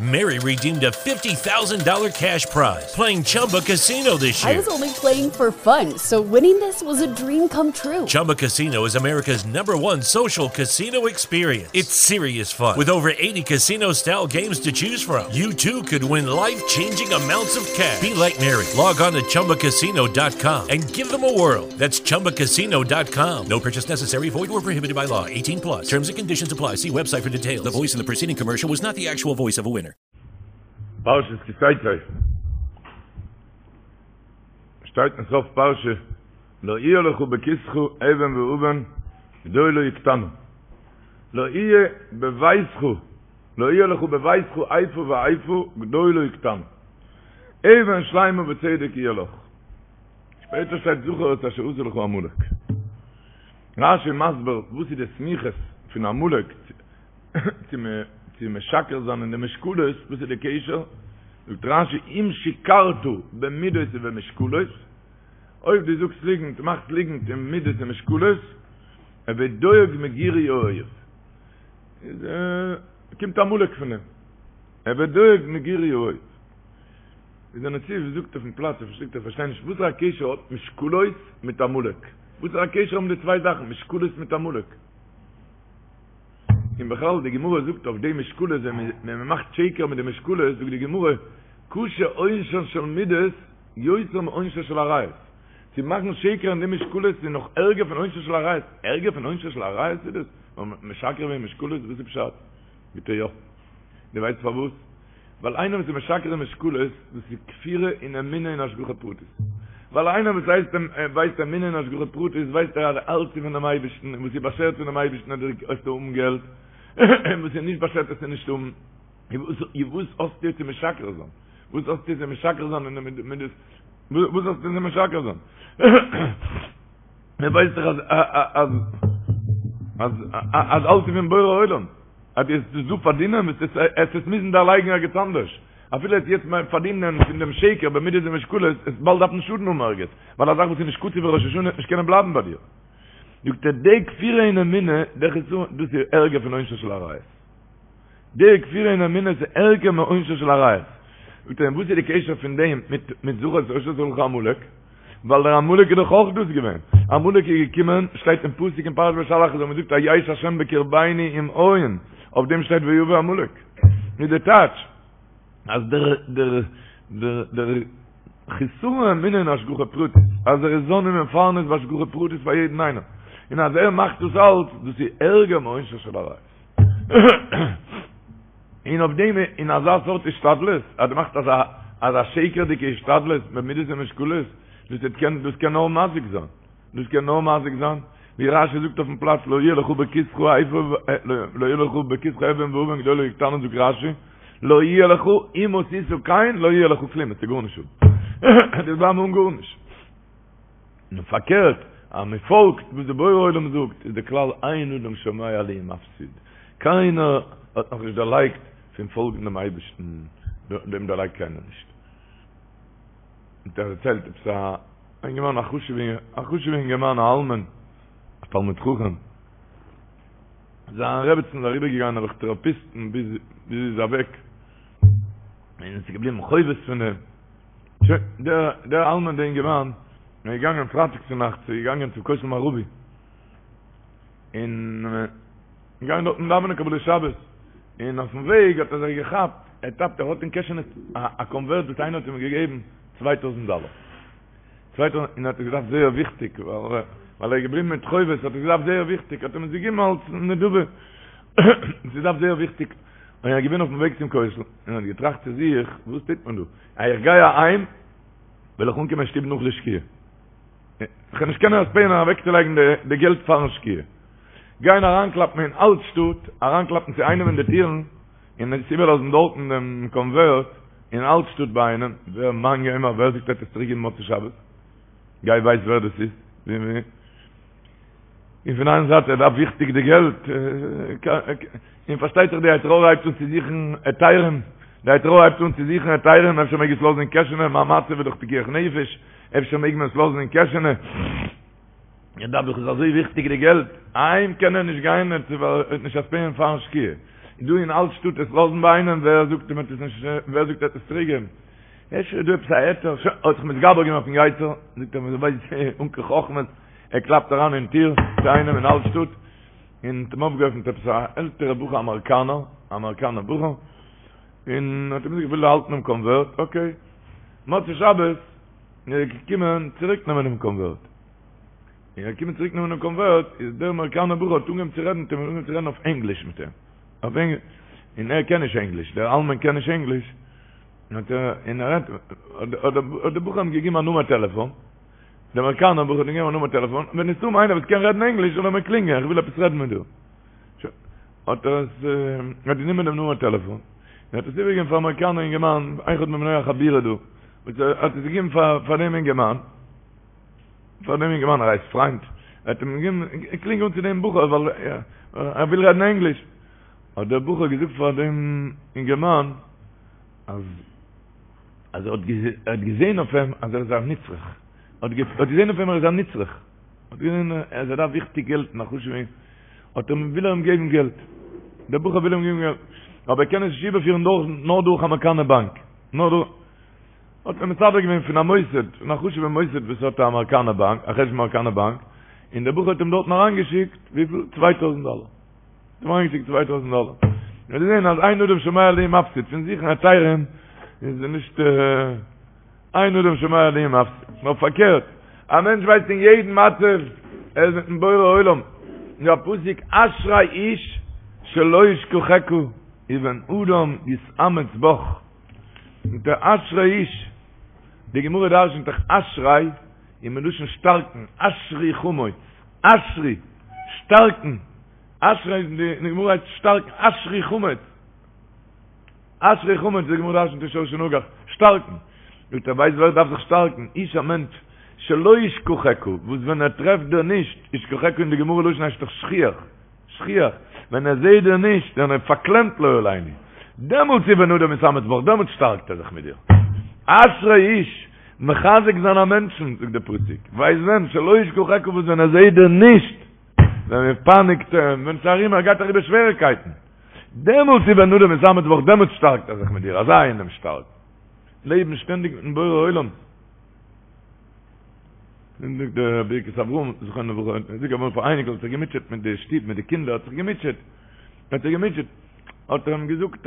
Mary redeemed a $50,000 cash prize playing Chumba Casino this year. I was only playing for fun, so winning this was a dream come true. Chumba Casino is America's number one social casino experience. It's serious fun. With over 80 casino style games to choose from, you too could win life changing amounts of cash. Be like Mary. Log on to chumbacasino.com and give them a whirl. That's chumbacasino.com. No purchase necessary, void or prohibited by law. 18 plus. Terms and conditions apply. See website for details. The voice in the preceding commercial was not the actual voice of a winner. פרשת כי תצא שטייט אין סוף פרשה לא יהיה לך בכיסך אבן ואבן גדולה או קטנה לא יהיה בביתך לא יהיה לך בביתך איפה ואיפה גדולה או קטנה אבן שלימה בצדק יהיה לך שפעטער שטייט זכור את אשר עשה לך עמלק רשי מסביר וואס איז די סמיכות פון עמלק צו צו משקר זיין אין די משקלות, וואס איז די קשר? זאגט רשי אם שיקרת במידות ובמשקלות, אויב דו זאגסט ליגנט, מאכסט ליגנט אין מידות און משקלות, הוי דואג מגירוי האויב, איז קומט עמלק פון דעם, הוי דואג מגירוי האויב. איז דער נציב זאגט אויפן פלאץ, ער פארשטייט ער פארשטייט נישט וואסערע קשר האט משקלות מיט עמלק, וואסערע קשר האבן די צוויי זאכן משקלות מיט עמלק? און בכלל די גמרא זאגט אויף די משקלות ווען מען מאכט שקר מיט די משקלות זאגט די גמרא קשה עונשן של מידות יותר מעונשן של עריות, צו מאכן שקר אין די משקלות איז נאך ערגער פון עונשן של עריות, ערגער פון עונשן של עריות איז דאס? משקר וועגן משקלות וואס איז פשט? ביטע יא. דו ווייסט פארוואס? ווייל איינער וואס איז משקר אין משקלות, דאס איז כפירה אין אמונה אין השגחה פרטית. ווייל איינער וואס הייסט ווייסט אמונה אין השגחה פרטית, ווייסט ער אז אלץ איז פונעם אייבערשטן, און וואס איז באשערט פונעם אייבערשטן וועסטו האבן געלט, און וואס איז נישט באשערט וועסטו נישט האבן. און וואס האסטו צו משקר זיין? וואס האסטו צו משקר זיין אין די מידות? וואס האסטו צו משקר זיין? מען ווייסט דאך אז אז אז אלץ איז פון בורא עולם. אז דו וועסט עס דא פארדינען וועסטו עס עס מוזן דערלייגן ערגעץ אנדערש. אפילו עס יעצט פארדינען פון דעם שקר במידות ומשקולות, עס באלד דארפן שאדן האבן ערגעץ, ווייל א זאך וואס איז נישט קצוב בראש השנה וועט נישט קענען בלייבן ביי דיר. זאגט ער, די כפירה אין אמונה, דער חסרון, דאס איז ערגער פון עונשו של עריות. די כפירה אין אמונה איז ערגער מעונשו של עריות. זאגט ער, און וואס איז די קשר פון דעם מיט מיט זכור את אשר עשה לך עמלק? ווייל דער עמלק איז דאך אויך דאס געווען. עמלק איז געקומען, שטייט אין פסוק אין פרשת בשלח, אז מען זאגט היש השם בקרבינו אם אין, אויף דעם שטייט ויבא עמלק. איז די טייטש אז דער דער דער דער חסרון אמונה אין השגחה פרטית, אז ער איז זן ומפרנס בהשגחה פרטית פאר יעדן איינעם, און אז ער מאכט דאס אלץ, דאס איז ערגער מעונשו של עריות. און אויף דעם אין אזא סארט השתדלות, אז דו מאכסט אזא אזא שקר'דיגע השתדלות במידות ומשקולות, דאס וועט קען דאס קען נאר מזיק זיין, דאס קען נאר מזיק זיין, ווי רשי זאגט אויפן פלאץ לא יהיה לך בכיסך איפה לא יהיה לך בכיסך אבן ואבן גדולה או קטנה זאגט רשי לא יהיה לך אם עשית כן לא יהיה לך כלום, וועסטו גארנישט האבן, דו וועסט בלייבן אן גארנישט. און פארקערט, אז מען פאלגט וואס די בורא עולם זאגט, איז די כלל אין אדם שומע לי ומפסיד, קיינער האט נאך נישט דערלייגט פון פאלגן דעם אייבערשטן, דעם דערלייגט קיינער נישט. האט ער דערציילט עפעס א אינגערמאן א חשוב'ע אינגערמאן א אלמן, א תלמיד חכם, זיין רעבעצן איז אריבער געגאנגען דורך טעראפיסטן ביז זי איז אוועק, און עס איז געבליבן חובות פון דעם. שוין, דער דער אלמן דער אינגערמאן איז געגאנגען פרייטאג צו נאכטס איז געגאנגען צום כותל מערבי, און געגאנגען דארטן דאווענען קבלת שבת, און אויפן וועג האט ער זיך געכאפט, ער טאפט ער האט אין קעשענע א קאנווערט וואס איינער האט אים געגעבן 2000 דאלער. 2000, און ער האט עס געדארפט זייער וויכטיג, ווייל ער איז געבליבן מיט חובות, האט ער עס געדארפט זייער וויכטיג, האט אים עס געגעבן אלס נדבה, עס געדארפט זייער וויכטיג, און ער איז געווען אויפן וועג צום כותל, און האט געטראכט צו זיך, וואס טוט מען דא? אז איך גיי אהיים, וועל איך אנקומען אין שטוב נאך די שקיעה. איך וועל נישט קענען אספייען אוועקצולייגן די געלט פארן שקיעה. גיין אריינקלאפן אין אלט שטאט, אריינקלאפן צו איינעם אין די טירן, און עס איבערלאזן דארטן דעם קאנווערט אין אלט שטאט ביי איינעם, ווער מאן יימר ווער זאגט ער וועט עס צוריקגעבן מוצאי שבת? גיי ווייס ווער דאס איז. און פון איין זייט ער דארף וויכטיג די געלט, און פארשטייט זיך די יצר הרע הייבט אן צו זוכן היתרים, די יצר הרע הייבט אן צו זוכן היתרים, אפשר מעג עס לאזן אין קעשענע, מיין מצב איז דאך פיקוח נפש, אפשר מעג מען עס לאזן אין קעשענע, ער דארף דאך עס אזוי וויכטיג די געלט, אהיים קען ער נישט גיין, ער וועט נישט אספייען פארן שקיעה. דא אין אלט שטאט עס לאזן ביי איינעם, ווער זאגט אים ער וועט עס נישט, ווער זאגט ער וועט עס צוריק געבן? אפשר איז דא עפעס א היתר, שוין, האט זיך מתגבר געווען אויפן יצר, זאגט ער מיר ווייסט אן קיין חכמות, ער קלאפט אריין אין טיר צו איינעם אין אלט שטאט, און האט אים אויפגעעפנט עפעס א עלטערע בחור אמעריקאנער, א אמעריקאנער בחור, און האט אים געזאגט איך וויל האלטן דעם קאנווערט, אקעי, מוצאי שבת איז ער געקומען צוריק נעמען דעם קאנווערט, און ער איז געקומען צוריק נעמען דעם קאנווערט, איז דער אמעריקאנער בחור האט אנגעהויבן צו רעדן מיט אים, אנגעהויבן צו רעדן אויף ענגליש מיט אים, אויף ענגליש, און ער קען נישט ענגליש, דער אלמן קען נישט ענגליש, האט ער, און ער רעדט, האט דער בחור אים געגעבן א נומער טעלעפאן, דער אמעריקאנער בחור האט אים געגעבן א נומער טעלעפאן, ווען עס איז דא איינער וואס קען רעדן ענגליש זאל ער מיר קלינגען, איך וויל עפעס רעדן מיט דיר. שוין, האט ער עס, ער האט גענומען דעם נומער טעלעפאן, און האט עס איבערגעגעבן פאר אמעריקאנער אינגערמאן, אחד מבני החבורה דא, וואס ער האט עס געגעבן פאר פאר דעם אינגערמאן, פאר דעם אינגערמאן, ער הייסט פריינד, ער האט אים געגעבן, קלינג אן צו דעם בחור, ווייל ער וויל רעדן ענגליש. האט דער בחור געזאגט פאר דעם אינגערמאן, אז אז ער האט געזען אויף אים אז ער איז א נצרך, ער האט געזען אויף אים ער איז א נצרך, האט געזען אז ער דארף וויכטיג געלט און א חשוב'ע, האט ער וויל ער אים געבן געלט, דער בחור וויל אים געבן געלט, אבער ער קען עס נישט איבערפירן דורך נאר דורך אמעריקאנער באנק, נאר דורך, האט מען מסדר געווען פון א מוסד, פון א חשוב'ע מוסד וואס האט א אמעריקאנער באנק, א חשבון אמעריקאנער באנק, און דער בחור האט אים דארטן אריינגעשיקט, וויפיל? 2000 דאלער. האט אים אריינגעשיקט 2000 דאלער. מיר זעהן אז אין אדם שומע לי ומפסיד, פון זוכן היתרים איז נישט אין אדם שומע לי ומפסיד, נאר פארקערט, א מענטש ווייסט אין יעדן מצב ער איז מיטן בורא עולם, איז א פסוק אשרי איש שלא ישכחך ובן אדם יתאמץ בך, מיט דער אשרי איש, די גמרא דרשנ'ט דאך אשרי איז מלשון שטארקן, אשרי חמוץ, אשרי, שטארקן, אשרי איז די גמרא הייסט שטארקן, אשרי חמוץ, אשרי חמוץ, די גמרא דרשנ'ט אין שור שנגח, שטארקן, זאגט ער ווייסט ווער דארף זיך שטארקן, איש א מענטש, שלא ישכחך, וואס ווען ער טרעפט דיר נישט, ישכחך אין די גמרא לשון הייסט דאך שכיח, שכיח, ווען ער זעהט דיר נישט, ווען ער פארקלעמט לא עלינו, דעמאלטס איז ובן אדם יתאמץ בך, דעמאלטס שטארקט ער זיך מיט דיר. אשרי איש, מחזק זיין א מענטשן, זאגט דער פסוק, ווייסט ווען, שלא ישכחך וואס ווען ער זעהט דיר נישט, ווען מען פייניגט אים, ווען ס'איז ארום ער גייט אריבער שוועריקייטן, דעמאלטס איז ובן אדם יתאמץ בך, דעמאלטס שטארקט ער זיך מיט דיר, אזא איינעם שטארק. לעבן שטענדיג מיטן בורא עולם. און זאגט דער ברכת אברהם זכרונו לברכה, ער זאגט אמאל פאר אייניקל האט זיך געמוטשעט מיט די שטוב מיט די קינדער האט זיך געמוטשעט, האט זיך געמוטשעט, האט ער אים געזאגט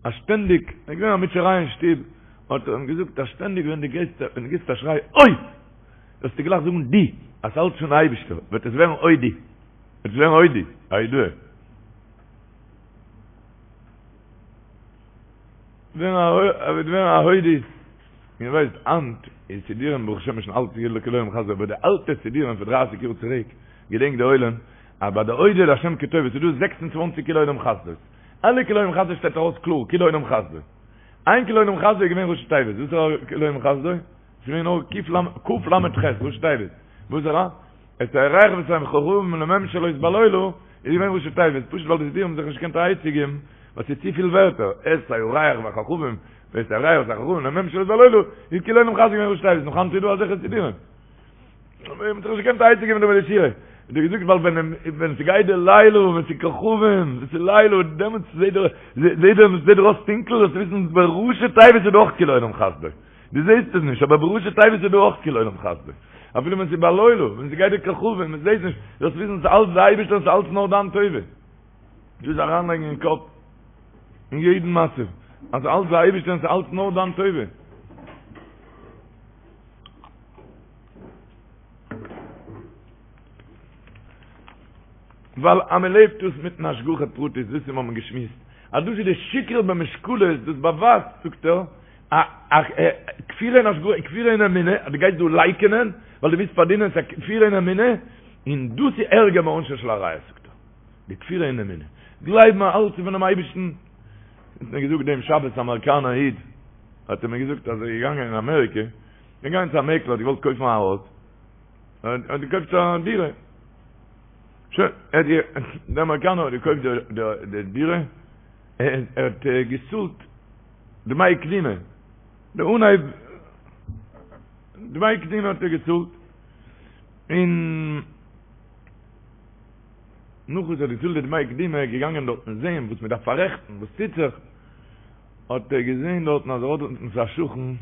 אז שטענדיג, עס איז געווען א מוטשעריי אין שטוב, האט ער אים געזאגט אז שטענדיג ווען דו גייסט, ווען דו גיבסט א שריי אוי! זאלסטו גלייך זאגן דו, אז ס'אלץ פון אייבישטער, וועט עס ווערן אודי, וועט עס ווערן אודי, א הודאה. וועט ווערן א הודי. איר ווייסט היינט איז סידורים ברוך השם שוין אלט כאילו כי לעולם חסדו אבער די אלטע סידורים פון דרייסיג יאר צוריק געדענקט די עולם אז ביי די אודה להשם כי טוב עס איז דא 26 כי לעולם חסדו אלע כי לעולם חסדו שטייט ארויס קלאר כי לעולם חסדו איין כי לעולם חסדו איז געווען ראשי תיבות וואס איז כי לעולם חסדו? עס איז געווען נאר ק"ל ל"ח ראשי תיבות וואס איז את הירח ואת הכוכבים לממשלות בלילה איז געווען ראשי תיבות, פשוט ווייל די סידורים האבן זיך נישט געקענט א עצה געבן, ווייל ס'איז צופיל ווערטער, את הירח והכוכבים, ואת הירח ואת הכוכבים לממשלות בלילה, איז כי לעולם חסדו געווען ראשי תיבות, נאך היינט איז דא אזעלכע סידורים. מ'האט זיך נישט געקענט א עצה געבן דא מיט די שירה. האט ער געזאגט ווייל ווען ווען ס'גייט די לילה ווען ס'איז כוכבים, ווען ס'איז לילה, דעמאלטס זעט דער זעט דער זעט דיר אויס טונקל, זאלסטו וויסן בראשי תיבות איז דא אויך כי לעולם חסדו. דו זעסט עס נישט, אבער בראשי תיבות איז דא אויך כי לעולם חסדו. אפילו ווען ס'איז בלילה, ווען ס'גייט די כוכבים, מען זעט נישט, זאלסט וויסן ס'איז אלץ די אייבערשטער און ס'איז אלץ נאר דיין טובה. דאס אריינלייגן אין קאפ, אין יעדן מצב, אז ס'איז אלץ די אייבערשטער און ס'איז אלץ נאר דיין טובה. ווייל אז מען לעבט דאס מיטן השגחה פרטית, דאס איז מ'האבן געשמועסט, אז דאס איז די שקר במשקלות, דאס באווייזט, זאגט ער, א א כפירה אין השגחה, כפירה אין אמונה, אז דו גייסט דא לייקענען, ווייל דו ווילסט פארדינען, ס'איז א כפירה אין אמונה, און דאס איז ערגער מעונשו של עריות, זאגט ער, די כפירה אין אמונה. גלייבן אז אלץ איז פונעם אייבערשטן. האט מיר געזאגט דעם שבת א אמעריקאנער איד, האט ער מיר געזאגט אז ער איז געגאנגען אין אמעריקע, געגאנגען צו א מעקלער, האט געוואלט קויפן א הויז, ער האט געקויפט א דירה. שוין, ער האט, דער אמעריקאנער האט געקויפט די דירה, ער האט געצאלט דמי קדימה, די אנהייב דמי קדימה האט ער געצאלט, און. נאך וואס ער האט געצאלט די דמי קדימה איז ער געגאנגען דארטן זעהן וואס מען דארף פאררעכטן, וואס טוט זיך, האט ער געזעהן דארטן אז ער האט דארטן א שכן,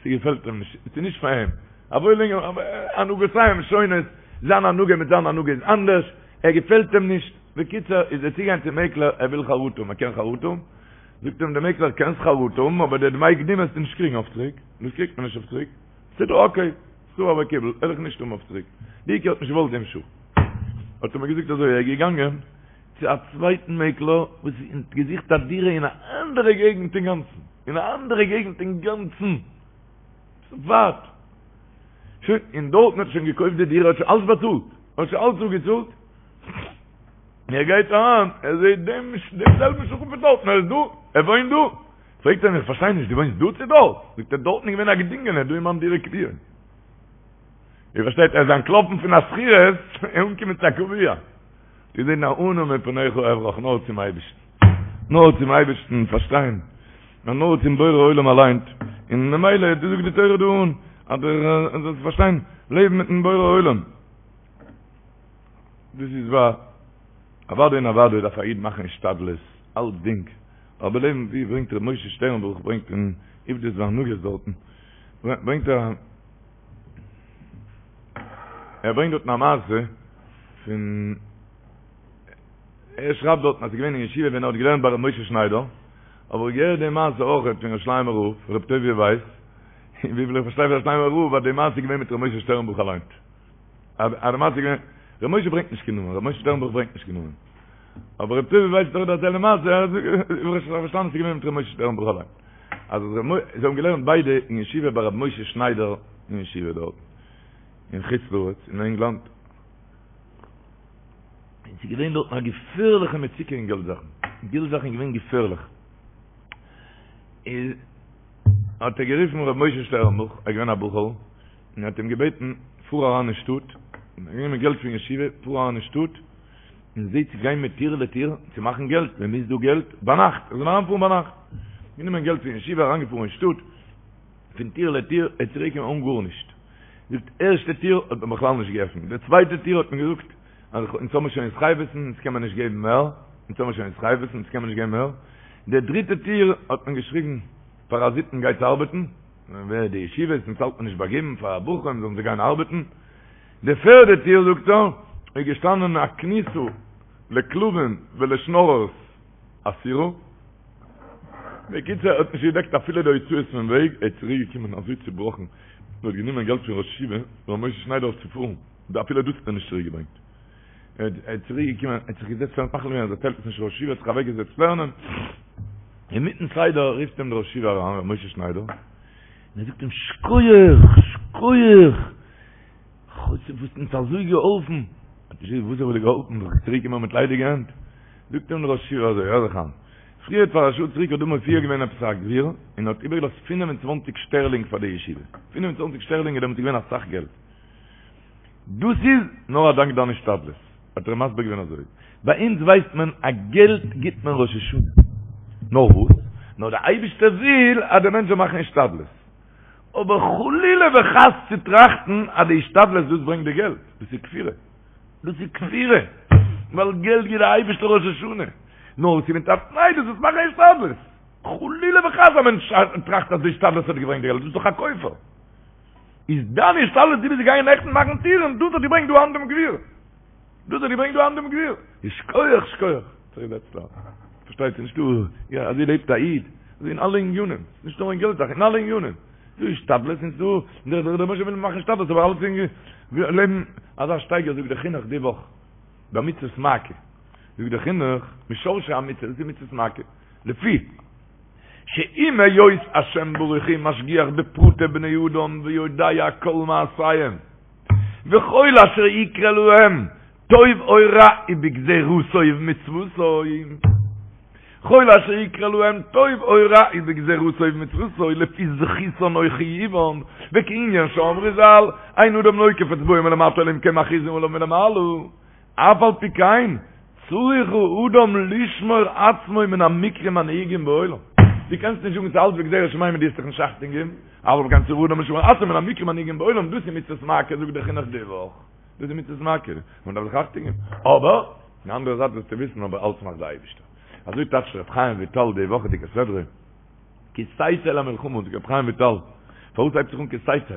ס'געפעלט אים נישט, ס'איז נישט פאר אים, א וואוילינגער, הנהגותיהם שונות, זיין הנהגה מיט זיין הנהגה איז אנדערש, ער געפעלט אים נישט, בקיצור איז ער צוגעגאנגען צום מעקלער, ער וויל חרטה האבן, ער קען חרטה האבן? זאגט אים דער מעקלער, קענסט חרטה האבן, אבער די דמי קדימה וועסטו נישט קריגן אויף צוריק, דאס קריגט מען נישט אויף צוריק, בסדר אקעי, סבר וקיבל, וועל איך נישט האבן אויף צוריק, די עיקר האט נישט געוואלט דעם שכן. האט ער מיר געזאגט אזוי, ער איז געגאנגען צו א צווייטן מעקלער וואס האט געזוכט א דירה אין א אנדערע געגנט אינגאנצן, אין א אנדערע געגנט אינגאנצן, ווייט, שוין, און דארטן האט ער שוין געקויפט די דירה, האט שוין אלס באצאלט, האט שוין אלס אפגעצאלט, און ער גייט אריין, ער זעט דעם דעם זעלבן שכן פון דארטן, ער איז דא, ער וואוינט דא, פרעגט ער אים, איך פארשטיי נישט, דו וואוינסט דא צו דארט? זאגט ער, דארטן איז געווען א געדינגענער, דא איז מיין דירה קביעה. איר פארשטייט, ער איז אנטלאפן פון א שכירות און אנגעקומען צו א קביעה. געזען א אנא מפניך אברח נאר צום אייבערשטן, נאר צום אייבערשטן פארשטיין, נאר צום בורא עולם אליין, און ממילא דאס זאגט די תורה דא אן, אז דו זאלסט פארשטיין, לעבן מיטן בורא עולם, דאס איז וואר, אוודאי און אוודאי דארף א איד מאכן השתדלות, אלצדינג, אבער לעבן ווי ברענגט ר' משה שטערנבוך ברענגט אין עובדות והנהגות דארטן, ברענגט ער. ער ברענגט דארטן א מעשה פון ער שרייבט דארטן אז ס'איז געווען אין ישיבה ווען ער האט געלערנט ביי ר' משה שניידער, אבער איך געהערט די מעשה אויכעט פון ירושלימער רב, ר' טוביה ווייס, און וויפיל איך פארשטיי פון ירושלימער רב אז די מעשה איז געווען מיט ר' משה שטערנבוך אליין. אז די מעשה איז געווען, ר' משה ברענגט נישט קיין נאמען, ר' משה שטערנבוך ברענגט נישט קיין נאמען. אבער ר' טוביה ווייס האט אויך דערציילט די מעשה, איך האב פארשטאנען ס'איז געווען מיט ר' משה שטערנבוך אליין. אז זיי האבן געלערנט ביידע אין ישיבה ביי ר' משה שניידער אין ישיבה דארט אין חוץ לארץ אין ענגלאנד, און ס'איז געווען דארטן א געפערליכע מצוקה אין געלט זאכן, געלט זאכן איז געווען געפערליך, איז האט ער גערופן ר' משה שטערנבוך, ער איז געווען א בחור, און האט אים געבעטן פאר אריין אין שטאט, גענומען געלט פון ישיבה, פאר אריין אין שטאט, און זע צו גיין מטיר לטיר צו מאכן געלט, מען מוז דא געלט, ביינאכט, ער זאל אריינפארן ביינאכט, גענומען געלט פון ישיבה, אריינגעפארן אין שטאט, פון טיר לטיר, ער איז צוריק געקומען אן גארנישט, זאגט, ערשטע טיר האט מען בכלל נישט געעפנט, די צווייטע טיר האט מען געזאגט, אז אונז האבן שוין התחייבות'ן, אונז קען מען נישט געבן מער, אונז האבן שוין התחייבות'ן, אונז קען מען נישט געבן מער, די דריטע טיר האט מען געשריגן, פאראזיטן גייטס ארבעטן, ווער די ישיבות, אונז האלט מען נישט ביי געבן פאר בחורים זאלן זיי גיין ארבעטן, די פערדע טיר, זאגט ער, איז געשטאנען א כניסה לכלבים ולשנוררס אסורה. בקיצור, ער האט נישט געדעקט אפילו די הוצאות פון וועג, ער איז צוריק געקומען אזוי צובראכן, מען האט גענומען געלט פון ראש ישיבה, ר' משה שניידער אויף צו פארן, אפילו דאס האט ער נישט צוריק געברענגט. ער איז צוריק געקומען, ער האט זיך געזעצט לערנען, מחליט געווען אז ער דערציילט עס נישט ראש ישיבה, האט זיך אוועק געזעצט לערנען, אינמיטן סדר רופט אים דער ראש ישיבה אריין, ר' משה שניידער, און ער זאגט אים, שקויעך! שקויעך! חוץ וואס האסט אונז אזוי געהאלפן, האט נישט געוואוסט וואס האב איך דיר געהאלפן, דאך צוריק געקומען מיט ליידיגע הענט, זאגט אים דער ראש ישיבה אזוי, הער זיך איין, פריער פאר א שעה צוריק האט דא מופיע געווען עפעס א גביר, און האט איבערגעלאזט פינף און צוואנציג שטערלינג פאר די ישיבה, 25 שטערלינג איז דעמאלטס געווען אסאך געלט, דאס איז נאר א דאנק דיין השתדלות, האט ער אים מסביר געווען אזוי, ביי אונז ווייסט מען אז געלט גיבט מען ראש השנה, נאר וואס? נאר דער אייבערשטער וויל אז דער מענטש זאל מאכן השתדלות. אבער חלילה וחס צו טראכטן אז די השתדלות דאס ברענגט די געלט, דאס איז כפירה, דאס איז כפירה, ווייל געלט גיט דער אייבערשטער ראש השנה, נאר ס'איז מיט א תנאי דו זאלסט מאכן השתדלות, חלילה וחס א מענטש טראכט אז די השתדלות האט געברענגט די געלט, דאס איז דאך א כופר, איז דיין השתדלות דו ביסט געגאנגען נעכטן מאכן טירן, דאס האט געברענגט דא היינט דעם גביר. דאס האט געברענגט דא היינט דעם גביר. שכוח שכוח. פארשטייט זיך נישט דא, יא אזוי לעבט א איד, אזוי אין אלע עניינים, נישט נאר אין געלט זאכן, אין אלע עניינים. דא איז השתדלות און ס'דא, דער רבונו של עולם וויל מאכן השתדלות אבער אלץ אין לעבן אזא שטייגער זאגט דער חינוך די וואך ביי מצות מעקה, זאגט דער חינוך משורשי המצוה, דאס איז מצות מעקה, לפי שעם היות השם ברוך הוא משגיח בפרטי בני אדם ויודע כל מעשיהם, וכל אשר יקרה להם טוב או רע הוא בגזירתו ובמצוותו, כל אשר יקרה להם טוב או רע הוא בגזירתו ובמצוותו לפי זכותן או חיובן, וכענין שאמרו ז"ל, אין אדם נוקף אצבעו מלמטה אלא אם כן מכריזין עליו מלמעלה, אף על פי כן צריך האדם לשמור עצמו מן המקרים הנהוגים בעולם. דו קענסט נישט זאגן ס'איז אלץ בגזירת שמים און דו וועסט זיך נישט אכטונג געבן, אף על פי כן צריך האדם לשמור עצמו מן המקרים הנהוגים בעולם, דאס איז מצוות מעקה זאגט דער חינוך די וואך, דאס איז מצוות מעקה, מען דארף זיך אכטונג געבן, אבער. די אנדערע זייט זאלסטו וויסן אבער אלץ מאכט די אייבישטער. אזוי טייטשט ר' חיים וויטאל די וואכעדיגע סדרה, כי תצא למלחמה, זאגט ר' חיים וויטאל, פארוואס הייבט זיך אן כי תצא?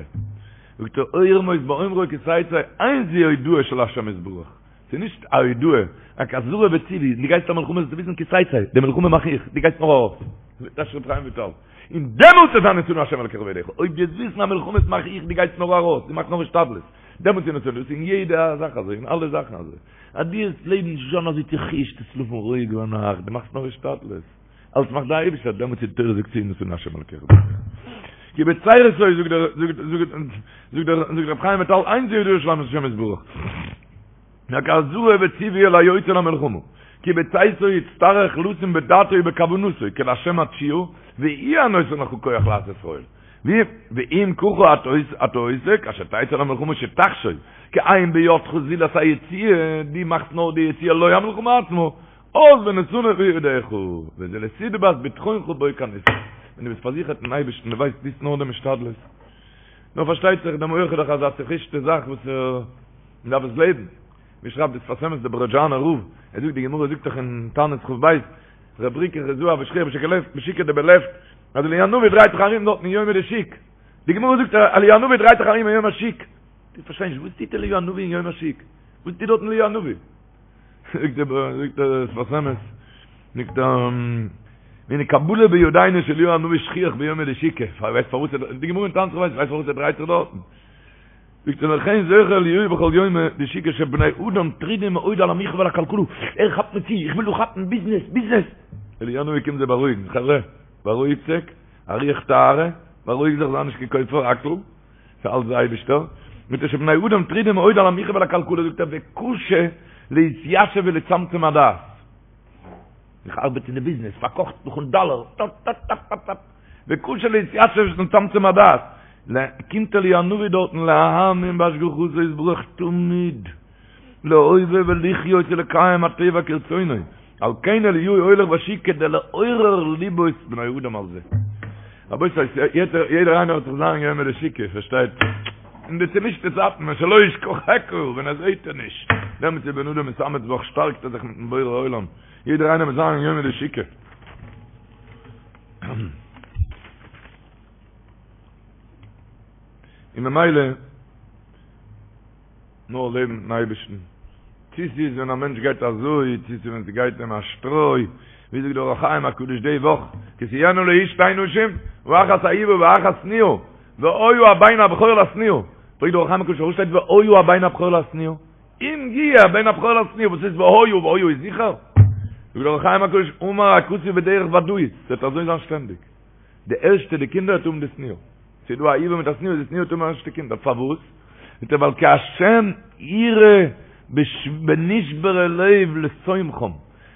זאגט ער, ירמוז באומרו כי תצא, אין זו הודעה של השם יתברך, ס'איז נישט א הודעה, רק אזהרה וציווי, דו גייסט א מלחמה זאלסטו וויסן כי תצא, די מלחמה מאך איך, דו גייסט נאר ארויס. אזוי טייטשט ר' חיים וויטאל. און דעמאלטס וועט זיין ונתנו השם אלקיך בידך, אויב דו וועסט וויסן אז מלחמות מאך איך, דו גייסט נאר ארויס, דו מאכסט נאר השתדלות, דעמאלטס איז ונתנו, דאס איז אין יעדע זאך אזוי, אין אלע זאכן אזוי, אז דו וועסט לעבן נישט זיין אזוי צוחישט, וועסט שלאפן רואיג ביינאכט, דו מאכסט נאר השתדלות, אלץ מאכט די אייבערשטער, דעמאלטס איז די תורה זאגט צו ונתנו השם אלקיך בידך. כי בצרתו זאגט דער זאגט זאגט זאגט דער זאגט רבי חיים וויטאל אין זו הודעה של השם יתברך. רק אזהרה וציווי אל היוצא למלחמה, כי בצאתו יצטרך לשים בדעתו ובכוונתו כי להשם התשועה והוא הנותן לך כח לעשות חיל, ואם ככה אתה עושה כאשר תצא למלחמה שתחשוב כי אין בידך זולת היציאה, דו מאכסט נאר די יציאה לא המלחמה עצמה, אז ונתנו בידך, וזה לסיבת בטחונך בו כנזכר, ווען דו ביסט פארזיכערט אין אייבערשטן דו ווייסט טוסט נאר דעם השתדלות, נאר פארשטייט זיך דער מח איז דאך אזא צוחישטע זאך וואס ער. מען דארף עס לעבן. ווי שרייבט דער שפת אמת דער ברעזשאנער רב, ער זאגט די גמרא זאגט דאך אין תענית כ"ב, רב ברוקא חוזאה הוה שכיח בשוקא בשוקא דבלפט, אז אליהו הנביא דרייט זיך ארום דארטן אין יומא דשוק. די גמרא זאגט אז אליהו הנביא דרייט זיך ארום אין יום השוק. איך פארשטיי נישט, וואס טוט אליהו הנביא אין יום השוק? וואס טוט דארטן אליהו הנביא? זאגט דער זאגט דער שפת אמת, זאגט ער, והנה קבלה בידינו שאליהו הנביא שכיח ביומא דשוקא, ווייסט פארוואס ער, די גמרא אין תענית כ"ב, ווייסט פארוואס ער דרייט זיך דארטן? זאגט ער לכן זוכה אליהו בכל יומא דשוקא שבני אדם טרודים מאוד על המחיה ועל הכלכלה, ער כאפט מיר צו, איך וויל דא כאפן ביזנעס, ביזנעס! אליהו הנביא קומט זיי בארואיגן, חברה, בארואיגט זיך, א רוח טהרה, בארואיג זיך, זיי נישט קיין כופר הכל, ס'איז אלץ די אייבישטער, זאגט ער שבני אדם טרודים מאוד על המחיה ועל הכלכלה, זאגט ער וקשה להתיישב ולצמצם הדעת. איך ארבעט אין די ביזנעס, פארקאכט נאכן דאלער, טאפ טאפ טאפ טאפ טאפ, וקשה להתיישב ולצמצם הדעת, קומט אליהו הנביא דארטן להאמין בהשגחתו יתברך תמיד, להווה ולחיות ולקיים הטבע כרצונו, על כן אליהו הולך בשוק כדי לעורר לבות בני אדם על זה. רבותי, יעדער איינער האט זיך זיין יומא דשוקא, פארשטייט? אין די צומישטע צייטן ווען שלא ישכחך, ווען ער זעהט ער נישט, דעמאלטס איז בן אדם מתאמץ בך, שטארקט ער זיך מיטן בורא עולם, יעדער איינער מיט זיין יומא דשוקא. און ממילא, נאר לעבן מיטן אייבערשטן, צי ס'איז ווען א מענטש גייט אזוי, צי ס'איז ווען ס'גייט אים א שטרוי, ווי זאגט דער אור החיים הקדוש די וואך, כי תהיינה לאיש שתי נשים, האחת אהובה והאחת שנואה, והיה הבן הבכור לשנואה, פרעגט דער אור החיים הקדוש פארוואס שטייט והיה הבן הבכור לשנואה? אם יהיה הבן הבכור לשנואה, וואס איז והיה, והיה איז זיכער? זאגט דער אור החיים הקדוש, אמר הכתוב בדרך ודאית, ס'וועט אזוי זיין שטענדיג, די ערשטע די קינדער וועט האבן די שנואה. ס'איז דא א אהובה מיט א שנואה, די שנואה וועט האבן ערשטע קינדער, פארוואס? זאגט ער ווייל כי השם יראה בנשברי לב לתומכם,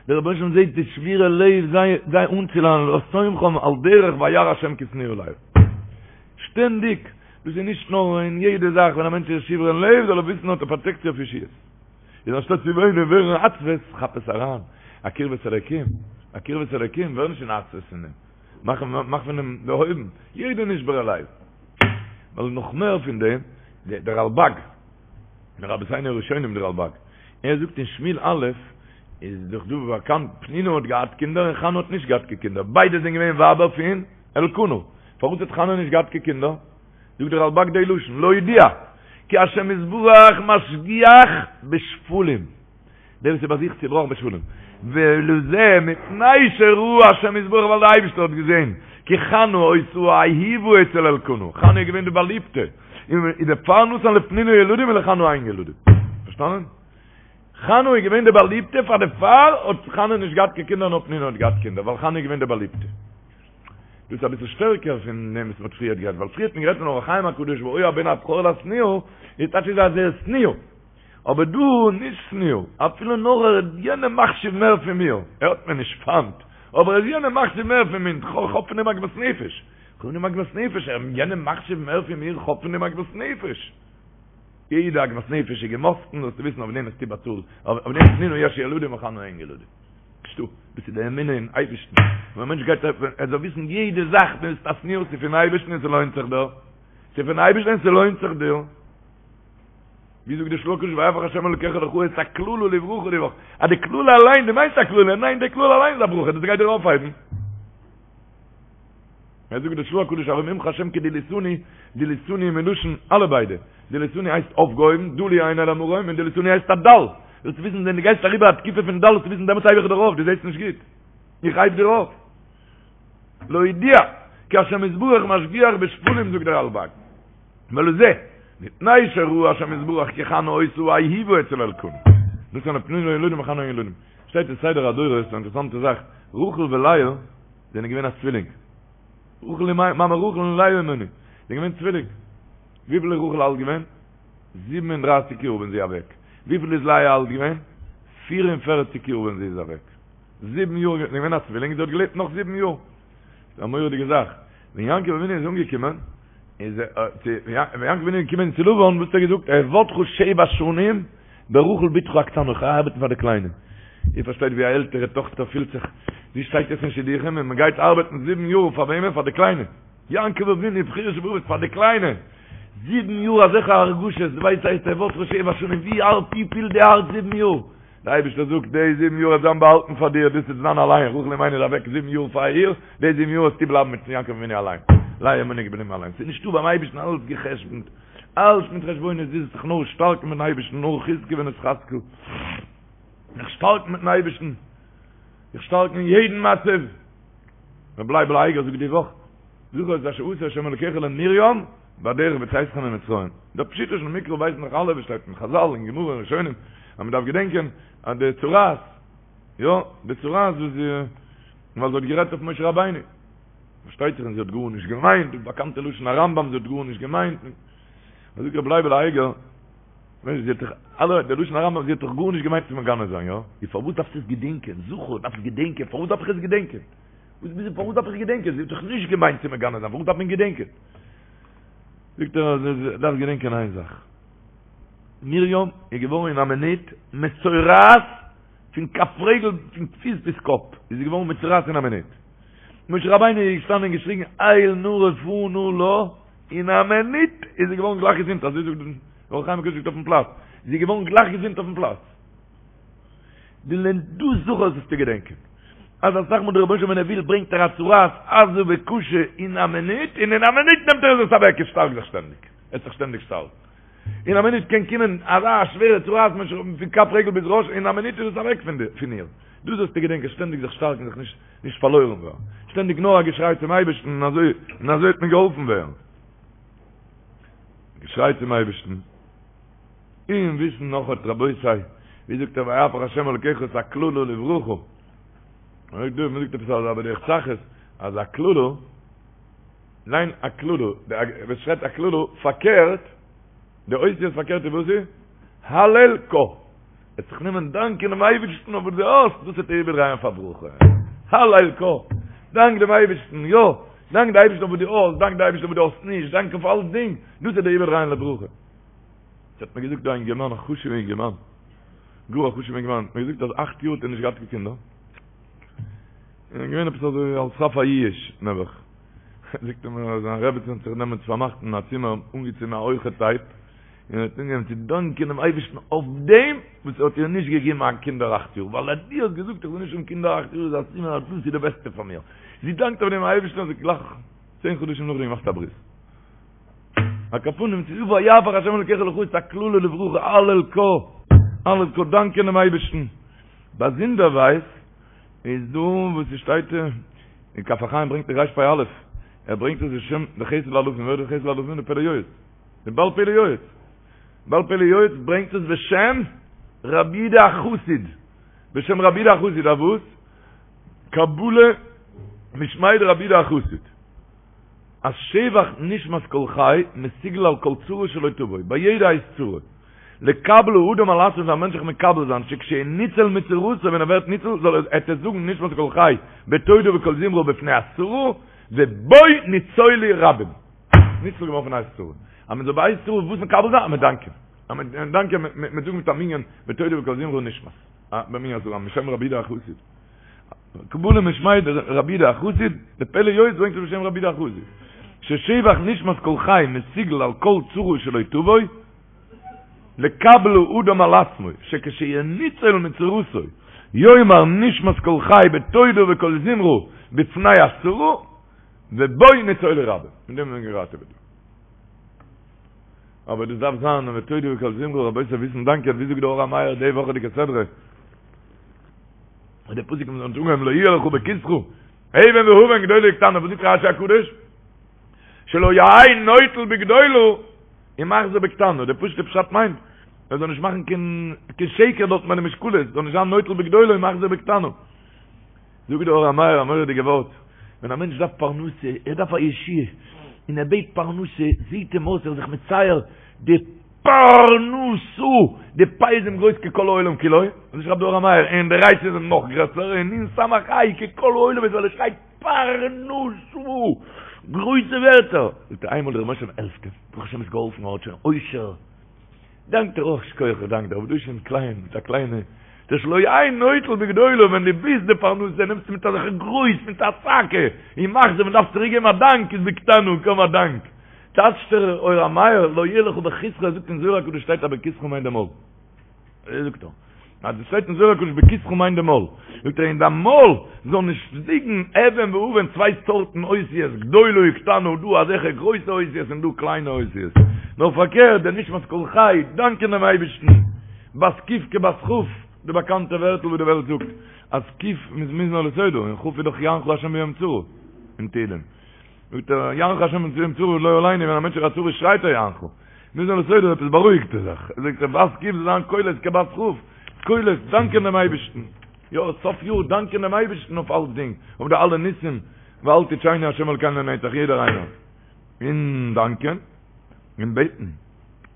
דער רבונו של עולם זעט די שבורי לב זיי זיי אנצולאנען לתומכם על דרך וירא השם כי שנואה לאה. שטענדיג, דאס איז נישט נאר אין יעדע זאך, ווען א מענטש איז שברון לב זאל ער וויסן האט ער פראטעקציע אויף ישועות. איז אנשטאט צו וויינען און ווערן עצבות, כאפ עס אריין, א קרבת אלוקים, א קרבת אלוקים, ווער נישט אין עצבות פון דעם. מאך מאך פון דעם דערהויבן יעדע נשבר הלב. ווייל נאך מער פון דעם, דער רלבג, מרבותינו הראשונים דער רלבג, ער זאגט אין שמואל א', איז דאך דא באקאנט, פנינה האט געהאט קינדער און חנה האט נישט געהאט קיין קינדער, ביידע זענען געווען ווייבער פון אלקנה, פארוואס האט חנה נישט געהאט קיין קינדער? זאגט דער רלבג די לשון, להודיע, כי השם יתברך משגיח בשפלים. דער וואס איז ביי זיך צובראכן בשפלים. ולזה מפני שראה השם יתברך ווייל דער אייבערשטער האט געזען כי חנה היתה האהובה אצל אלקנה, חנה איז געווען די באליבטע, און דערפאר נתן לפנינה ילדים ולחנה אין ילדים. פארשטאנען? חנה איז געווען די באליבטע פאר דערפאר האט חנה נישט געהאט קיין קינדער נאר פנינה האט געהאט קינדער ווייל חנה איז געווען די באליבטע. דאס איז אביסל שטערקער פון דעם וואס מ'האט פריערט גערעדט, ווייל פריער האט מען גערעדט פון אור החיים הקדוש והיה הבן הבכור לשנואה, איז טייטש איז אז ער איז שנואה. אבער דא נישט שנואה, אפילו נאר ער איז יענעם מחשיב מער פון מיר, ער האט מיר נישט פיינט, אבער ער איז יענעם מחשיב מער פון מיר, כ'האב פון אים עגמת נפש, כ'האב פון אים עגמת נפש, ער איז יענעם מחשיב מער פון מיר, כ'האב פון אים עגמת נפש. יעדע עגמת נפש איז געמאסטן, זאלסטו וויסן אויף דעם וועסטו באצאלן, אויף דעם לפנינה יש ילדים ולחנה אין ילדים. נישטא, דאס איז די אמונה אין אייבערשטן, ווען א מענטש גייט ער זאל וויסן יעדע זאך, דו ביסט א שנואה, ס'איז פון אייבערשטן און ס'לוינט זיך דיר, ס'איז פון אייבערשטן און ס'לוינט זיך דיר. ווי זאגט די של"ה הקדוש ויהפך השם אלוקיך לך את הקללה לברכה די וואך, אז די קללה אליין, דו מיינסט א קללה, ניין די קללה אליין איז א ברכה, דאס גייט דיר אויפהייבן. ער זאגט די של"ה הקדוש ארוממך השם כי דליתני, דליתני מלשון אלע ביידע, דליתני הייסט אויפגעהויבן, דלו עיני למרום, און דליתני הייסט א דל, זאלסט וויסן ווען דו גייסט אריבער א תקופה פון דל זאלסטו וויסן דעמאלטס הייב איך דיר אויף, דו זעסט נישט גוט, איך הייב דיר אויף. להודיע כי השם יתברך משגיח בשפלים זאגט דער רלבג. ולזה, מפני שראה השם יתברך כי חנה היתה אהובה אצל אלקנה. נתן לפנינה ילדים וחנה אין ילדים. שטייט אין סדר הדורות א אינטערעסאנטע זאך, רחל ולאה זענען געווען א צווילינג. רחל מאמע רחל און לאה אמנו זענען געווען צווילינג. וויפיל איז רחל אלט געווען? 37 יאר ווען זי איז אוועק. וויפיל איז לאה אלט געווען? 44 יאר ווען זי איז אוועק. זיבן יאר, זענען געווען א צווילינג, זי האט געלעבט נאך זיבן יאר. ס'איז א מורא'דיגע זאך. ווען יעקב אבינו איז אנגעקומען, איז ער, צו, ווען יעקב אבינו איז געקומען צו לבן, וואס האט ער געזאגט? אעבדך שבע שנים ברחל בתך הקטנה, איך גיי ארבעטן פאר די קליינע. איר פארשטייט ווי א עלטערע טאכטער פילט זיך, זי שטייט יעצט אין שידוכים און מ'גייט ארבעטן זיבן יאר פאר וועמען? פאר די קליינע. יעקב אבינו, בחיר שבאבות, פאר די קליינע. זיבן יאר אזעלכע הרגשות, דו ווייסט הייסט אעבדך שבע שנים, ווי הארט, ווי פילט די הארץ זיבן יאר? דער אייבערשטער זאגט, די זיבן יאר וועט זיין באהאלטן פאר דיר, דאס וועט זיין אליין, רחל אמנו איז אוועק זיבן יאר פאר איר, די זיבן יאר וועסטו בלייבן מיט יעקב אבינו אליין, לאה אמנו איז געבליבן אליין, ס'איז נישטא ביים אייבערשטן אלעס גע'חשבונ'ט, אלעס מיט חשבונות, דו זאלסט זיך נאר שטארקן מיטן אייבערשטן, נאר חזקו ונתחזקה, זיך שטארקן מיטן אייבערשטן, זיך שטארקן אין יעדן מצב, רבי לייבל אייגער זאגט די וואך, זכור את אשר עשה ה' אלוקיך למרים בדרך בצאתכם ממצרים. דער פשוטו של מקרא ווייסן דאך אלע וואס שטייט אין חזל אין גמרא און ראשונים אז מען דארף געדענקען אז די צרעת יא די צרעת וואס זי ווייל זי האט גערעדט אויף משה רבינו פארשטייט זיך אז זי האט גארנישט געמיינט די באקאנטע לשון הרמב"ם זי האט גארנישט געמיינט זאגט רבי לייבל אייגער ווייסט זי האט דאך אלע דער לשון הרמב"ם זי האט דאך גארנישט געמיינט צו מגנה זיין יא איז פארוואס דארפסטו עס געדענקען זכור דארפסט געדענקען פארוואס דארף איך עס געדענקען וואס ביז פארוואס דארף איך געדענקען? זי האט דאך נישט געמיינט צו מגנה זיין, פארוואס דארף מען געדענקען? זאגט ער אז ער דארף געדענקען איין זאך, מרים איז געווארן אין א מינוט מצורעת פון כף רגל פון פיס ביז קאפ, איז זי געווארן מצורעת אין א מינוט. משה רבינו איז געשטאנען און געשריגן אל נא רפא נא לה, אין א מינוט איז זי געווארן גלייך געזונט, אזוי זאגט דער אור החיים הקדוש זאגט אויפן פלאץ, זי איז געווארן גלייך געזונט אויפן פלאץ. דאס זכור זאלסטו געדענקען. אז אסאך מאל דער רבונו של עולם ווען ער וויל ברענגט ער א צרעת עזה וקשה אין א מינוט, און אין א מינוט נעמט ער עס אוועק, עס שטארק זיך שטענדיג, עס זיך שטענדיג שטארק. אין א מינוט קען קומען אזא שווערע צרעת פון כף רגל ביז ראש, אין א מינוט איז עס אוועק פון איר. דאס זאלסטו געדענקען, שטענדיג זיך שטארקן, זיך נישט נישט פארלוירן ווערן. שטענדיג נאר א געשריי צום אייבערשטן און אזוי און אזוי וועט מען געהאלפן ווערן. געשריי צום אייבערשטן. און וויסן נאך האט רבותי, ווי זאגט ער ויהפך השם אלקיך את הקללה לברכה, מען זאגט דא, מען זאגט עפעס אזא בדרך צחות, אז א קללה, ליין א קללה, ווען שרייבט א קללה, פארקערט, די אותיות פארקערט איז וואס איז? הלל קה. וועט זיך נעמען דאנקען דעם אייבערשטן אויף וואס דו האסט, דאס וועט ער איבערדרייען פאר ברכה. הלל קה. דאנק דעם אייבערשטן, יא, דאנק די אייבערשטן אויף וואס דו האסט, דאנק די אייבערשטן אויף וואס דו האסט נישט, דאנק אויף אלסדינג, דאס וועט ער איבערדרייען לברכה. ס'האט מיר געזאגט דא א אינגערמאן, א חשוב'ע אינגערמאן, גאר א חשוב'ע אינגערמאן, האט מיר געזאגט אז אכט יאר האט ער נישט געהאט קיין קינדער, און געווען עפעס אזוי על סף היאוש נעבעך, זאגט ער מיר אז זיין רעבעצין האט זיך דעמאלטס פארמאכט אין א צימער, אנגעצינדן א הויכע טעיפ, און האט אנגעהויבן צו דאנקען דעם אייבערשטן אויף דעם וואס ער האט איר נישט געגעבן קיין קינדער אכט יאר, ווייל אז דו האסט געזאגט איך זאל נישט האבן קינדער אכט יאר איז א סימן אז דאס איז די בעסטע פאר מיר, זי דאנקט אויף דעם אייבערשטן אז זי האט גלייך צען חדשים נאכדעם געמאכט א ברית. על כל פנים ס'איז ויהפך השם אלקיך לך את הקללה לברכה הלל קה הלל קה דאנקען דעם אייבערשטן באזונדערווייז איז דא וואס ס'שטייט אין כף החיים ברענגט דער רפ"א ער ברענגט עס בשם די חסד לאלפים ווער איז די חסד לאלפים די פלא יועץ די בעל פלא יועץ בעל פלא יועץ ברענגט עס בשם רבי יהודה החסיד בשם רבי יהודה החסיד א וואס קבלה משמיה דרבי יהודה החסיד אז שבח נשמת כל חי מסוגל על כל צרה שלא תבוא, ביי יעדע עת צרה. לקבל האדם על עצמו זאל א מענטש זיך מקבל זיין שכשהוא ניצל מצרתו ווען ער ווערט ניצול זאל ער עט ער זאגן נשמת כל חי בתודה וקול זמרה בפני הצרה ובו ניצולו רבים. ניצול געווארן פון עת צרה. אז מען זאל ביי עת צרה וואס מקבל זיין? אז מען דאנקען. אז מען דאנקען מען זאגן מיט א מנין בתודה וקול זמרה נשמת. במנין אזוי בשם רבי יהודה החסיד. קבלה משמיה דרבי יהודה החסיד, די פלא יועץ ברענגט עס בשם רבי יהודה החסיד, ששבח נשמת כל חי מסוגל על כל צרה שלא תבוא. לקבל האדם על עצמו שכשינוצל מצרתו יאמר נשמת כל חי בתודה וקול זמרה בפני הצרה ובו נצולו רבים. מיט דעם ווערן געראטעוועט. אבער דאס דארף זיין בתודה וקול זמרה רבותי וויסן דאנקען ווי זאגט דער אור המאיר די וואכעדיגע סדרה און דער פסוק האט אנגעהויבן לא יהיה לך בכיסך אבן ואבן גדולה וקטנה וואס זאגט רשי הקדוש שלא יהא נוטל בגדולה ומחזיר בקטנה דער פשוט'ער פשט מיינט ער זאל נישט מאכן קיין קיין שקר דארט מיט די משקלות זאל נישט זיין נוטל בגדולה ומחזיר בקטנה זאגט דער אור המאיר א מורא'דיגע ווארט, ווען א מענטש דארף פרנסה, ער דארף א ישועה, און ער בעט פרנסה, זעהט אים אויס ער איז זיך מצייר די פרנסה, די פ' איז אים גרויס ככל העולם כולו, אזוי שרייבט דער אור המאיר, און די ריש איז אים נאך גרעסער, און נון סמך ה' ככל העולם איז ווייל ער שרייט פרנסה, גרויסע ווערטער, זאגט ער איינמאל דער רבונו של עולם העלפט אים, ברוך השם איז געהאלפן ער האט שוין עושר, דאנקט ער אויך שכוח איך דאנק דיר אבער דא איז שוין קליין מיט א קליינע דער שלא יהא נוטל בגדולה ווען דו ביסט די פרנסה נעמסטו מיט אזעלכע גרויס מיט א צעקה און מחזיר ווען דארפסט צוריק געבן א דאנק איז בקטנה קוים א דאנק טייטשט דער אור המאיר לא יהיה לך בכיסך ער זאגט אין זוהר הקדוש שטייט אז בכיסך מיינט די מויל אזוי זאגט ער אז עס שטייט אין זוהר הקדוש בכיסך מיינט די מויל, זאגט ער אין דיין מויל זאל נישט ליגן אבן ואבן צוויי סארטן אותיות גדולה וקטנה דא אזעלכע גרויסע אותיות און דא קליינע אותיות, נאר פארקערט דער נשמת כל חי דאנקען דעם אייבערשטן, בת ק' כבת כ', די באקאנטע ווערטל וואס די וועלט זאגט אז ק' איז מזמור לתודה און כ' איז דאך יענך השם ביום צרה אין תהילים. זאגט ער, יענך השם ביום צרה לא עלינו, ווען א מענטש איז א צרה שרייט ער יענך. מזמור לתודה עפעס בארואיגט ער זיך. זאגט ער, בת ק' זאל זיין קולות כבת כ', קולות, דאנקען דעם אייבערשטן. יא, סוף יאר דאנקען דעם אייבערשטן אויף אלצדינג, אויף די אלע ניסים, ואל תטשנו השם אלקינו לנצח, יעדער איינער. און דאנקען, און בעטן.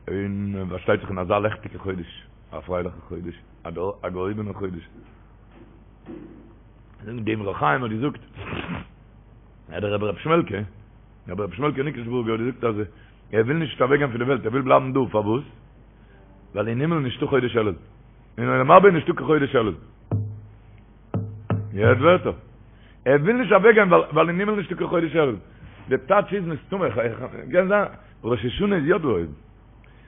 און פארשטייט זיך אין אזא לעכטיגע חודש, א פרייליכע חודש, א געהויבענע חודש. דער אמרי חיים האט געזאגט, אז דער רבי ר' שמעלקע, רבי ר' שמעלקע ניקלשבורגער האט געזאגט אז ער וויל נישט אוועק גיין פון די וועלט, ער וויל בלייבן דא, פארוואס? ווייל אין הימל נישטא חודש אלול, אין עולם הבא איז נישטא קיין חודש אלול. איר הערט ווערטער? ער וויל נישט אוועק גיין ווייל אין הימל נישטא קיין חודש אלול. די טייטש איז מסתמא, קען זיין, ראש השנה איז יא דא אויבן.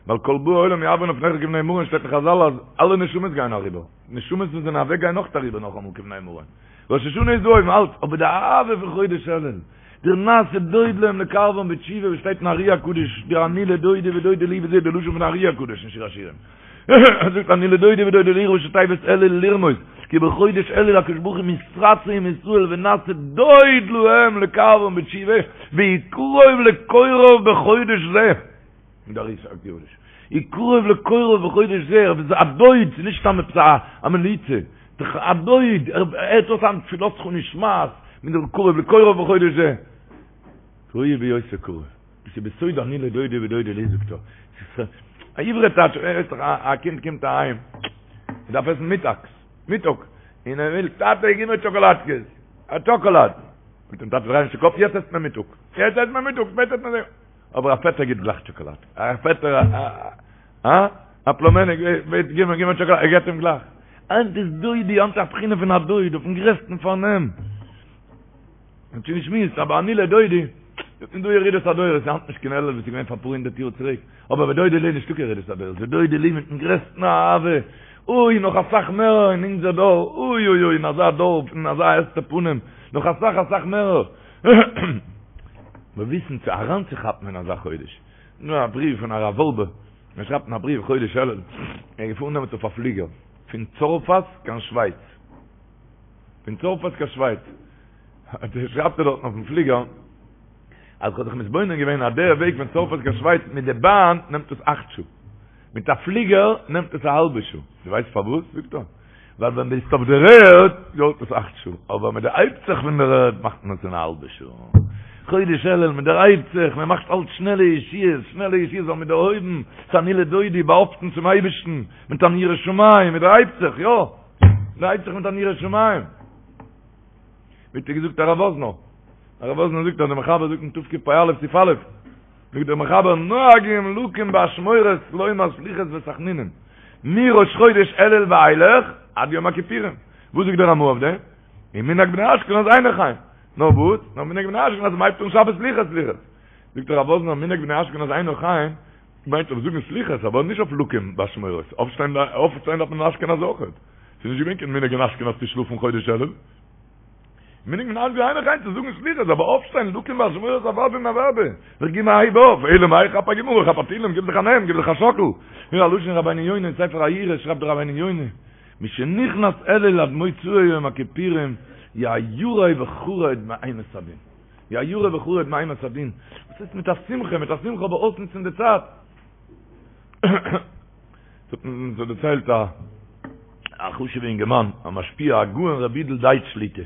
ווייל כל באי עולם יעברון לפניך כבני מרון שטייט אין חזל אז אלע נשמות גייען אריבער, נשמות וואס זענען אוועק גייען נאך אריבער נאכאמאל כבני מרון. ראש השנה איז דא אויבן אלץ, אבער די אהבה פון חודש אלול, דער נעשה דוד להם לקרבן בתשובה וואס שטייט אין ארי הקדוש, דער אני לדודי ודודי לי וזה די לשון פון ארי הקדוש אין שיר השירים. ער זאגט אני לדודי ודודי לי ראשי תיבות אלול לרמוז, כי בחודש אלול הקדוש ברוך הוא מתרצה עם ישראל ונעשה דוד להם לקרבן בתשובה, והוא קרוב לקוראיו בחודש זה. אין דער ארי הקדוש. הוא קרוב לקוראיו בחודש זה, ער איז א דוד, ס'איז נישט סתם עפעס א מליצה, א דוד, ער הערט אויס היינט תפילתך נשמעת, מיט דעם קרוב לקוראיו בחודש זה. ראוי בהיותו קרוב. דאס איז בסוד אני לדודי ודודי לי זאגט ער. ס'איז א עברי טייטש, ווייסט דאך א קינד קומט אהיים, ער דארף עסן מיטאגס, מיטאג, און ער וויל, טאטע גיב מיר טשאקאלאדקעס, א טשאקאלאד. זאגט אים טאטע דריי נישט די קאפ, יעצט עסט מען מיטאג, יעצט עסט מען מיטאג, שפעטער עסט מען. אבער א פעטער גיט גלייך טשאקאלאד, א פעטער א א א פלומעניק בעט גיב מיר גיב מיר טשאקאלאד, ער געט אים גלייך. היינט איז דודי, היינט איז א בחינה פון א דוד אויפן גרעסטן פארנעם. מ'האט שוין געשמועסט, אבער אני לדודי, ס'איז דא ירידת הדורות, ס'איז היינט נישט קיין אלול וואס איז געווען פאר אפאר הונדערט יאר צוריק, אבער ודודי לי נישטא קיין ירידת הדורות, ודודי לי מיטן גרעסטן אהבה, אוי נאך אסאך מער אין אונזער דור, אוי אוי אוי אין אזא דור, אין אזא הסתר פנים, נאך אסאך אסאך מער. מיר וויסן צו אריינצוכאפן אין אזא חודש. נאר א בריוו פון הרב וואלבע, ער שרייבט אין א בריוו חודש אלול, ער איז געפארן דעמאלטס אויף א פליגער פון צרפת קיין שווייץ, פון צרפת קיין שווייץ, שרייבט ער דארטן אויפן פליגער, אז כ'האב זיך מתבונן געווען אז דער וועג פון צרפת קיין שווייץ מיט די באן נעמט עס אכט שעה, מיט א פליגער נעמט עס א האלבע שעה. דו ווייסט פארוואס? זאגט ער, ווייל ווען ביסט אויף דער ערד דויערט עס אכט שעה, אבער מען דערהייבט זיך פון דער ערד מאכט מען עס אין א האלבע שעה. חודש אלול, מען דערהייבט זיך, מען מאכט אלץ שנעלע ישועות, שנעלע ישועות ווייל מען דערהויבן, ס'איז אני לדודי, באהאפטן צום אייבערשטן, מיט אן יראת שמים, מען דערהייבט זיך, יא, מען דערהייבט זיך מיט אן יראת שמים. ווי האט געזאגט הרב וואזנער? הרב וואזנער זאגט אז דער מחבר זאגט אין תקפ"א סעיף א', זאגט דער מחבר נוהגים לקום באשמורת לומר סליחות ותחנונים מראש חודש אלול ואילך עד יום הכיפורים. וואס זאגט דער רמ"א אויף דעם? ומנהג בני אשכנז אינו כן. נאר וואס? נאר מנהג בני אשכנז מ'הייבט אן שבת סליחות סליחות. זאגט הרב וואזנער מנהג בני אשכנז אינו כן. מיינט אויף זאגן סליחות אבער נישט אויף לקום באשמורת, אויפשטיין אויפשטיין דארף מען אין אשכנז אויכעט, ס'איז נישט געווען קיין מנהג אין אשכנז צו שלאפן חודש אלול, מנהג אין אשכנז איינער גיין צו זאגן סליחות אבער אויפשטיין לקום באשמורת אוודאי און אוודאי, זיך גיבן א הייב אויף, אלא מאי כאפ א גמרא כאפ א תהילים גיב זיך א נעם גיב זיך א שאקל, הנה א לשון רבינו יונה אין ספר היראה שרייבט דער רבינו יונה משנכנס אלול עד מוצאי יום הכיפורים יהא ירא וחרד מאימת הדין. יהא ירא וחרד מאימת הדין, וואס הייסט מיט א שמחה, מיט א שמחה אבער אויסנוצן די צייט. ס'האט אונז דערציילט א א חשוב'ע אינגערמאן, א משפיע, הגאון רבי יודל דייטש שליט"א,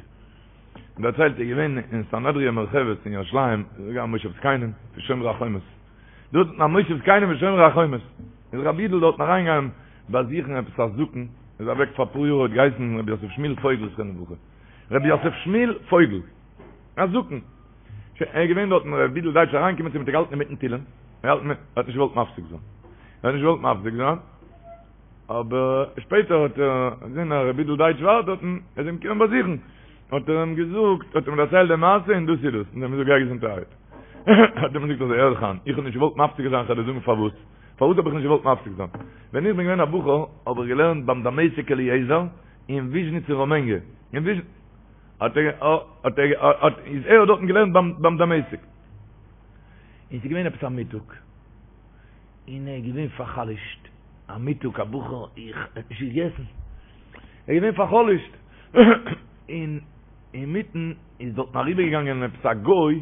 דערציילט ער איז געווען אין סנהדריה מורחבת אין ירושלים, איז געווען א מושב זקנים פון שומרי החומות, דארט אין א מושב זקנים פון שומרי החומות, איז רבי יודל דארטן אריינגעגאנגען באזוכן עפעס א זקן, איז אוועק פאר אפאר יאר, האט געהייסן רבי יוסף שמואל פויגל זכרונו לברכה, רבי יוסף שמואל פויגל. א זקן. שוין, ער איז געווען דארטן, ר' יודל דייטש אריינגעקומען צו אים האט ער געהאלטן אינמיטן תהילים, ער האלט ער האט נישט געוואלט מפסיק זיין. ער האט נישט געוואלט מפסיק זיין, אבער שפעטער האט ער געזען אז ר' יודל דייטש ווארט דארטן, ער איז אים געקומען באזוכן, האט ער אים געזאגט, האט אים דערציילט די מעשה און דאס איז דאס, און ער האט אים געזאגט גיי געזונטערהייט. האט ער אים געזאגט אזוי, הער זיך איין, איך האב נישט געוואלט מפסיק זיין, כ'וועל דיר זאגן פארוואס. פארוואס האב איך נישט געוואלט מפסיק זיין? ווען איך בין געווען א בחור האב איך געלערנט ביים דמשק אליעזר אין וויזשניץ אין ראמענגע, אין וויזשניץ, האט ער האט ער האט איז ער האט דארטן געלערנט ביים ביים דמשק און ס'איז געווען עפעס א מיטאג און ער איז געווען פאר'חלש'ט א מיטאג א בחור איך האט נישט געגעסן ער איז געווען פאר'חלש'ט און אינמיטן איז דארטן אריבערגעגאנגען עפעס א גוי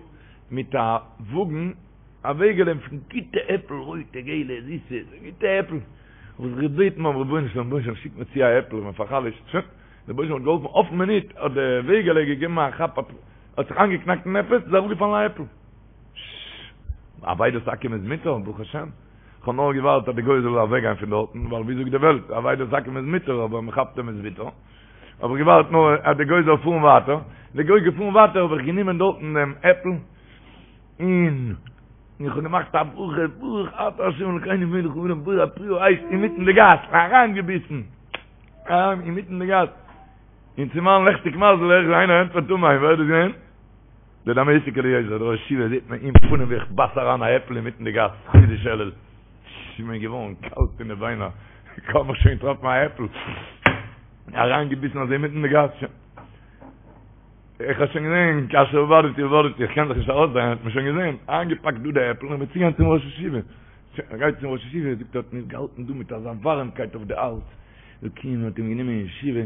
מיט א וואגן א וועגעלע פון גוטע עפל רויטע געלע זיסע גוטע עפל האב איך זיך געבעטן ביים רבונו של עולם רבונו של עולם שיק מיר צו א עפל איך בין פאר'חלש'ט שוין דער רבונו של עולם האט געהאלפן אויפן מינוט האט די וועגעלע געגעבן א כאפ האט זיך איינגעקנאקט אין עפעס איז אראפגעפאלן א עפל. ששש. אבידת עכו"ם איז מותר, ברוך השם. כ'האב נאר געווארט אז די גוי זאל אוועקגיין פון דארטן, ווייל ווי זאגט די וועלט, אבידת עכו"ם איז מותר אבער מען כאפט אים איז ביטער. האב איך געווארט נאר אז די גוי זאל פארן ווייטער, די גוי איז געפארן ווייטער האב איך גענומען דארטן דעם עפל און איך האב געמאכט א ברכה ברוך אתה ה' אלקינו מלך העולם בורא פרי העץ אינמיטן די גאס אריינגעביסן. אריין אינמיטן די גאס, און צו מיין לעכטיג מזל הער איך ווי איינער ענטפערט אמן, ווער איז דאס געווען? דער דמשק אליעזר, דער ראש ישיבה זעט מיר אין פנים ווי איך בייס אריין א עפל אינמיטן די גאס, חודש אלול, ס'איז מיר געווארן קאלט אין די ביינער, כ'האב מיך שוין געטראפן א עפל, אריינגעביסן אזוי אינמיטן די גאס, שוין. איך האב שוין געזען, כאשר אבדתי אבדתי, איך קען זיך נישט ארויסדרייען, האט מען שוין געזען, איינגעפאקט דא די עפל און מיר צוגיין צום ראש ישיבה. ער גייט צום ראש ישיבה, זאגט ער האט מיר געהאלטן דא מיט אזא ווארעמקייט אויף די הארץ, אלוקים האט אים גענומען אין ישיבה,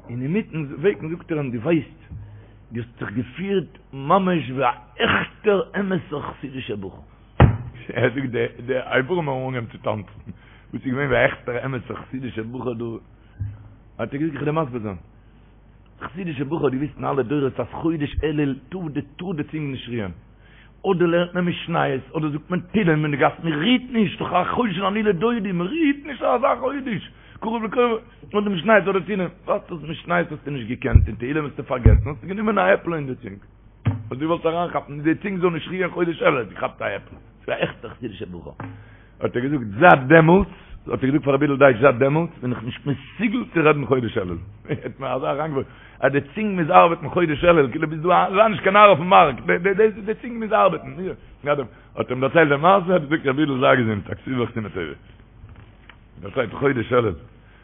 און אינמיטן וועג זאגט ער אים, דו ווייסט, דו האסט זיך געפירט ממש ווי א עכטער אמת'ער חסידישער בחור. ער זאגט די די אברים האבן אנגעהויבן צו טאנצן, וואס איז געווען ווי א עכטער אמת'ער חסידישער בחור דא, האט ער געזאגט איך וועל דיר מסביר זיין. חסידישע בחור האט געוויסט אין אלע דורות אז חודש אלול טאר די טאר די צונג נישט רוען. אדער לערנט מען משניות אדער זאגט מען תהילים אין די גאס מען רוהט נישט דאך א חודש אני לדודי מען רוהט נישט אזא חודש קרוב לקרוב אדער משניות אדער תהילים וואס דאס משניות האסטו נישט געקענט און תהילים האסטו פארגעסן האסטו גענומען א עפל אין די צונג האסט געוואלט אריינכאפן די צונג זאל נישט רוען חודש אלול האסט געכאפט א עפל ס'איז א עכטע חסידישע בחור. האט ער געזאגט זייט דעמאלטס, האט ער געזאגט פאר רבי יודל דייטש זייט דעמאלטס בין איך נישט מסוגל צו רעדן חודש אלול, האט מיר אזוי אריינגעווארפן אז די צונג מוז ארבעטן חודש אלול, כאילו ביסט דא זיי נישט קיין נאר אויפן מארק, די צונג מוז ארבעטן, האט אים דערציילט די מעשה, האט געזאגט רבי יודל זיי געזונט, א כתיבה וחתימה טובה, דערציילט חודש אלול,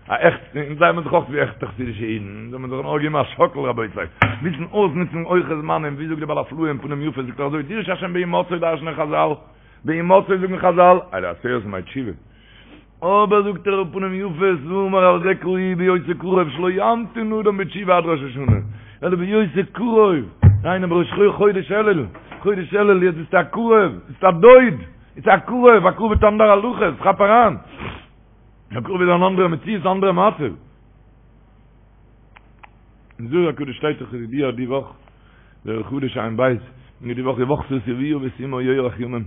א עכט, אונז זעמיר זיך אויך ווי עכטע חסידישע אידן, אונז זאל מען זיך נאר געבן א שאקל רבותי, וויסן אויסנוצן הויכע זמנים, ווי זאגט די בעל הפלאה אין פנים יפות, זאגט ער אזוי, דרשו השם בהמצאו דרש'נען חזל, בהמצאו זאגן חזל, אלו עשרת ימי תשובה. אבער זאגט דער פנים יפות, ואמר על זה קראוהו בהיותו קרוב שלא ימתין אדם בתשובה עד ראש השנה, אלא בהיותו קרוב, דהיינו בראש חודש אלול, חודש אלול יעצט ביסטו א קרוב, ביסט א דוד, ביסט א קרוב, א קרוב האט אנדערע הלכות, כאפ אריין, א קרוב איז אן אנדערע מציאות, אנדערע מצב. אין זוהר הקדוש שטייט דאך ידוע די וואך, זוהר חדש ע"ב, און די וואך ובכתה את אביה ואת אמה ירח ימים,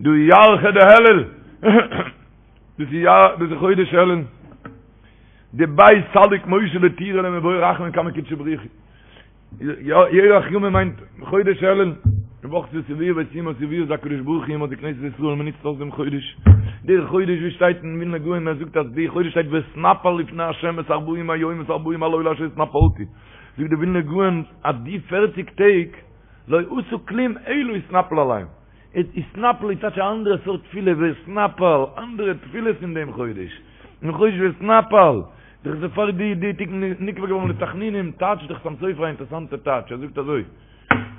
דא ירחא דאלול, דאס איז דאס איז חודש אלול, דביה סליק משה לטורא למבעי רחמים קמי קודשא בריך הוא, ירח ימים מיינט חודש אלול, ובכתה את אביה ואת אמה, אביה איז הקדוש ברוך הוא אמה די כנסת ישראל, מען נוצט אויס דעם חודש, דער חודש ווי שטייט אין ווילנא גאון ער זאגט אז די חודש שטייט ואתנפל לפני ה' את ארבעים היום ואת ארבעים הלילה אשר התנפלתי, זאגט די ווילנא גאון אז די פערציג טעג לא עשה כלום אלא התנפל עליהם. התנפל איז טייטש א אנדערע סארט תפילה, ואתנפל, אנדערע תפילות אין דעם חודש, אין חודש ואתנפל, דאך איז פאר די די טעג נקבע געווארן לתחנונים, טייטש דער חתם סופר א אינטערעסאנטע טייטש, ער זאגט אזוי,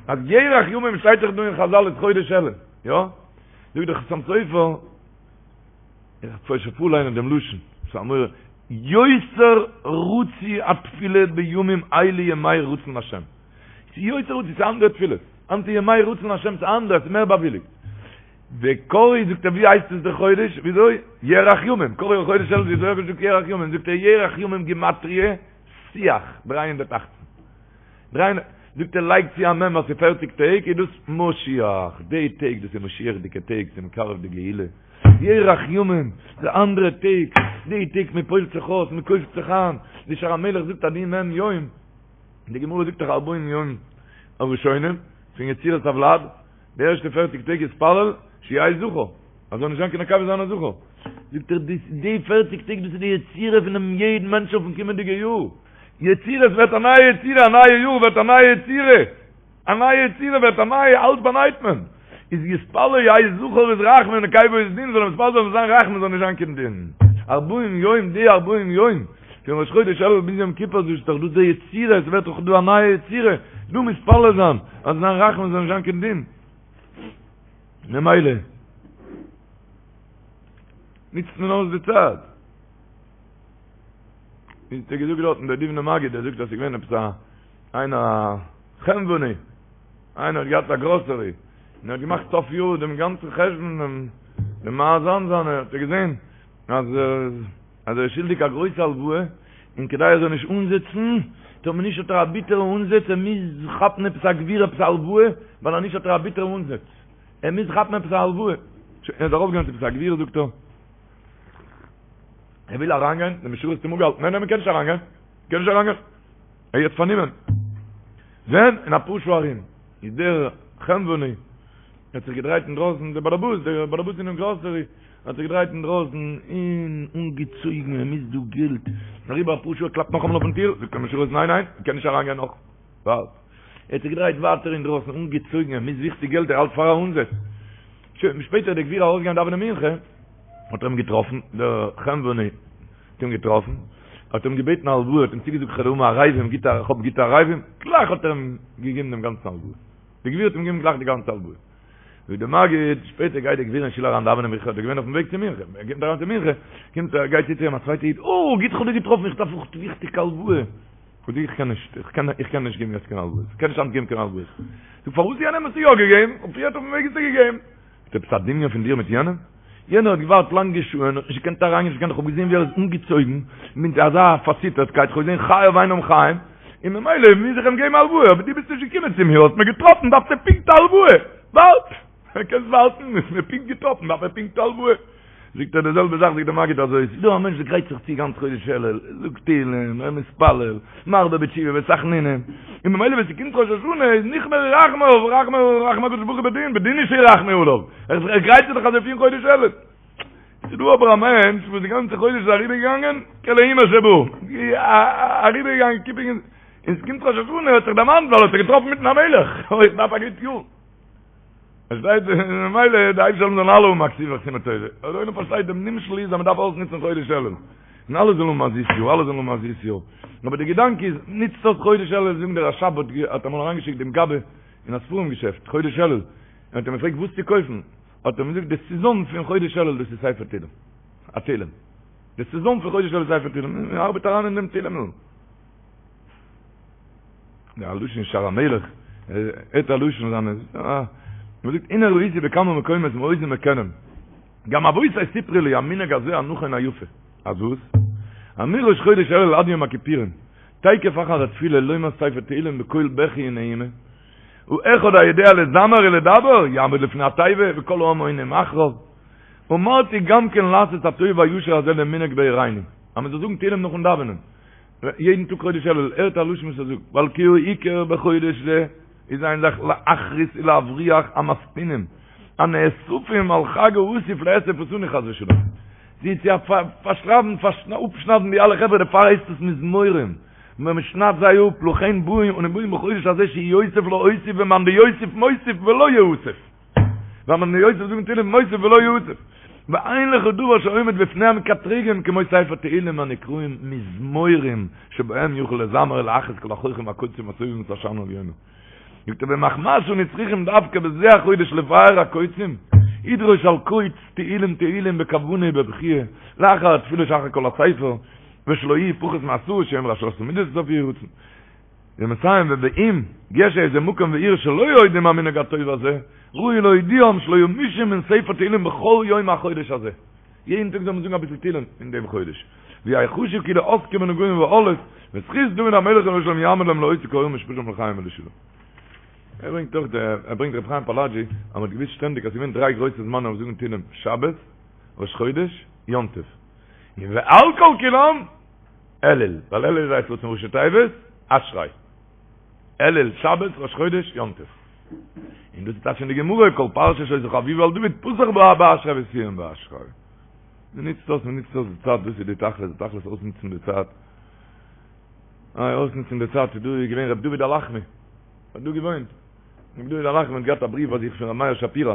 אז ירח ימים שטייט דאך דא אין חזל איז חודש אלול, יא? זאגט דער חתם סופר, איך וועל פשוט פארליינען דעם לשון, ס'איז א מורא, יותר רצוי התפילה בימים אלו ימי רצון השם. ס'איז יותר רצוי, ס'איז אנדערע תפילות. היינט איז ימי רצון השם, ס'איז אנדערש, ס'איז מער באוויליגט. וקראו זאגט ער ווי הייסט עס דער חודש? וויאזוי? ירח ימים. קראו חודש אלול וויאזוי האב איך געזאגט ירח ימים? זאגט ער ירח ימים גימטריא שיח, 318. דריי זאגט ער לייג צו א מ' אז ס'איז פערציג טעג איז דאס משיח, די טעג דאס איז משיח'דיגע טעג, ס'איז מקרב די גאולה. ירח ימים, די אנדערע טעג, די טעג מען פועל'ט זיך אויס, מען קויפט זיך איין, ווי שער המלך זאגט אז די מ' יום, די גמרא זאגט דאך ארבעים יום הראשונים פון יצירת הוולד, די ערשטע פערציג טעג יתפלל שיהא זכר, אז זאל נישט זיין קיין נקבה זיין א זכר, זאגט ער די די פערציג טעג דאס איז די יצירה פונעם יעדן מענטש אויפן קומענדיגע יאר, יצירה עס ווערט א נייע יצירה, א נייע יאר ווערט א נייע יצירה. א נייע יצירה ווערט א נייע, אלץ באנייט מען. איז יתפלל יהא זכר איז רחמים נקבה איז דין, זאל ער מתפלל זיין זאל זיין רחמים זאל נישט זיין קיין דין. ארבעים יום די ארבעים יום, פון ראש חודש אלול ביז יום כיפור דאס איז דאך דא די יצירה, עס ווערט דאך דא א נייע יצירה, דא מתפלל זיין אז זיין רחמים זאל נישט זיין קיין דין. ממילא נוצט מען אויס די צייט. ווי האט ער געזאגט דארטן דער דובנער מגיד, ער זאגט אז ס'איז געווען עפעס א איינער א חנווני, איינער האט געהאט א גראסערי, און ער האט געמאכט סוף יאר דעם גאנצן חשבון, דעם דעם מאזן זיינע, האט ער געזען אז אז ער איז שולדיג א גרויסע הלוואה, און כדי ער זאל נישט אנזעצן, טאמער נישט האט ער א ביטערע אנזעץ, ער מוז כאפן עפעס א גביר עפעס א הלוואה, ווייל אז נישט האט ער א ביטערע אנזעץ, ער מוז כאפן עפעס א הלוואה. שוין, ער איז ארויפגעגאנגען צו עפעס א גביר זאגט ער, ער וויל אריינגיין, די משרת האט אים אפגעהאלטן, ניין ניין מען קען נישט אריינגיין, מען קען נישט אריינגיין, ער איז יעצט פארנומען. ווען? אין אפאר שעה ארום. איז דער חנווני האט זיך געדרייט אינדרויסן, דער באלעבאס, דער באלעבאס אינעם גראסערי, האט זיך געדרייט אינדרויסן און אנגעצויגן, ער מוז דא געלט. אריבער אפאר שעה, ער קלאפט נאכאמאל אויפן טיר, זאגט דער משרת, ניין ניין, מען קען נישט אריינגיין נאך. ווארט. ער האט זיך געדרייט ווייטער אינדרויסן, אנגעצויגן, ער מוז וויכטיג געלט, ער האלט פאר א אנזעץ. שוין, שפעטער איז דער גביר ארויסגעגאנגען דאווענען מנחה, האט ער אים געטראפן, דער חנווני האט אים געטראפן, האט אים געבעטן א הלוואה, האט אים צוגעזאגט איך וועל האבן ערבים, גוטע, איך האב גוטע ערבים, גלייך האט ער אים געגעבן דעם גאנצן הלוואה. דער גביר האט אים געגעבן גלייך די גאנצע הלוואה. זאגט דער מגיד, שפעטער גייט דער גביר אין שול אריין דאווענען מנחה, האט ער געווען אויפן וועג צו מנחה, ער קומט אריין צו מנחה, קומט ער, גייט צו צו אים א צווייטע איד, אוי, גוט איך האב דיר געטראפן, איך דארף אויך וויכטיג א הלוואה. זאגט ער, איך קען נישט, איך קען, איך קען נישט געבן יעצט קיין הלוואות, איך קען נישט היינט געבן קיין הלוואות. זאגט, פארוואס יענעם האסטו יא געגעבן, און פריערט אויפן וועג האסטו געגעבן? איז עפעס א דמיון פון דיר מיט יענעם? יענער האט געווארט לאנגע שעה'ן, האט נישט געקענט אריינגיין, נישט געקענט, איך האב געזען ווי ער איז אנגעצויגן מיט אזא פארציטערטקייט, איך האב געזען חייו אינם חיים, און ממילא מוז איך אים געבן א הלוואה, אבער דו ביסט נישט געקומען צו מיר, האסט מיר געטראפן, דארפסטו פונקט א הלוואה, ווארט! קענסט ווארטן, האסט מיר פונקט געטראפן, דארף ער פונקט א הלוואה. זאגט ער די זעלבע זאך זאגט דער מגיד אזוי, ס'איז דא א מענטש וואס גרייט זיך צו גאנץ חודש אלול, זאגט תהילים, ער מתפלל, מרבה בתשובה ותחנונים, און ממילא ווען ס'קומט ראש השנה איז נכמרו רחמיו, רחמי רחמי הקדוש ברוך הוא בדין, בדין הוא שירחמו עליו, ער גרייט זיך דאך אזוי פון חודש אלול. ס'איז דא אבער א מענטש וואס די גאנצע חודש איז אריבערגעגאנגען כלאימר שבא, אריבערגעגאנגען קיפינג, און ס'קומט ראש השנה האט זיך דערמאנט ווייל ער האט זיך געטראפן מיטן המלך, אוי איך דארף א גוט יאר. פארשטייט זיך ממילא די אייבערשטער זאל אלע האבן א כתיבה וחתימה טובה. אבער דער עולם פארשטייט דעם נמשל איז אז מען דארף אויסנוצן חודש אלול. און אלע זאלן האבן א זיס יאר, אלע זאלן האבן א זיס יאר. אבער די געדאנק איז, נוצט אויס חודש אלול, זאגן דער רש"ב האט האט אמאל אריינגעשיקט דעם גבאי אין א ספרים געשעפט חודש אלול, און האט אים געפרעגט וואס צו קויפן, האט ער אים געזאגט די סעזאן פון חודש אלול דאס איז ספר תהילים, א תהילים. די סעזאן פון חודש אלול איז ספר תהילים, מען ארבעט אריין אין דעם תהילים'ל. דער לשון שער המלך, הערט א לשון זיינע, מען זאגט הנה ראיתי בכמה מקומות מאוזן מקדם, גם אבותי סיפרו לי המנהג הזה הנכון היפה, אז וואס? אז מראש חודש אלול עד יום הכיפורים, תיכף אחר התפילה לומר ספר תהילים בקול בכי ונהימה, ואחד היודע לזמר ולדבר יעמוד לפני התיבה וכל העם עונים אחריו, אמרתי גם כן לעשות הטוב והישר הזה למנהג בעירינו, אז מען זאל זאגן תהילים נאכן דאווענען. יעדן טאג חודש אלול, הערט א לשון וואס ער זאגט, ווייל כי העיקר בחודש זה איז איין זאך להכרית ולהבריח המסטינין הנאספים על חג האסיף לאסוף אותנו חס ושלום, זיי צו פארשרייבן אפשניידן די אלע חברה דערפאר הייסט עס מזמורים, ווען מען שניידט זיי אפ, לכן באים אנו באים בחודש הזה שיוסיף להוסיף ומאן דיוסיף מוסיף ולא יאסף. והמבני יוסף זאגן תהילים מוסיף ולא יוסיף. ואין לך דבר שעומד בפני המקטרגים כמו ספר תהילים הנקראים מזמורים שבהם יוכל לזמר ולאחז כל החוחים והקוצים הסובבים את השנה העליונה. זאגט ער ומחמת שאנו צריכים דווקא בזה החודש לבאר הקוצים, ידרוש על קוץ תהילים תהילים בכוונה ובבכיה, לאחר התפילה שאחר כל הספר, ושלא יהי' פחות מעשרה שהם ראשי מידות סוף יהי רצון. ומסיים ובאם יש איזה מקום ועיר שלא יודעים המנהג הטוב הזה, ראוי להודיעם שלא ימושו מן ספר תהילים בכל יום מהחודש הזה. יעדן טאג זאל מען זאגן אביסל תהילים אין דעם חודש. ויחשו כאילו עוסקים בנגעים ובאלות, וזכות דוד המלך עליו השלום יעמוד להם להוציא כל משפטם לחיים ולשלום. ער ברענגט אויך דער, ער ברענגט רבי חיים פאלאג'י, אז מען האט געוואוסט שטענדיג אז ס'איז געווען דריי גרויסע זמנים אויף זאגן תהילים, שבת, ראש חודש, יום טוב. און ועל כל כולם, אלול, ווייל אלול איז עת רצון ראשי תיבות, אשרי. אלול, שבת, ראש חודש, יום טוב. און דאס איז טייטש אין די גמרא, כל פרשה שהיתה חביבה על דוד, פתח בה באשרי וסיים באשרי. מען נוצט אויס, מען נוצט אויס די צייט, דאס איז די תכלית, די תכלית אויסנוצן די צייט. איי, אויסנוצן די צייט, איז דא געווען ר' דוד הלחמי, האט דא געוואוינט. ר' דוד הלחמי האט געהאט א בריוו ביי זיך פון ר' מאיר שפירא,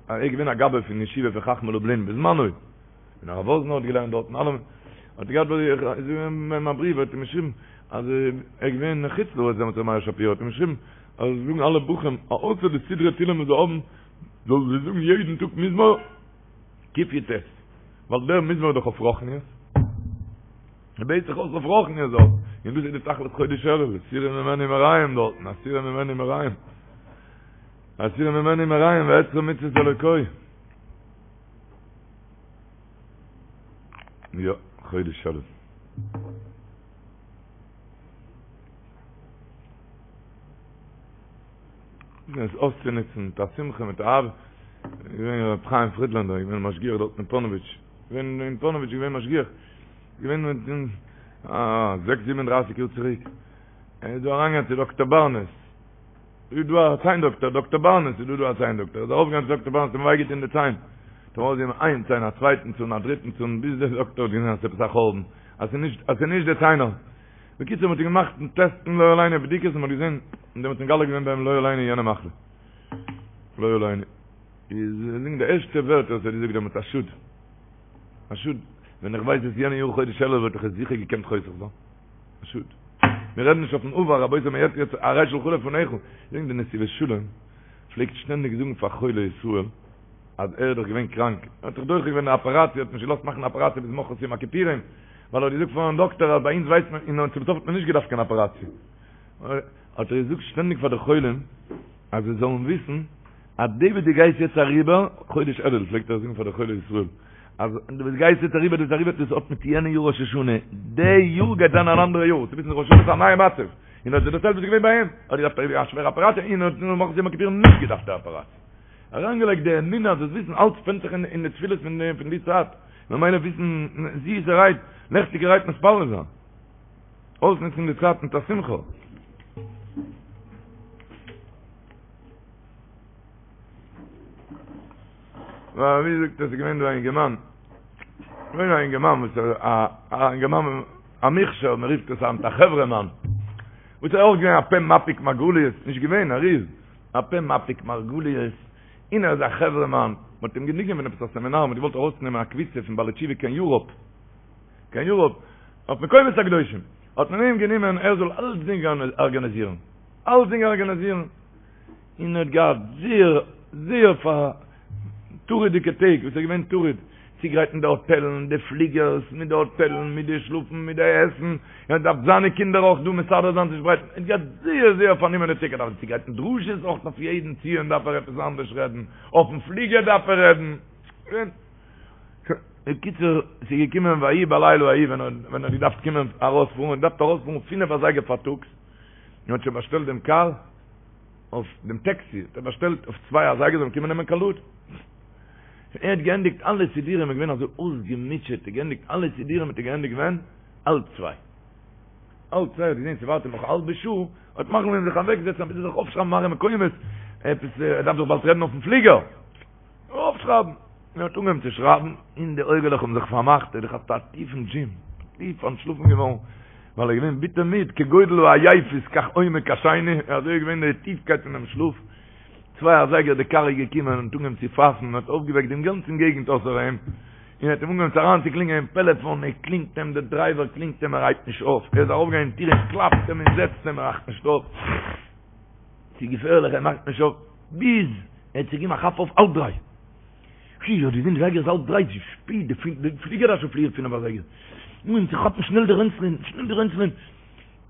ער איז געווען א גבאי פון ישיבה פון חכמי לובלין בזמנו. און הרב וואזנער האט געלערנט דארט און אלעם, האט ער געהאט ביי זיך, איז געווען א בריוו האט אים געשריבן אז ער איז געווען אין חוץ לארץ דעמאלטס ר' מאיר שפירא האט אים געשריבן אז זאגן אלע בחורים אז אויסער די סדרי תהילים וואס זיי האבן זאלן זיי זאגן יעדן טאג מזמור קי"ט, ווייל דער מזמור איז דאך אויף רוחניות, ער בעט זיך אויס אויף רוחניות דארט, און דאס איז די תכלית חודש אלול, הסירו ממני מרעים דארטן, הסירו ממני מרעים, הסירו ממני מרעים ואצרה מצות אלוקי. יא, חודש אלול. עס אויסצונוצן מיט א שמחה מיט אהבה. געווען ר' חיים פרידלענדער, געווען משגיח דארט אין פאנאוויטש. געווען אין פאנאוויטש געווען משגיח. געווען מיט א זעקס זיבן און דרייסיג יאר צוריק. ער איז דא אריינגעגאנגען צו דאקטער בארנעס. איז דא א ציין דאקטער, דאקטער בארנעס איז דא דא א ציין דאקטער, איז ארויף געגאנגען צו דאקטער בארנעס האט אים וויי געטון די ציין, האט אים ארויסגעגעבן איין ציין א צווייטן צאן א דריטן צאן, ביז דער דאקטער האט געזען אז ס'איז עפעס א חורבן, אז ס'איז נישט אז ס'איז נישט די ציינער. בקיצור מ'האט אים געמאכט טעסטן לא עלינו בדיקות און מ'האט געזען, און דעמאלטס נתגלה געווען ביי אים לא עלינו יענע מחלה. לא עלינו. איז זאגן די ערשטע ווערטער וואס ער האט געזאגט דעמאלטס א שאד. א שאד. ווען איך ווייס עס יענע יאר חודש אלול וואלט איך עס זיכער געקענט חוסך זיין. א שאד. מיר רעדן נישט אויפן עבר, רבותי מען רעדט יעצט הרי שלך לפניך. זאגן די נתיבות שלום פלעגט שטענדיג זאגן פאר חולי ישראל אז ער איז דאך געווען קראנק, ער האט זיך דוחה געווען די אפעראציע, האט נישט געלאזט מאכן די אפעראציע ביז ממחרת יום הכיפורים, ווייל ער האט געזאגט פארן דאקטער אז ביי אונז ווייסט מען, און צום סוף האט מען נישט געדארפט קיין אפעראציע. האט ער געזאגט שטענדיג פאר די חולים אז זיי זאלן וויסן אז די וואס דו גייסט יעצט אריבער, חודש אלול פלעגט ער זאגן פאר די חולי ישראל, אז די וואס גייסט יעצט אריבער דאס אריבער דאס האט מיט יענע יאר ראש השנה, די יאר גייט זיין אן אנדערע יאר, צו וויסן ראש השנה איז א נייע מצב, און האט דערציילט וואס איז געווען ביי אים, האט געדארפט אריבער א שווערע אפעראציע און האט ממחרת יום הכיפורים נישט געדארפט די אפעראציע. אריינגעלייגט די אמונה אז דאס וויסן אלץ ווענדט זיך אין די תפילות פון די צייט, ממילא וויסן זיסערהייט, לעכטיגערהייט מתפלל זיין. אויסנוצן די צייט מיט א שמחה. ווייל ווי זאגט עס איז געווען דא א אינגערמאן, געווען א אינגערמאן וואס איז א א אינגערמאן א מוכשר, מען רופט עס היינט א חברה מאן, וואס איז אויך געווען א פה מפיק מרגליות, נישט געווען, ער איז א פה מפיק מרגליות, און ער איז א חברה מאן, מען האט אים גענומען פון עפעס א סעמינאר, מען האט געוואלט ארויסנעמען א קבוצה פון בעלי תשובה קיין יוראפ, קיין יוראפ, אויף מקומות הקדושים, האט מען אים גענומען ער זאל אלצדינג ארגאניזירן, אלצדינג ארגאניזירן. און ער האט געהאט זייער זייער פאר טרוד'דיגע טעג וואס ער איז געווען טרוד צוגרייטן די האטעלן, די פליגערס, מיט די האטעלן, מיט די שלאפן, מיט די עסן, ער האט געדארפט זיינע קינדער אויך דא מסדר זיין צושפרייטן, ער האט געהאט זייער זייער פארנומענע טעג, ער דארף צוגרייטן דרשות אויך אויף יעדן ציון דארף ער עפעס אנדערש רעדן, אויפן פליגער דארף ער רעדן. בקיצור, ס'איז געקומען ויהי בלילה ההוא ווען ער האט געדארפט קומען ארויספארן, ער האט געדארפט ארויספארן פינף אזייגער פארטאגס, און האט שוין באשטעלט דעם קאר, אויף דעם טעקסי האט ער באשטעלט אויף צוויי אזייגער זאל מען קומען נעמען קיין לוד. ער האט געענדיגט אלע סידורים איז געווען אזוי אויסגעמוטשעט, ער האט געענדיגט אלע סידורים האט ער געענדיגט ווען? האלב צוויי. האלב צוויי האט געזען ס'ווארט אים נאך א האלבע שעה, האט מחליט געווען זיך אוועקזעצן אביסל זיך אויפשרייבן מראה מקומות, עפעס ער דארף דאך באלד רעדן אויפן פליגער. אויפשרייבן. ער האט אנגעהויבן צו שרייבן, און די אויגעלעך האבן זיך פארמאכט, ער האט געכאפט א טיפן דזשים, טיף אנטשלאפן געווארן, ווייל ער איז געווען ביטער מיד, כגודל העייפות כך עומק השינה, אזוי איז געווען די טיפקייט פונעם שלאף. צוויי אזייגער די קאר איז געקומען און האט אנגעהויבן צו פייפן און האט אויפגעוועקט דעם גאנצן געגנט אויסער אים, און האט אים אנגעהויבן צו אריינצוקלינגען אין פעלעפאן, ער קלינגט אים, דער דרייווער קלינגט אים ער הייבט נישט אויף, ער איז ארויפגעגאנגען אין טיר און קלאפט אים און זעצט אים ער מאכט נישט אויף, ס'איז געפערליך ער מאכט נישט אויף, ביז ער האט זיך געגעבן א כאפ אויף האלב דריי, פי, האט געזען די זייגער איז האלב דריי, ס'איז שפעט, די פליגער דארף שוין פליען פינף אזייגער, אנגעהויבן צו כאפן שנעל די רענצלען, שנעל די רענצלען.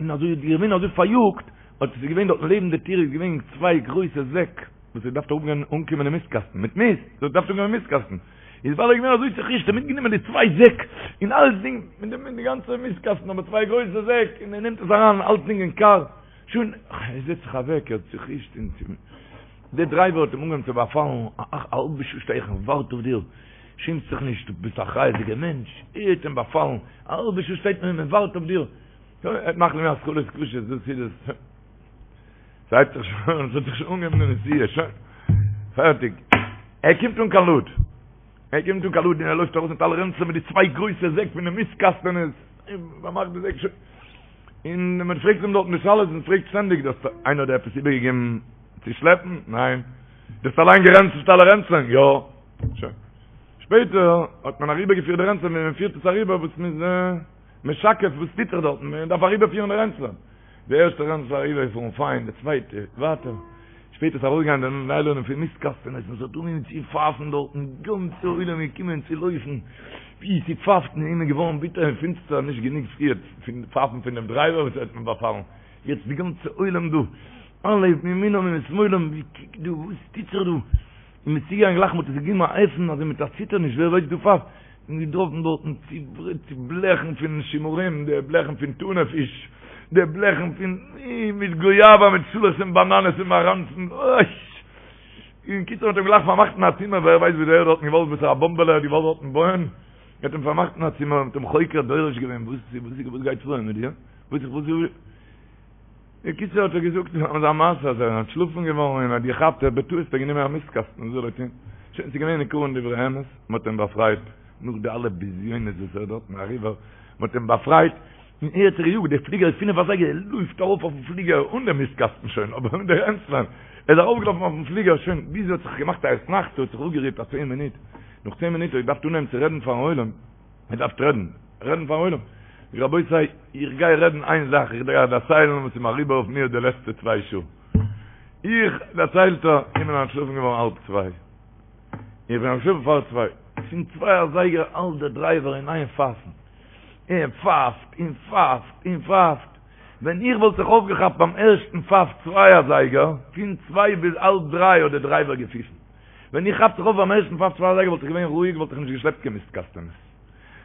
און אזוי איז געווען אזוי פאריאגט, האט עס איז געווען דארטן לעבן די טיר איז געווען צוויי גרויסע זעק וואס האט געדארפט אראפגיין אנקומען אין מיסט קאסטן מיט מיסט, עס האט געדארפט אנקומען אין מיסט קאסטן, איז ווייל ער איז געווען אזוי צוחישט האט מיטגענומען די צוויי זעק און אלצדינג מיט די מיט די גאנצע מיסט קאסטן אבער צוויי גרויסע זעק און ער נעמט עס אריין אלצדינג אין קאר, שוין ער זעצט זיך אוועק ער האט צוחישט און צו די דרייווער האט אים אנגעהויבן צו באפאלן, א האלבע שעה שטיי איך און ווארט אויף דיר, שעמסט זיך נישט דו ביסט א אחריות'דיגער מענטש, ער האט אים באפאלן, א האלבע שעה שטייט מען און מען ווארט אויף דיר. ער מאכט מיר התחלות קשות, דאס איז עס. ס'הייבט זיך שוין אן, ס'האט זיך שוין אנגעהויבן די נסיעה, שוין. פערטיג. ער קומט אן קיין לוד. ער קומט אן קיין לוד און ער לויפט ארויס מיט אלע רענצלען מיט די צוויי גרויסע זעק פון די מיסט קאסטענעס. און מ'מאכט די זעק שוין. און מען פרעגט אים דארטן די שאלות, מען פרעגט שטענדיג, דו האסט איינער האט דיר עפעס איבערגעגעבן צו שלעפן? ניין. דו האסט אליין גערענצלט אלע רענצלען? יא. שוין. שפעטער האט מען אריבערגעפירט די רענצלען, ווי מען פירט עס אריבער וואס מ'איז. משקף וואס טוט זיך דארטן, מען דארף אריבערפירן די רענצלען, די ערשטע רענצל אריבערגעפארן פיין, די צווייטע ווייטער, שפעטער איז ארויסגעגאנגען די ניילאנען פון מיסט קאסטענעס און ס'האט אנגעהויבן צו פייפן דארטן, גאנצע עולם איז געקומען צו לויפן, ווי ס'פייפט און אים איז געווארן ביטער און פינסטער, נישט גענוג פריער פון פייפן פון דעם דרייווער וואס האט מען באפאלן, יעצט די גאנצע עולם דא, אלע מימינם ומשמאלם, ווי קוק דא וואס טוט זיך דא, און מ'איז צוגעגאנגען גלייך מ'האט עס געגעבן א עפן אזוי מיט א ציטערניש ווער ווייסט דא פייפט, און געטראפן דארטן צו בלעכן פון שימורים, די בלעכן פון טונא פיש, די בלעכן פון מיט גויאווא מיט שאלעכץ און באנאנעס און מאראנצן, אוי! און קיצור מ'האט אים גלייך פארמאכט אין א צימער, ווער ווייסט וואס ער האט דארטן געוואלט, וואסערע באמבעלע ער האט געוואלט דארטן בויען, מ'האט אים פארמאכט אין א צימער, מ'האט אים חוקר דורש געווען, וואס וואס גייט פאר מיט דיר? וואס וואס בקיצור האט ער געזאגט אזא מעשה אז ער איז אנטשלאפן געווארן און האט געכאפט ער האט בטעות האט ער גענומען א מיסט קאסטן וואס זאל ער טון שוין ס'איז געווען ניכר דברי אמת מען האט אים באפרייט נאך די אלע בזיונות וואס ער האט דארטן אריבער מען האט אים באפרייט און ער האט זיך געיאגט די פליגער איז פינף אזייגער ער לויפט ארויף אויפן פליגער אן די מיסט קאסטן שוין אבער מיט די רענצלען ער איז ארויפגעלאפן אויפן פליגער שוין ביז ער האט זיך געמאכט א אתנחתא האט זיך אפגערוהט א צען מינוט נאך צען מינוט האט ער געדארפט אנהייבן צו רעדן פארן עולם מען דארף רעדן, רעדן פארן עולם. זאג רבותי, איך גיי רעדן איין זאך, איך גיי דערציילן וואס איז מיר אריבער אויף מיר די לעצטע צוויי שעה. איך, דערציילט ער, איך בין אנטשלאפן געווארן האלב צוויי. איך בין אנטשלאפן פאר צוויי. פון צוויי אזייגער האלט דער דרייווער אין איין פייפן. און פייפט, און פייפט, און פייפט. ווען איך וואלט זיך אויפגעכאפט ביים ערשטן פייף צוויי אזייגער, פון צוויי ביז האלב דריי האט דער דרייווער געפיפן. ווען איך כאפ זיך אויף ביים ערשטן פייף צוויי אזייגער וואלט איך געווען רואיג וואלט איך נישט געשלעפט קיין מיסט קאסטענעס.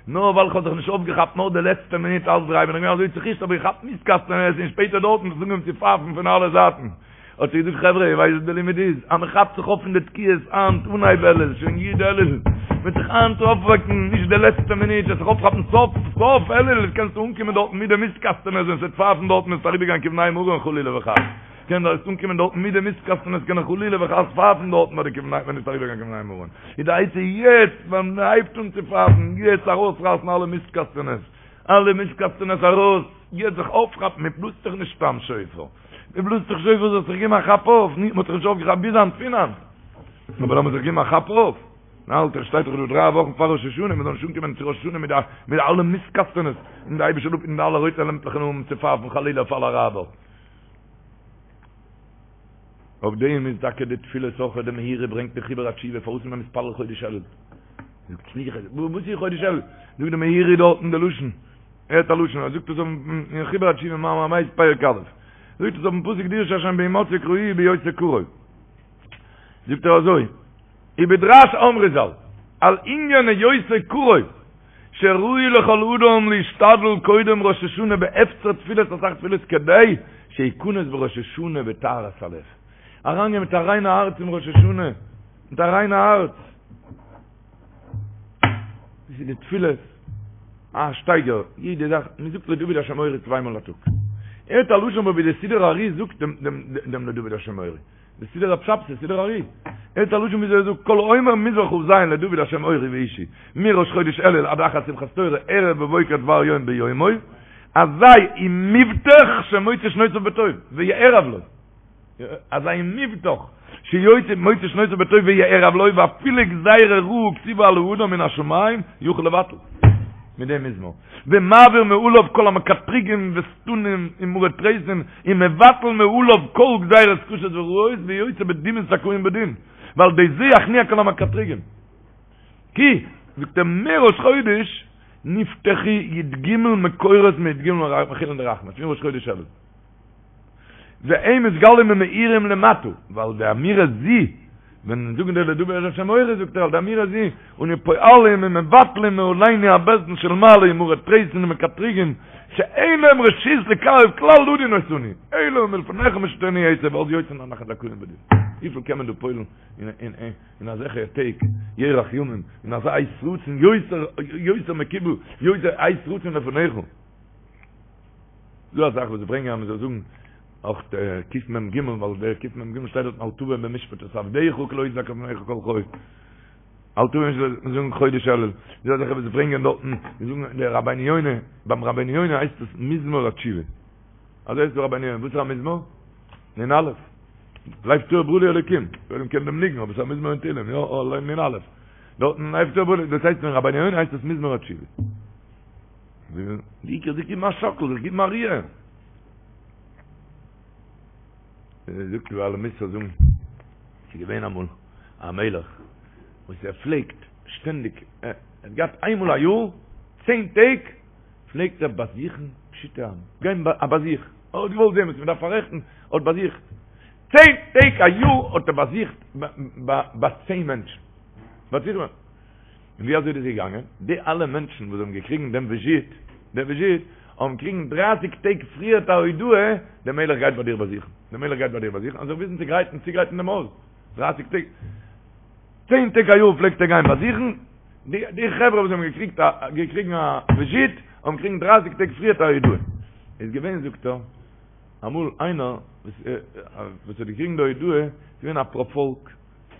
נאר ווייל איך האב זיך נישט אויפגעכאפט נאר די לעצטע מינוט האלב דריי בין איך געווען אזוי צוחישט האב איך געכאפט מיסט קאסטענעס און שפעטער דארטן האט עס אנגעהויבן צו פייפן פון אלע זייטן. האט ער געזאגט חברה איר ווייסט וואס די לימוד איז? אז מען כאפט זיך אויף פון די תקיעות היינט אנהייב אלול שוין י' אלול מ'וועט זיך היינט אויפוועקן נישט די לעצטע מינוט וועסט זיך אויפכאפן סוף סוף אלול קענסטו אנקומען דארטן מיט די מיסט קאסטענעס ווען ס'וועט פייפן דארטן וועסטו אריבערגיין כבני מרון חלילה וחס. קען דארט אנקומען דארטן מיט די מיסטקאסטן עס קען חלילה וחס פייפן דארטן ביי די כבני ווען עס אריבערגיין כבני מרון איז די עצה יעצט ווען מען הייבט אן צו פייפן יעצט ארויסרייסן אלע מיסטקאסטענעס אלע מיסטקאסטענעס ארויס יעצט זיך אויפכאפן מען בלאזט דאך נישט סתם שופר מען בלאזט דאך שופר זאלסט זיך געבן א כאפ אויף נישט מען האט זיך נישט אויפגעכאפט ביז היינט פון היינט אבער לאמיר זיך געבן א כאפ אויף האלט ער שטייט דאך דא דריי וואכן פאר ראש השנה מען זאל נישט אנקומען צו ראש השנה מיט די מיט אלע מיסטקאסטענעס און די אייבישטער זאל אפהיטן די אלע רויטע לעמפלעך און אנהויבן צו פייפן חלילה אויף אלע אראבער. אויף דעם איז טאקע די תפילות אויך די מאירי ברענגט אין חיבור התשובה פארוואס איז מען מתפלל חודש אלול זאגט סליחה וואס איז חודש אלול זאגט די מאירי דארטן די לשון ער האט א לשון ער זאגט עס אין חיבור התשובה מאמר הבית פרק א' זאגט עס אויפן פסוק דרשו השם בהמצאו קראוהו בהיותו קרוב זאגט ער אזוי ובדרש אמרו ז"ל על ענין היותו קרוב שראוי לכל אדם להשתדל קודם ראש השנה בהפצר תפילות אסאך תפילות כדי שיכנס בראש השנה בטהרת הלב. אריינגיין מיט א ריינע הארץ אין ראש השנה, מיט א ריינע הארץ. דאס איז די תפילות, א שטייגער, יעדע זאך, מען זאגט לדוד השם אורי צוויי מאל א טאג. הערט א לשון ווי די סידור הארי זאגט דעם דעם לדוד השם אורי. די סידור רב שבתי, סידור הארי. הערט א לשון וויאזוי ער זאגט, כל האומר מזמור כ"ז לדוד השם אורי וישעי, מראש חודש אלול עד אחר שמחת תורה, ערב ובוקר דבר יום ביומו, אזי הוא מובטח שמוצא שנותיו בטוב, ויערב לו. אזי מובטח שיוצא מוציא שנותיו בטוב ויערב לו ואפילו גזירה רעה כתובה על האדם מן השמים יוכל לבטל מיט דעם מזמור ומעביר מעליו כל המקטריגים ושטנים ומרי תריסין ומבטל מעליו כל גזירות קשות ורעות ויוצא בדומים זכאים בדין ועל ידי זה יכניע כל המקטריגים כי זאגט ער מראש חודש נפתחו י"ג מקורות מי"ג מחילין דרחמי פון ראש חודש אלול. והם מתגלים ומאירים למטה, ועל ידי אמירה זו, ווען זאגן די לדוד השם אורי זאגט ער על ידי אמירה זו, אנו פועלים ומבטלים מעלינו הבית דין של מעלה ומרי תריסין ומקטריגים, שאין להם רשות לקרב כלל לדון אותנו, אלא מלפניך משיתנו עצה ואז יוצאים אנחנו זכאים בדין. וויפיל קען מען דא פועל'ן אין אזעלכע טעג, ירח ימים, אין אזא עת רצון יותר מקובל, יותר עת רצון לפניך. דא א זאך וואס זיי ברענגען אז מען זאל זאגן אויך קמ"ג ווייל דער קמ"ג שטייט דארט אל תבא במשפט את עבדך כי לא יצדק לפניך כל חי אל תבא במשפט מען זאגן חודש אלול דא א זאך וואס זיי ברענגען דארטן זיי זאגן דער רבינו יונה ביים רבינו יונה הייסט עס מזמור התשובה אזוי הייסט דער רבינו יונה וואס איז א מזמור? נ"א לב טהור ברא לי אלוקים ווער קען דעם ניגון אבער עס איז א מזמור אין תהילים יא נ"א דארטן לב טהור ברא לי דאס הייסט אין רבינו יונה הייסט עס מזמור התשובה די עיקר זיך גיבן א שאקל, זיך גיבן א ריר. זאגט די בעלי מוסר זאגן, ס'איז געווען אמאל א מלך וואס ער פלעגט שטענדיג, ער האט געהאט איינמאל א יאר, צען טעג, פלעגט ער באזוכן פשוטי עם, גיין א באזוך, ער האט געוואלט זען וואס מען דארף פאררעכטן, ער האט באזוכט, צען טעג א יאר האט ער באזוכט ביי צען מענטשן, באזוכט. און ווי אזוי איז דאס געגאנגען? די אלע מענטשן וואס האבן געקריגן דעם וויזיט, דעם וויזיט, האבן געקריגן דרייסיג טעג פריערט א הודעה, דער מלך גייט ביי דיר באזוכן, דער מלך גייט ביי דיר באזוכן, אז זיך וויסן צו גרייטן, צוגרייטן דעם הויז, דרייסיג טעג, צען טעג א יאר פלעגט ער גיין באזוכן, די די חברה וואס האבן געקריגט א געקריגן א וויזיט, האבן געקריגן דרייסיג טעג פריערט א הודעה. איז געווען זאגט ער, אמאל איינער וואס וואס האט געקריגן די הודעה, איז געווען א פארפאלק,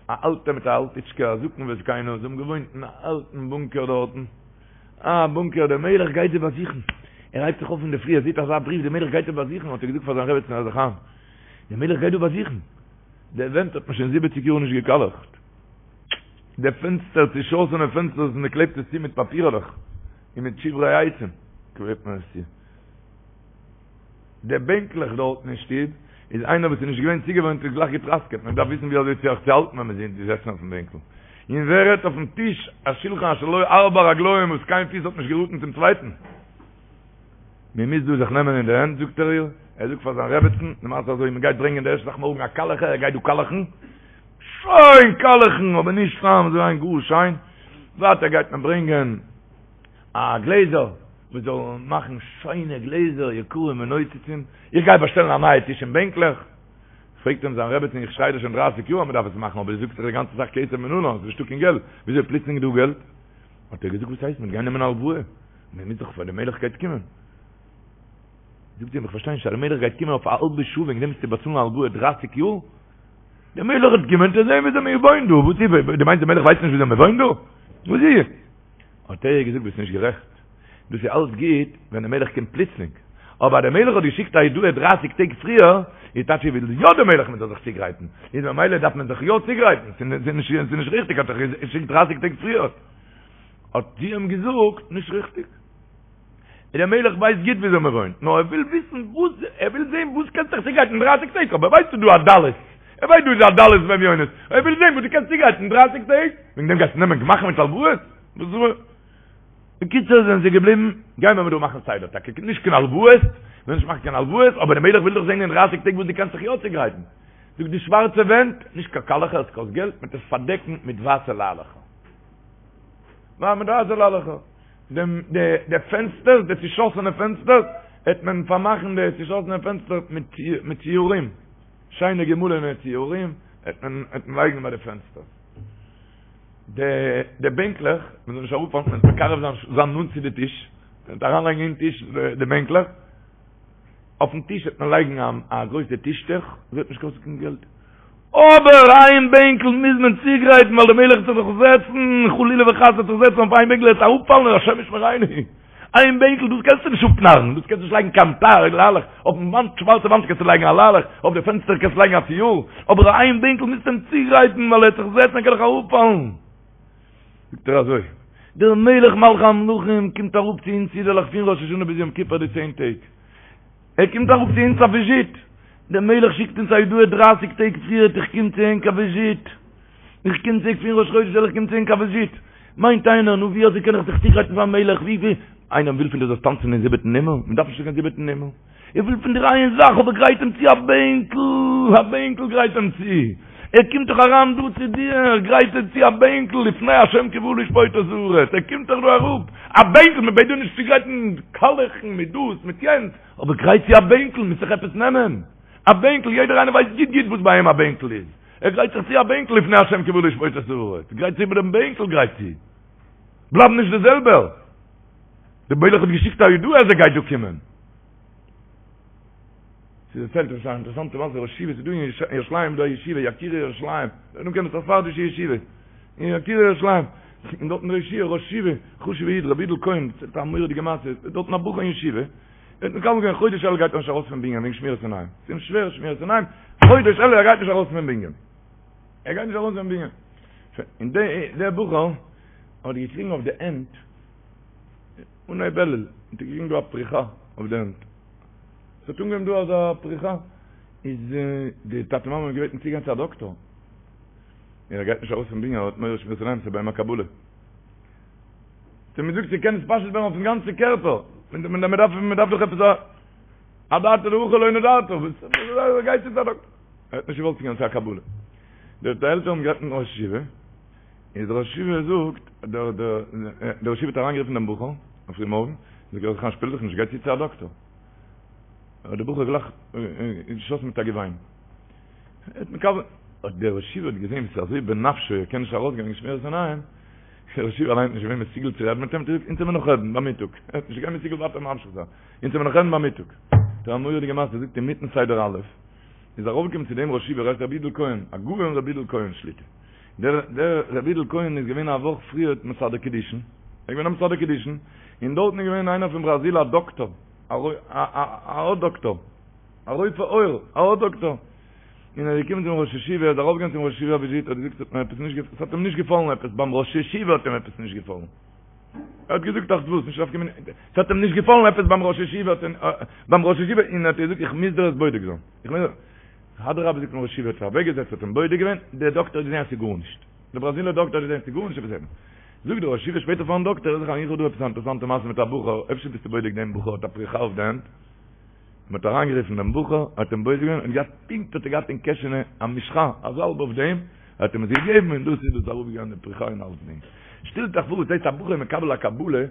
א אלטע מיט א אלטיטשקע, א זקן וזקנה, זיי האבן געוואוינט אין א אלטן בונקער דארטן, א בונקער, דער מלך גייט זיי באזוכן, ער הייבט זיך אויף אינדערפרי, ער זעט אזא בריוו, דער מלך גייט זיי באזוכן, האט ער געזאגט פאר זיין רעבעצן הער זיך איין, דער מלך גייט דא באזוכן, די ווענט האט מען שוין זיבעציג יאר נישט געקאלעכט, די פענסטער, צעשאסענע פענסטערס, מען קלעבט עס צו מיט פאפירעלעך, און מיט שברי עצים קלעבט מען עס צו. די בענקלעך דארטן אין שטוב, איז איינער וואס איז נישט געווען צוגעוואוינט איז גלייך געטראסקעט, מען דארף וויסן ווי אזוי זיך צו האלטן ווען מען איז געזעסן אויפן בענקל. און ווער רעדט אויפן טיש, א שלחן אשר לו ארבע רגליים וואס קיין פיס האט נישט געראטן צום צווייטן. מען מוז דא זיך נעמען אין די הענט זאגט ער איר, ער זאגט פאר זיין רעבעצן, למעשה אזוי, מען גייט ברענגען די ערשטע זאך מארגן א קאלעכער, ער גייט דא קאלעכן, שיין קאלעכן, אבער נישט סתם, אזוי איין גאר שיין, ווייטער גייט מען ברענגען א גלעזער וואס זאל מאכן שיינע גלעזער יקרים ונוצצים, איך גיי באשטעלן א נייע טיש און בענקלעך, פרעגט אים זיין רעבעצין איך שריי דיר שוין דרייסיג יאר אז מען דארף עס מאכן אבער דו זאגסט דאך די גאנצע זאך כסף מנלן, עס איז נישטא קיין געלט, וויאזוי פלוצלינג איז דא געלט? האט ער געזאגט וואס הייסט מען גייט נעמען א הלוואה, מען מוז דאך פאר די מלך גייט קומען, זאגט זי אים איך פארשטיי נישט אז די מלך גייט קומען אויף א האלבע שעה וועגן דעם מוזטו באצאלן א הלוואה דרייסיג יאר? די מלך וועט קומען צו זען וויאזוי מען וואוינט דא, וואס איז, דו מיינסט די מלך ווייסט נישט וויאזוי מען וואוינט דא? וואס איז? האט ער איר געזאגט ביסט נישט גערעכט, דאס איז אלץ גוט ווען דער מלך קומט פלוצלינג, אבער אז דער מלך האט געשיקט א הודעה דרייסיג טעג פריער, איז טייטש ער וויל יא דער מלך מען זאל זיך צוגרייטן, איז ממילא דארף מען זיך יא צוגרייטן, ס'איז נישט ריכטיג האט ער געשיקט דרייסיג טעג פריער. האט זי אים געזאגט, נישט ריכטיג. דער מלך ווייסט גוט וויאזוי מען וואוינט, נאר ער וויל וויסן וואס, ער וויל זען וואס קענסט זיך צוגרייטן דרייסיג טעג, אבער ער ווייסט ס'איז דא א דלות, ער ווייסט דא איז א דלות ואביונות, ער וויל זען וואס דו קענסט צוגרייטן דרייסיג טעג, וועגן דעם גייסטו נעמען גמ"חים מיט הלוואות? בקיצור זענען זיי געבליבן, גייען מיר דא מאכן סדר, טאקע נישט קיין הלוואות, מ'וויל נישט מאכן קיין הלוואות, אבער דער מלך וויל דאך זען אין דרייסיג טעג וואס דו קענסט זיך יא צוגרייטן. זאגט די שווארצע ווענט, נישט קיין קאלעכער, עס קאסט געלט, מ'וועט עס פארדעקן מיט ווייסע ליילעכער. מיט ווייסע ליילעכער. דעם די די פענסטערס די צושאסענע פענסטערס העט מען פארמאכן די צושאסענע פענסטער מיט מיט ציורים שיינע געמאלענע ציורים העט מען העט מען לייגן ביי די פענסטערס די די בענקלעך מען זאל נישט אראפפאלן מען זאל מקרב זיין זיין נאנט צו די טיש מען וועט אריינלייגן אין טיש די בענקלעך אויפן טיש וועט מען לייגן א גרויסע טישטוך, עס וועט נישט קאסטן קיין געלט. אבער איין בענקל מוז מען צוגרייטן ווייל דער מלך וועט זיך דאך זעצן, חלילה וחס וועט זיך זעצן אויף איין בענקל ער וועט אראפפאלן השם ישמרינו. איין בענקל, דאס קענסטו נישט אפנארן, דאס קענסטו נישט לייגן קיין טאר, ליילעך, אויפן וואנט, שווארצע וואנט קענסטו לייגן א ליילעך, אויף די פענסטער קענסטו לייגן א ציור, אבער איין בענקל מוזטו אים צוגרייטן, ווייל ער וועט זיך זעצן ער קען דאך אראפפאלן. זאגט ער אזוי, דער מלך מלכי המלכים קומט אראפ צו אונז אידעלעך פון ראש השנה ביז יום כיפור די צען טעג, ער קומט אראפ צו אונז א וויזיט, דער מלך שיקט אונז א הודעה דרייסיג טעג פריערט איך קום צו ענק א וויזיט, איך קום צו ענק פון ראש חודש אלול איך קום צו ענק א וויזיט, מיינט איינער נו ווי אזוי קען איך זיך צוגרייטן פארן מלך, ווי ווי, איינער וויל פון דיר זאלסט טאנצן אין זיבעטן הימל, מען דארף נישט קיין זיבעטן הימל, ער וויל פון דיר איין זאך אבער גרייט אים צו א בענקל, א בענקל גרייט אים צו, ער קומט דאך אריין דא צו דיר, גרייט אים צו א בענקל, לפני השם כי בא לשפוט את הארץ, ער קומט דאך דא אראפ, א בענקל, מען בעט דיר נישט צוגרייטן קאלעכן מיט דאס מיט יענץ, אבער גרייט צו א בענקל, מוזט זיך עפעס נעמען, א בענקל, יעדער איינער ווייסט גוט גוט וואס ביי אים א בענקל איז, ער גרייט זיך צו א בענקל לפני השם כי בא לשפוט את הארץ, גרייט צו איבער דעם בענקל גרייט צו, בלייב נישט די זעלבער, דער מלך האט געשיקט א הודעה אז ער גייט דא קומען. ס'דערציילט עפעס א אינטערעסאנטע מעשה, ראש ישיבה, ס'איז דא אין ירושלים דא א ישיבה, יקירי ירושלים, נו קען עס א ספרדישע ישיבה, אין יקירי ירושלים, און דארטן דער ישיבה, ראש ישיבה, חשוב'ע איד, רבי יודל כהן, דערציילט א מורא'דיגע מעשה, איז דארטן א בחור אין ישיבה, ער האט מקבל געווען חודש אלול גייט ער נישט ארויס פון בנין וועגן שמירת עיניים, ס'איז אים שווער שמירת עיניים, חודש אלול ער גייט נישט ארויס פון בנין, ער גייט נישט ארויס פון בנין, און דער בחור האט געקריגן אויף די הענט, אנהייב אלול האט ער געקריגן דא א פריחה אויף די הענט, עס האט אנגעהויבן דא אזא פריחה, איז די טאטע מאמע האבן געבעטן צוגיין צו א דאקטאר, און ער גייט נישט ארויס פון בנין, ער האט מורא שמירת עיניים, ס'איז ביי אים א קבלה. האט מען געזאגט ס'קען נתפשט ווערן אויפן גאנצן קערפער, מען דארף מען דארף דאך עפעס א אדעתא דהכי לא נדרת, וואס גייט צו א דאקטאר? ער האט נישט געוואלט צוגיין צו א קבלה. די עלטערן האבן גערעדט מיטן ראש ישיבה, איז דער ראש ישיבה זאגט, דער דער דער ראש ישיבה האט אריינגערופן דעם בחור אויף פרימארגן, זאגט ער זיך שפיל זיך נישט, גיי צו צו א דאקטאר. האט דער בחור גלייך געשאסן מיט א געוויין. ער האט מקבל, האט דער ראש ישיבה האט געזען ווי ס'איז אזוי בנפשו, ער קען נישט ארויסגיין וועגן שמירת עיניים, דער ראש ישיבה אליין איז נישט געווען מסוגל צו רעדן מיט אים, האט ער געזאגט, אונז וועלן מיר נאך רעדן ביי מיטאג. ער האט נישט געווען מסוגל ווייטער ממשיך זיין. אונז וועלן מיר נאך רעדן ביי מיטאג. דער א מורא'דיגע מעשה, זאגט אינמיטן סדר א', איז ארויפגעקומען צו דעם ראש ישיבה, ר' יודל כהן, הגאון ר' יודל כהן שליט"א. דער דער ר' יודל כהן איז געווען א וואך פריער מסדר קידושין, ער איז געווען א מסדר קידושין, און דארטן איז געווען איינער פון בראזיל א דאקטאר, א א א דאקטאר, א רופא עור, א דאקטאר, און ער איז געקומען צום ראש ישיבה, ער איז ארויפגעגאנגען צום ראש ישיבה א וויזיט, האט געזאגט ס'האט מיר עפעס נישט געפ, ס'האט אים נישט געפאלן עפעס, ביים ראש ישיבה האט אים עפעס נישט געפאלן, ער האט געזאגט אך וואס, נישט נפקא מינה, ס'האט אים נישט געפאלן עפעס ביים ראש ישיבה, ביים ראש ישיבה, און ער האט געזאגט איך מוז דיר עס בודק זיין, איך מוז. אדרבה זאגט דער ראש ישיבה האט זיך אוועקגעזעצט האט אים בודק געווען, דער דאקטער האט געזען אז ס'איז גארנישט, דער בראזילער דאקטער האט געזען ס'איז גארנישט עפעס עפעס, זאגט דער ראש ישיבה שפעטער פארן דאקטער, זיך איך האב דא עפעס א אינטערעסאנטע מעשה מיט א בחור, אפשר ביסטו בודק דעם בחור האט א פריחה אויף די הענט, מען האט אריינגערופן דעם בחור, האט אים בודק געווען, און געהאט פונקט האט ער געהאט אין קעשענע א משחה, א זאלב אויף דעם, האט אים עס געגעבן און דאס איז דאס אראפגעגאנגען די פריחה און אלסדינג. שטעלט אייך פאר וואס הייסט א בחור איז מקבל א קבלה,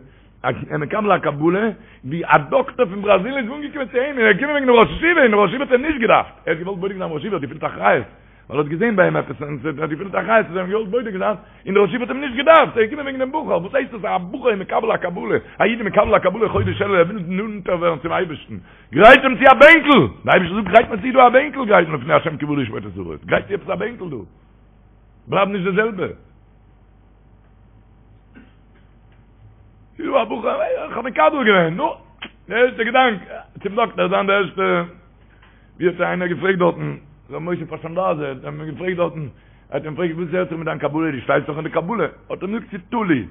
ער מקבל א קבלה ווי א דאקטער פון בראזיל איז אנגעקומען צו אים און ער איז געקומען וועגן דעם ראש ישיבה און דער ראש ישיבה האט אים נישט געדארפט, ער האט געוואלט בודק זיין ראש ישיבה האט געפילט אחריות ווייל ער האט געזען ביי אים עפעס און ער האט געפילט אחריות האט ער אים געוואלט בודק זיין און דער ראש ישיבה האט אים נישט געדארפט ער איז געקומען וועגן דעם בחור, וואס הייסט דאס א בחור איז מקבל א קבלה, א איד איז מקבל א קבלה חודש אלול ער וויל נאנטער ווערן צום אייבערשטן, גרייט אים צו א בענקל, דער אייבערשטער זאגט גרייט מיר צו דא א בענקל גרייט מיר לפני השם כי בא לשפוט את הארץ, גרייט צו עפעס א בענקל דא, בלייב נישט די זעלבע. ס'איז דא א בחור, איך האב מקבל געווען, נו, די ערשטע געדאנק, צום דאקטער זיין די ערשטע, ווי האט איינער געפרעגט דארטן, ר' משה פאשאנדאזער, האט מען געפרעגט דארטן, ער האט אים געפרעגט וואס הערט זיך מיט דיין קבלה, דו שטייסט דאך אין די קבלה, האט ער אים געזאגט ס'איז תלוי,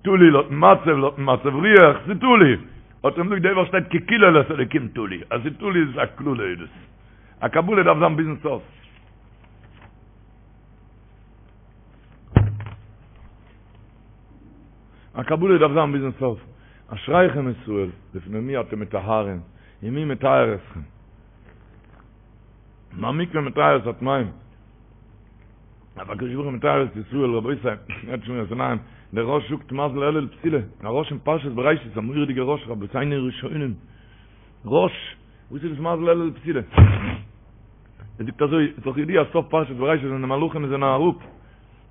תלוי לויטן מצב, לויטן מצב רוח, ס'איז תלוי, האט ער אים געזאגט די וואך שטייט כי קללת אלקים תלוי, אז ס'איז תלוי איז עס א קללה איז דאס, א קבלה דארף זיין ביזן סוף. א קבלה דארף זיין ביזן סוף. אשריכם ישראל, לפני מי אתם מטהרין, ומי מטהר אתכם. מה מקווה מטהר את הטמאים? אף הקדוש ברוך הוא מטהר את ישראל, רבותי, הערט שמירת עיניים, דער רא"ש זאגט מזל אלול בתולה, א רא"ש אין פרשת בראשית, א מורא'דיגע רא"ש, רבותינו הראשונים, רא"ש, וואס איז דאס מזל אלול בתולה? ער זאגט אזוי, איז דאך ידוע סוף פרשת בראשית ווען די מלאכים זענען אראפ,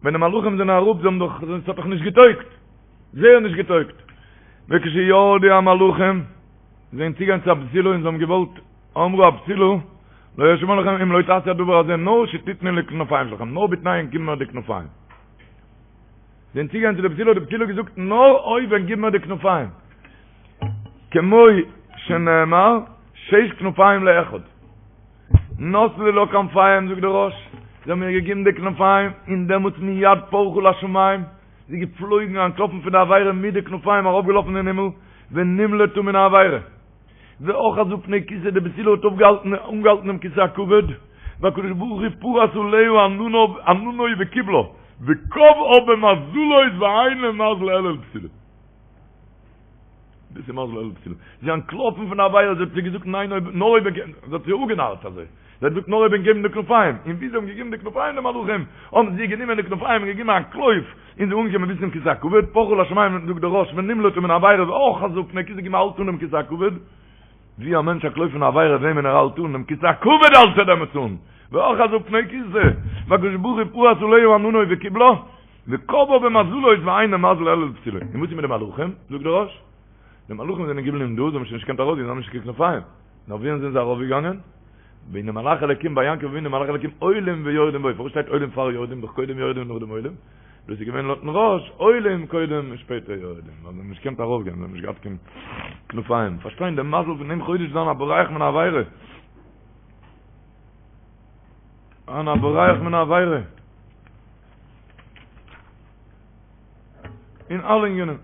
ווען די מלאכים זענען אראפ זיי האבן דאך, עס האט דאך נישט געטויגט, זייער נישט געטויגט, וכשירדו המלאכים, זיי זענען צוגעגאנגען צו א בתולה און זיי האבן געוואלט, אמרה הבתולה, לא אשמע לכם אם לא תעשו הדבר הזה נאר שתתנו לי כנפיים שלכם, נאר בתנאי ענק גיבן מיר די כנפיים. זענען צוגעגאנגען צו די בתולה האט די בתולה געזאגט נאר אויב ענק גיבן מיר די כנפיים. כמו שנאמר שש כנפיים לאחד. נתנו לה כנפיים זאגט דער ראש, זיי האבן איר געגעבן די כנפיים, און דעמאלטס מיד פרחה לשמים, זי איז געפלויגן אנטלאפן פון די עבירה מיט די כנפיים ארויפגעלאפן אין הימל, ונמלטה מן העבירה. ואחזה פני כסא די בתולה האט אויפגעהאלטן אנגעהאלטן דעם כסא הכבוד, והקדוש ברוך הוא פרס עליה ענניו עננו וקיבלה, וקבעה במזלות ואין למזל אלא לבתולה. דאס איז מזל אלא לבתולה. זי איז אנטלאפן פון די עבירה, זי האט זיי געזאגט ניין אויב נאר אויב זי האט זיי אפגענארט אזוי. זי האט געזאגט נאר אויב ענק געבן די כנפיים, און ווי זיי האבן געגעבן די כנפיים די מלאכים, האבן זיי גענומען די כנפיים און געגעבן א אנטלויף, און זי איז אנגעקומען ביז צום כסא הכבוד, פרחה לשמים זאגט דער ראש ונמלטה מן העבירה ואחזה פני כסא געגעבן א האלט אן דעם כסא הכבוד, ווי א מענטש אנטלויפט פון א עבירה וועמען ער האלט אן, דעם כסא הכבוד האלט ער דעמאלטס אן, ואחזה פני כסא, והקדוש ברוך הוא פרס עליה עננו וקיבלה, וקבעה במזלות ואין למזל אלא לבתולה. און וואס איז מיט די מלאכים? זאגט דער ראש, די מלאכים זענען געבליבן דא, זיי האבן שוין נישט געקענט ארויסגיין, זיי האבן נישט קיין כנפיים. נאר ווי זענען זיי ארויפגעגאנגען? והנה מלאכי אלקים ביי יעקב אבינו מלאכי אלקים עולים ויורדים בו, פארוואס שטייט עולים פאר יורדים? דאך קודם יורדים נאכדעם עולים. דאס איז געווען לויטן ראש, עולים קודם און שפעטער יורדים, ווייל זיי האבן נישט געקענט ארויפגיין, זיי האבן נישט געהאט קיין כנפיים. פארשטיין דעם מזל פון דעם חודש זיין א בורח מן העבירה. זיין א בורח מן העבירה. אין אלע ענינים.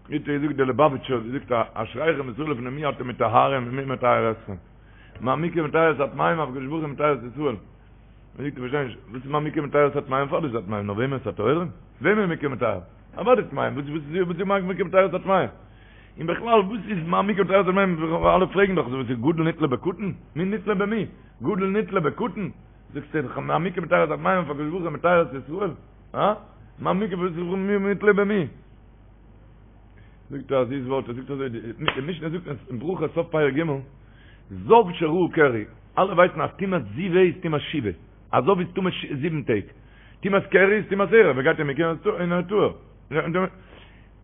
ווי האט געזאגט דער ליובאוויטשער האט געזאגט אשריכם ישראל לפני מי אתם מטהרים ומי מטהר אתכם. מה מקווה מטהר את הטמאים אף הקדוש ברוך הוא מטהר את ישראל. מען זאגט איך פארשטיי נישט, וואס איז מה מקווה מטהר את הטמאים פארוואס איז הטמאים נאר וועמען את הטהורים? וועמען מקווה מטהר? אוודאי טמאים, וואס איז וואס איז מה מקווה מטהר את הטמאים? און בכלל וואס איז מה מקווה מטהר את הטמאים? אלע פרעגן דאך וואס איז גדול נתלה בקטן? מי נתלה במי? גדול נתלה בקטן? זאגסטו דאך מה מקווה מטהר את הטמאים אף הקדוש ברוך הוא מטהר את ישראל? הא? מה מקווה וואס איז מי נתלה במי? זאגט ער א זיס ווארט, ער זאגט אזוי, די משנה זאגט אין ברכות סוף פרק ג', זב שראה קרי, אלע ווייסן אז טומאת זיבה איז טומאת שבעה, א זב איז טמא זיבן טעג, טומאת קרי איז טומאת ערב, ער גייט אין מקווה און ער איז טהור.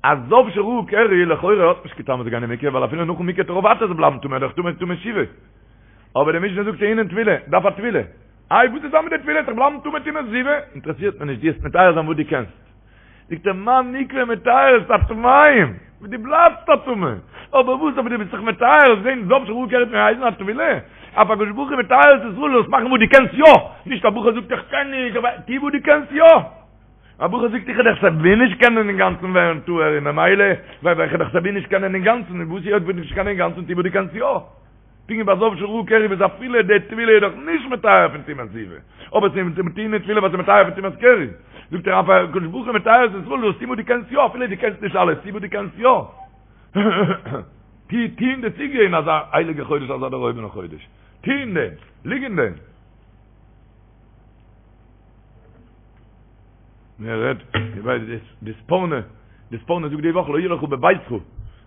א זב שראה קרי לכאורה האט נישט קיין טעם צו גיין אין מקווה, ווייל אפילו נאכן מקווה וועט ער ווייטער בלייבן טמא, דאך טמא טומאת שבעה. אבער די משנה זאגט טעונין טבילה, דארף א טבילה. איי וואס איז דא מיט די טבילה, זיך בלייבן טמא טומאת זיבה? אינטערעסירט מיר נישט, דו וועסט מטהר זיין וואס דו קענסט. זאגט ער מה מקווה מטהר את הטמאים, דו בלייבסט א טמא, אבער וואס אבער דו ביסט זיך מטהר, זען זב שראה קרי האט געהייסן א טבילה, אף הקדוש ברוך הוא מטהר את ישראל זאלסט מאכן וואס דו קענסט יא, נישט א בחור זאגט איך קען נישט, אבער טו וואס דו קענסט יא, א בחור זאגט איך וועל דאך סייווי נישט קענען אינגאנצן ווערן טהור און ממילא ווייל איך וועל דאך סייווי נישט קענען אינגאנצן, און וואס היות וועסט נישט קענען אינגאנצן טו וואס דו קענסט יא. פונקט ווי ביי זב שראה קרי וואס אפילו די טבילה איז דאך נישט מטהר פון טומאת זיבה, אבער ס'איז טעונין טבילה ווייל ס'איז מטהר פון טומאת קרי, זאגט ער אף הקדוש ברוך הוא מטהר את ישראל זאלסט טון וואס דו קענסט יא אפילו דו קענסט נישט אלעס טו וואס דו קענסט יא. טו טו אין די סוגיא אין אזא הייליגע חודש אזא דערהויבענע חודש, טו אין דעם, ליג אין דעם. מען רעדט, איך ווייס די די ספורנו, די ספורנו זאגט די וואך לא יהיה לך בביתך,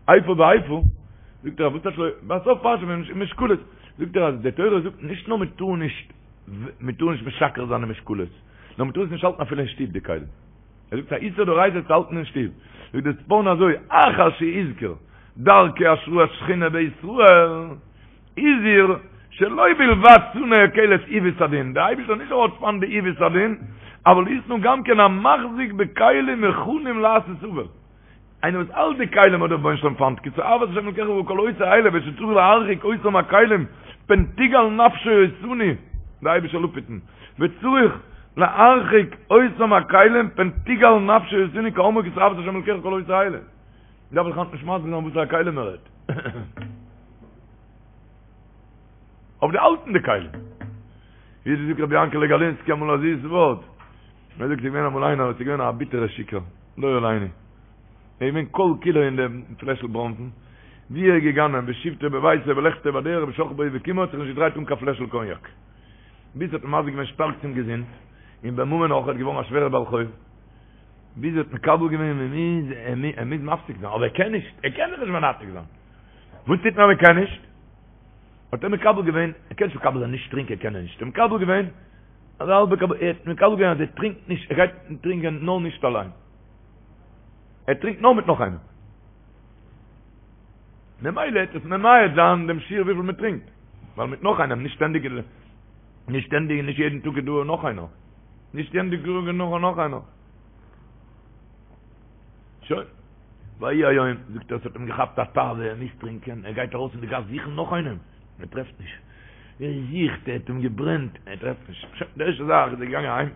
איפה ואיפה, זאגט ער וואס טייטש לא, בסוף פרשה משקלות, זאגט ער אז די תורה זאגט נישט נאר מען טאר נישט, מען טאר נישט משקר זיין אין משקלות, נאר מען טאר עס נישט האלטן אפילו אין שטוב די כלים. ער זאגט א איסור דאורייתא צו האלטן אין שטוב. זאגט די ספורנו אזוי, אחר שהזכיר דרכי השראת שכינה בישראל, הזהיר שלא בלבד שנא הקל את עיוות הדין, דער אייבערשטער נישט נאר האט פיינט די עיוות הדין, אבל ישנא גם כן המחזיק בכלים מוכנים לעשות עוול, איינער וואס האלט די כלים האט דער רבונו של עולם פיינט, כי תועבת השם אלקיך וכל עושה אלה ושצריך להרחיק אותם הכלים פן תגעל נפשו אותנו, דער אייבערשטער זאל אפהיטן, וצריך להרחיק אותם הכלים פן תגעל נפשו אותנו כאמור כי תועבת השם אלקיך וכל עושה אלה. דארף איך היינט נישט מסביר זיין וואסערע כלים מען רעדט. אויף די האלטן די כלים. ווי האט געזאגט רבי יענקעלע גאלינסקי אמאל א זיס ווארט. ער זאגט ס'איז געווען אמאל איינער וואס איז געווען א ביטערע שיכור, לא עלינו. ער איז געווען כל כולו אין דעם פלעשל בראנפן. ווי ער איז געגאנגען בשבתו בביתו בלכתו בדרך בשכבו ובקומו האט זיך נישט געדרייט אן קיין פלעשל קאניאק. ביז ס'האט אים מזיק געווען שטארק צום געזונט, און בממון אויך, ער איז געווארן א שווערער בעל חוב. ביז ער האט מקבל געווען מען מוז ער מוז מפסיק זיין, אבער ער קען נישט, ער קען זיך נישט מנתק זיין. וואס טוט מען אז מען קען נישט? האט ער מקבל געווען, ער קען נישט מקבל זיין נישט טרינקען קען ער נישט, ער האט מקבל געווען, אז האלבע קבל, ער האט מקבל געווען אז ער טרינקט נישט, ער גייט טרינקען נאר נישט אליין. ער טרינקט נאר מיט נאך איינעם. ממילא וועט עס ממעט זיין דעם שיעור וויפיל מען טרינקט, ווייל מיט נאך איינעם, נישט שטענדיג, נישט שטענדיג און נישט יעדן טאג איז דא נאך איינער. נישט שטענדיג איז דא נאך איינער. שוין. ויהי היום, זאגט ער, עס האט אים געכאפט א תאווה, ער מוז טרינקען, ער גייט ארויס אין די גאס זוכן נאך איינעם, ער טרעפט נישט, ער זוכט, ער האט אים געברענט, ער טרעפט נישט, שוין, די ערשטע זאך איז ער געגאנגען אהיים,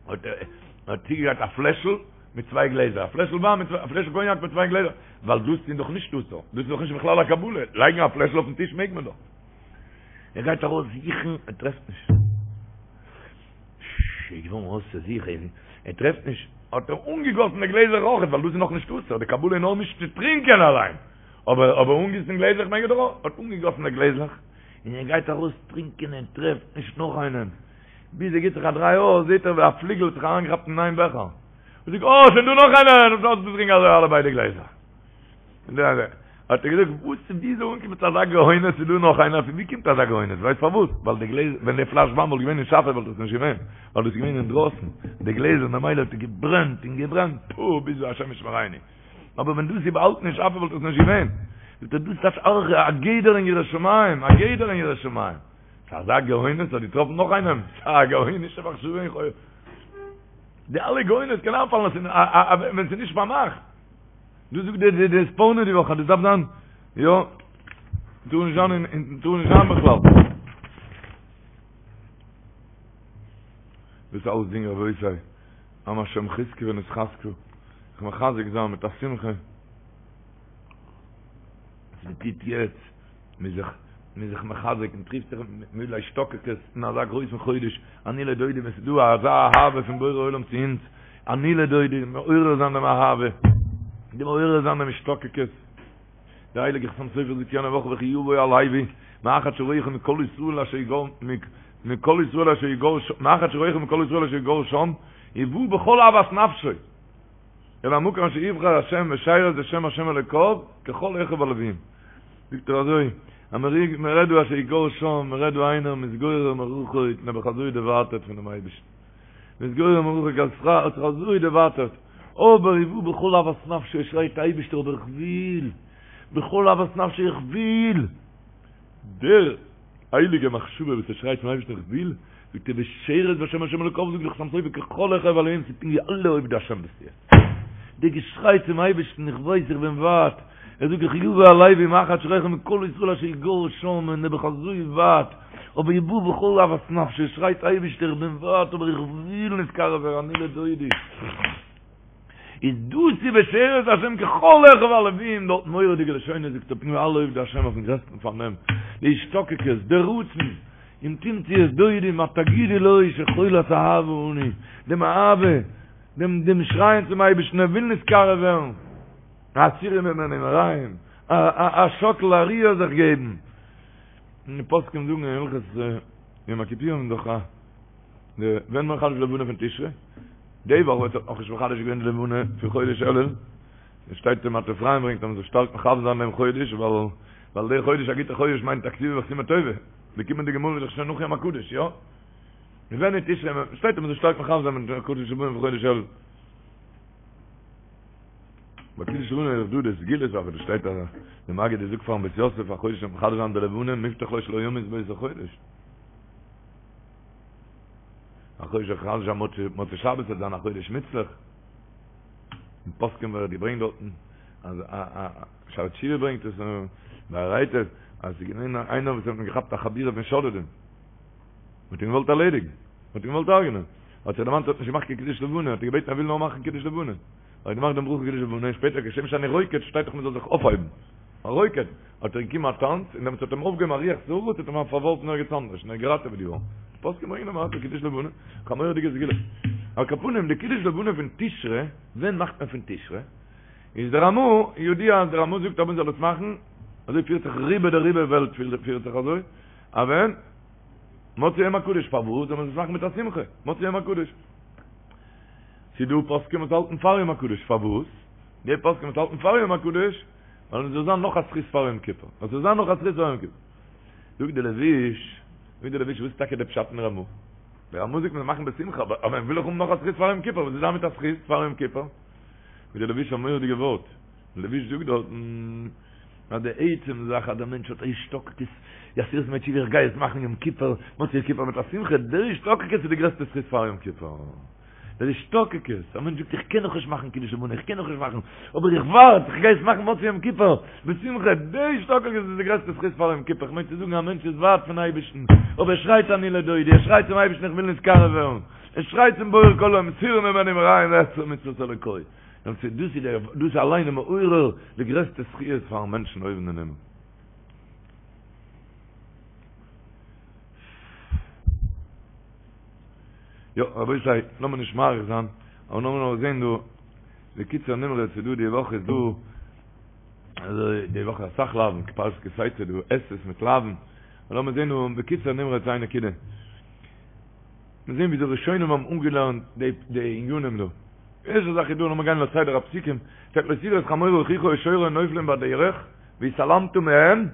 האט ער האט צוגעגרייט א פלעשל מיט צוויי גלעזער, א פלעשל וויין מיט א פלעשל קאניאק מיט צוויי גלעזער, ווייל דאס איז דאך נישט אסור, דאס איז דאך נישט בכלל א קבלה, לייגן א פלעשל אויפן טיש מעג מען דאך. ער גייט ארויס זוכן, ער טרעפט נישט. ש, איז געווארן אויסער זיך, ער טרעפט נישט, האט ער אנגעגאסן די גלעזער אויכעט, ווייל דאס איז נאך נישט אסור, די קבלה איז נאר נישט צו טרינקען אליין, אבער אבער אנגיסן גלעזלעך מעג ער דאך אויך, האט אנגעגאסן די גלעזלעך, און ער גייט ארויס טרינקען, ער טרעפט נישט נאך איינעם, ביז ער גיבט זיך א דריי אויס, זעט ער ווי א פליגל האט זיך אריינגעכאפט אין איין בעכער, און זאגט, אה, שוין דא נאך איינער, און אויסגעטרינקען אזוי אלע ביידע גלעזער. האט ער געזאגט, וואס ווי איז ער אנגעקומען צו אזא גאונות, ס'איז דא נאך איינער, פון ווי קומט אזא גאונות, ווייסט פארוואס? ווייל די גלעזער, ווען די פלאש וויין וואלט געווען אין שאפע וואלט עס נישט געווען, ווייל דאס איז געווען אינדרויסן, די גלעזער, ממילא האט עס געברענט און געברענט, פו, ביז השם ישמרינו. אבער ווען דאס איז באהאלטן אין שאפע וואלט עס נישט געווען. זאגט ער, דאס טייטש אויך א גדר אין יראת שמים, א גדר אין יראת שמים. ס'איז אזא גאונות, האט געטראפן נאך איינעם, ס'איז א גאונישע מחשבה אין חו. די אלע גאונות קען איינפאלן ווען ס'איז נישט פארמאכט. דאס זאגט די די ספורנו די וואך אז דאס דארף זיין יא טאר נישט זיין אין טאר נישט זיין בכלל. דאס אלס דינג רבותי, עם השם חזקו ונתחזקה, זיך מחזק זיין מיט א שמחה. וואס מען טוט יעצט, מען זיך מען זיך מחזק און טריפט זיך מיט השתוקקות אין אזא גרויסן חודש, אני לדודי ווען ס'איז דא אזא אהבה פון בורא עולם צו אונז, אני לדודי, מעורר זיין דעם אהבה, די מעורר זיין דעם השתוקקות. דער הייליגער חתם סופר זאגט יענע וואך וכי יבוא הלוי מאחד שרואה מכל ישראל אשר יגור מכל ישראל אשר יגור מאחד שרואה מכל ישראל אשר יגור שם ובא בכל אהבת נפשו אל המקום אשר יבחר השם ושרת בשם השם אלוקיו ככל אחיו הלוויים. זאגט ער אזוי, אז מען רעדט דא אשר יגור שם, מען רעדט דא איינער מתגורר מרחוק, נעבעך אזוי דערווייטערט פונעם אייבערשטן, מתגורר מרחוק, האט זיך אזוי דערווייטערט, אבער ובא בכל אהבת נפשו, ער שרייט אייבערשטער אבער איך וויל, בכל אהבת נפשו איך וויל! דער הייליגע מחשבה וואס ער שרייט צום אייבערשטן איך וויל, זאגט ער ושרת בשם השם אלוקיו זאגט דער חתם סופר ככל אחיו הלוים ס'איז פונקט ווי אלע עובדי השם ביסטו יעצט. דער געשריי צום אייבערשטן איך ווייס איך בין ווייט, ער זאגט וכי יבוא הלוי מאחד שרואה מכל ישראל אשר יגור שם און נעבעך אזוי ווייט, אבער ובא בכל אהבת נפשו שרייט אייבערשטער איך בין ווייט אבער איך וויל נתקרב ווערן אני לדודי. איז דאס איז ושרת השם ככל אחיו הלוים, דארט מורא'דיגע לשונות זאגט ער פונקט ווי אלע עובדי השם אויפן גרעסטן פארנעם, די השתוקקות, די רצון, אם תמצי את דודי מה תגידי לו שחולת אהבה אני, דעם אהבה, דעם דעם שרייען צום אייבערשטן ער וויל נתקרב ווערן, הסירי ממני מרעים, א א א שאקל א ריר זיך געבן, און די פוסקים זאגן אין הלכות יום הכיפורים דאך א. די ווען מחדש לבנה פון תשרי די וואך ווערט נאך נישט מחדש געווען די לבנה פון חודש אלול עס שטייט אין מטה אפרים ברענגט אז מען זאל שטארק מכוון זיין דעם חודש ווייל ווייל דער חודש א גוטער חודש מיינט א כתיבה וחתימה טובה די קומענדיגע מאל איז דאך שוין נאך יום הקדוש יא ווען אין תשרי שטייט אז מען זאל שטארק מכוון זיין מיט קידוש לבנה פון חודש אלול ביי קידוש לבנה איז דא די סגולה אבער דא שטייט אז די מגיד זאגט פארן בית יוסף א חודש מחדש זיין די לבנה מובטח לו שלא ימות באותו חודש א חודש מחדש זיין מוצאי שבת וועט זיין א חודש מוצלח. אין פוסקים ווערט געברענגט דארטן אז א א שערי תשובה ברענגט עס באר היטב אז ס'איז געווען איינער וואס האט מען געכאפט א חבורה פון שודדים. מ'האט אים געוואלט ערלעדיגן. מ'האט אים געוואלט הרג'נען. האט זיך דערמאנט ער האט נישט געמאכט קיין קידוש לבנה, האט ער געבעטן ער וויל נאר מאכן קידוש לבנה. האט ער געמאכט דעם ברכה קידוש לבנה און שפעטער כשם שאני רוקד שטייט דאך מ'זאל זיך אויפהייבן. א רוקד, האט ער געגעבן א טאנץ, און דעמאלטס האט אים אויפגעהויבן א רוח סערה, האט אים פארווארפן ערגעץ אנדערש, און ער איז געראטעוועט געווארן. די פוסקים ברענגען א מעשה קידוש לבנה, א מורא'דיגע סגולה. על כל פנים, די קידוש לבנה פון תשרי, ווען מאכט מען פון תשרי? איז דער רמא, ידוע אז דער רמא זאגט אז מען זאל עס מאכן, אזוי פירט זיך רובא דרובא וועלט פירט זיך אזוי, אז ווען? מוצאי יום הקדוש, פארוואס זאל מען עס מאכן מיט א שמחה? מוצאי יום הקדוש. ס'איז דא פוסקים וואס האלטן פאר יום הקדוש, פארוואס? די פוסקים וואס האלטן פאר יום הקדוש, ווייל עס זאל זיין נאך א זכות פאר יום כיפור, עס זאל זיין נאך א זכות פאר יום כיפור. זאגט די לבוש, זאגט די לבוש, וואס איז טאקע די פשט אין רמא? די רמא זאגט מען זאל מאכן בשמחה, אבער מען וויל דאך האבן נאך א זכות פאר יום כיפור, וואס איז דא מיט א זכות פאר יום כיפור? זאגט די לבוש א מורא'דיגע ווארט, די לבוש זאגט דארטן, אז די עצם זאך אז דער מענטש האט א השתוקקות, עשרת ימי תשובה איך גיי עס מאכן יום כיפור, מוצאי יום כיפור מיט א שמחה, דער השתוקקות איז די גרעסטע זכות פאר יום כיפור. דער השתוקקות, א מענטש זאגט איך קען נאכנישט מאכן קידוש לבנה, איך קען נאכנישט מאכן, אבער איך ווארט, איך גיי עס מאכן מוצאי יום כיפור, בשמחה, די השתוקקות איז די גרעסטע זכות פאר יום כיפור, איך מיין צו זאגן א מענטש איז ווייט פון אייבערשטן, אבער ער שרייט אני לדודי, ער שרייט צום אייבערשטן איך וויל נתקרב ווערן, ער שרייט צום בורא כל עולמים, סורה ממני מרעים ואעשה מצוות אלוקי, דאס איז דאס אליין איז מעורר די גרעסטע זכיות פארן מענטשן אויבן אין הימל. יא, רבותי, לאמיר נישט מאריך זיין, אבער לאמיר נאר זען דא, בקיצור נמרץ איז דא די וואך איז דא, אזוי די וואך אסאך לאווין, פרשת כי תצא דא עשה'ס מיט לאווין, אבער לאמיר זען דא בקיצור נמרץ איין נקודה. מיר זען ווי די ראשונים האבן אנגעלערנט די די ענינים דא. ערשטע זאך איז דא, לאמיר גיין לסדר הפסוקים, שטייט לא תראה את חמור אחיך או שורו נופלים בדרך, והתעלמת מהם,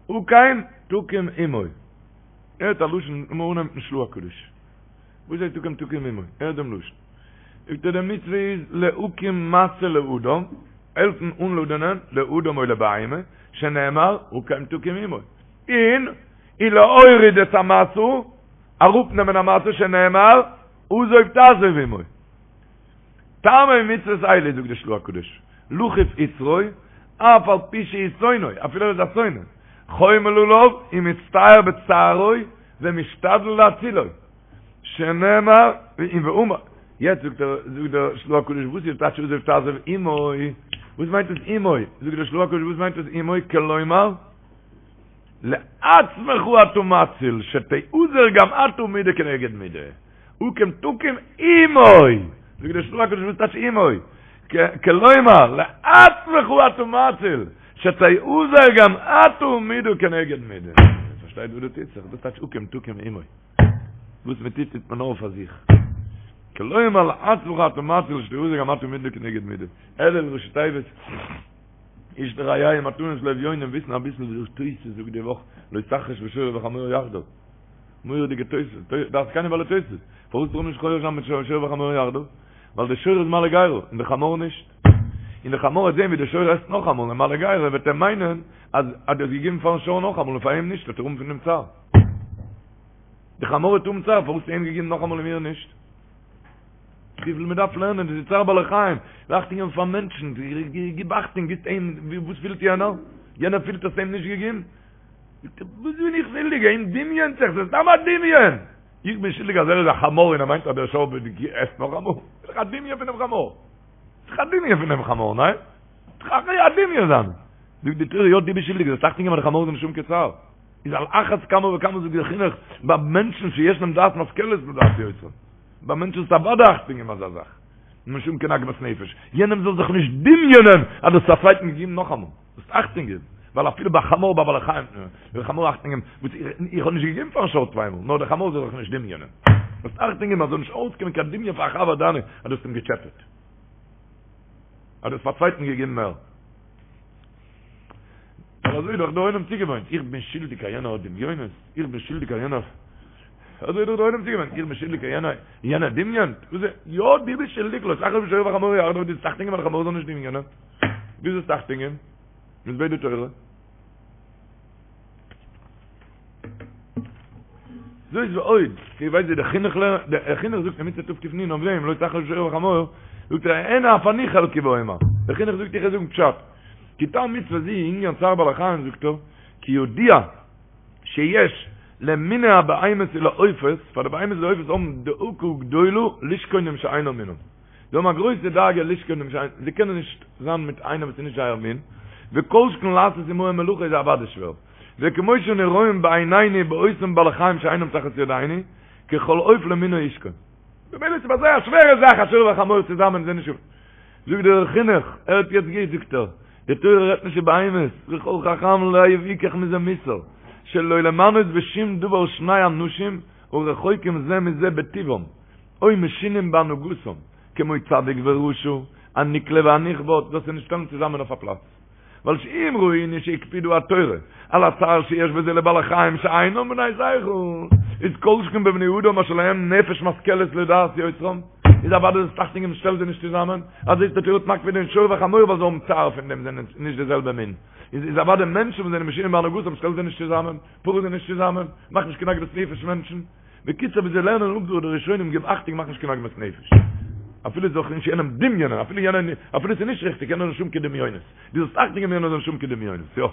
הקם תקים עמו. הערט א לשון, לאמיר אנהייבן מיטן של"ה הקדוש. וואס הייסט הקם תקים עמו? הערט דעם לשון. זאגט ער די מצוה איז להקים משא לאדם, העלפן אנלאדענען לאדם או לבהמה, שנאמר הקם תקים עמו. און ולהוריד את המשא, אראפנעמען א משא שנאמר עזוב תעזוב עמו. טעמי מצוות אלו זאגט די של"ה הקדוש, לכוף יצרו, אף על פי שהוא שונאו, אפילו ער איז א שונא, חומל עליו ומצטער בצערו ומשתדל להצילו, שנאמר ואמר, יעצט זאגט ער, זאגט דער של"ה הקדוש וואס איז טייטש עזוב תעזוב עמו, וואס מיינט עס עמו, זאגט דער של"ה הקדוש וואס מיינט עס עמו, כלומר, לעצמך אתה מציל, שתיעזר גם אתה מידה כנגד מידה. הקם תקים עמו! זאגט דער של"ה הקדוש וואס טייטש עמו? כלומר, לעצמך אתה מציל, שתיעזר גם אתה מידה כנגד מידה. פארשטייט וואס דא טוט זיך? דאס טייטש הקם תקים עמו. וואס מען טוט טוט מען נאר פאר זיך. כלומר, לעצמך אתה מציל, שתיעזר גם אתה מידה כנגד מידה. אלול ראשי תיבות. איש לרעהו מתנות לאביונים וויסן אביסל ווי דער תוס' זאגט די וואך לא תחרש בשור ובחמור יחדיו מורא'דיגע תוס' דעת זקנים בעלי תוס' פארוואס טאר מען נישט חורש זיין מיט שור וחמור יחדיו ווייל די שור איז מעלה גרה און די חמור נישט און די חמור וועט זען ווי די שור עסט נאכאמאל און מעלה גרה וועט ער מיינען אז אז דו האסט געגעבן פארן שור נאכאמאל און פאר אים נישט וועט ער האבן פון דעם צער די חמור וועט האבן צער פארוואס האסטו אים געגעבן נאכאמאל און מיר נישט וויפיל מען דארף לערנען, דאס איז צער בעלי חיים, אכטונג געבן פאר מענטשן, גיב אכטונג, גיבסט אים, וואס פילט יענער? יענער פילט האסט אים נישט געגעבן? זאגט ער, וואס בין איך שולדיג, אים דמיונ'ט זיך, ס'איז סתם א דמיון! איך בין שולדיג אז ער איז א חמור און ער מיינט אז דער שור עסט נאכאמאל? ס'איז דאך א דמיון פונעם חמור! ס'איז דאך א דמיון פונעם חמור, ניין? ס'איז דאך א דמיון זיינע! זאגט די תורה, יא דו ביסט שולדיג, זאלסט אכטונג געבן אז די חמור זאל נישט האבן קיין צער. איז על אחת כמה וכמה זאגט דער חינוך, ביי מענטשן שיש להם דעת משכלת לדעת יוצרם. ביי מענטשן איז אוודאי אכטונג געבן אזא זאך. נישט האבן קיין עגמת נפש. יענעם זאל זיך נישט דמיונ'ען אז דו האסט א צווייטן געגעבן נאכאמאל. זאלסט אכטונג געבן. ווייל אפילו ביי חמור ביי בעלי חיים, ביי חמור אכטונג געבן, וואס איך האב נישט געגעבן פארן שור צוויי מאל, נאר דער חמור זאל זיך נישט דמיונ'ען. זאלסט אכטונג געבן אז זאל נישט אויסקומען קיין דמיון פאר א חבר דיינע אז דו האסט אים געטשעפעט. אז דו האסט פאר צווייטן געגעבן מער. ווייל אזוי איז דאך דער עולם צוגעוואוינט, איך בין שולדיג אז יענער האט דמיונות, איך בין שולדיג אז יענער, אזוי איז דאך דער עולם צוגעוואוינט, איך בין שולדיג אז יענער, יענער דמיונ'ט, וואס איז, יא דו ביסט שולדיג, לא תחרוש בשור ובחמור יחדיו, דו זאלסט אכטונג געבן אז דער חמור זאל נישט דמיונ'ען, דו זאלסט אכטונג געבן, וואס בעט די תורה? זאת ועוד, איר ווייסט ווי דער חינוך לערנט, דער חינוך זאגט אין מצוה תק"נ אויף דעם, לא תחרוש בשור ובחמור, זאגט ער, הן אף אני חלקי ואומר, דער חינוך זאגט איך וועל זאגן פשט, כי טעם מצוה זו ענין צער בעלי חיים זאגט ער, כי ידוע שיש למיני הבהמות ולעופות, פאר די בהמות און די עופות האבן דאגה גדולה לשכון עם שאינו מינם, זיי האבן א גרויסע דאגה לשכון עם שאינו, זיי קענען נישט זיין מיט איינער וואס איז נישט זייער מין, וכל שכן לעשות עמהם מלאכה איז אוודאי שווער, וכמו שאנו רואים בעינינו באותם בעלי חיים שאינם תחת ידינו, כי כל עוף למינו ישכון. במילא איז ביי זיי א שווערע זאך א שור וחמור צוזאמען זענען נישט זאגט דער חינוך, הערט יעצט גוט זאגט ער, די תורה רעדט נישט איבער בהמות, וכל חכם לב יקח מזה מוסר, שלא למנות בשום דבר שני אנשים הרחוקים זה מזה בטבעם, או משונים בהנהגתם, כמו צדיק ורשע, הנקלה והנכבד, דאס איז נישט שטעלן צוזאמען אויף א פלאץ. ווייל שאם ראינו שהקפידו התורה על הצער שיש בזה לבעלי חיים שאינם בני שכל, איז כל שכן בבני אדם אשר להם נפש משכלת לדעת יוצרם, איז אוודאי זאלסט אכטונג געבן שטעל זיי נישט צוזאמען, אז זעסט די תורה האט מקפיד אין שור וחמור ווייל זיי האבן צער פון דעם זענען נישט די זעלבע מין, איז איז אוודאי מענטשן וואס זענען משונים בהנהגתם שטעל זיי נישט צוזאמען, פאר זיי נישט צוזאמען, מאך נישט קיין עגמת נפש מענטשן. בקיצור ווי זיי לערנען אפ דא די ראשונים גיב אכטונג מאך נישט קיין עגמת נפש. אפילו זאל נישט יענעם דמיונ'ען, אפילו יענער, אפילו ס'איז נישט ריכטיג, יענער זאל נישט האבן קיין דמיונות. דו זאלסט אכטונג געבן יענער זאל נישט האבן קיין דמיונות, יא.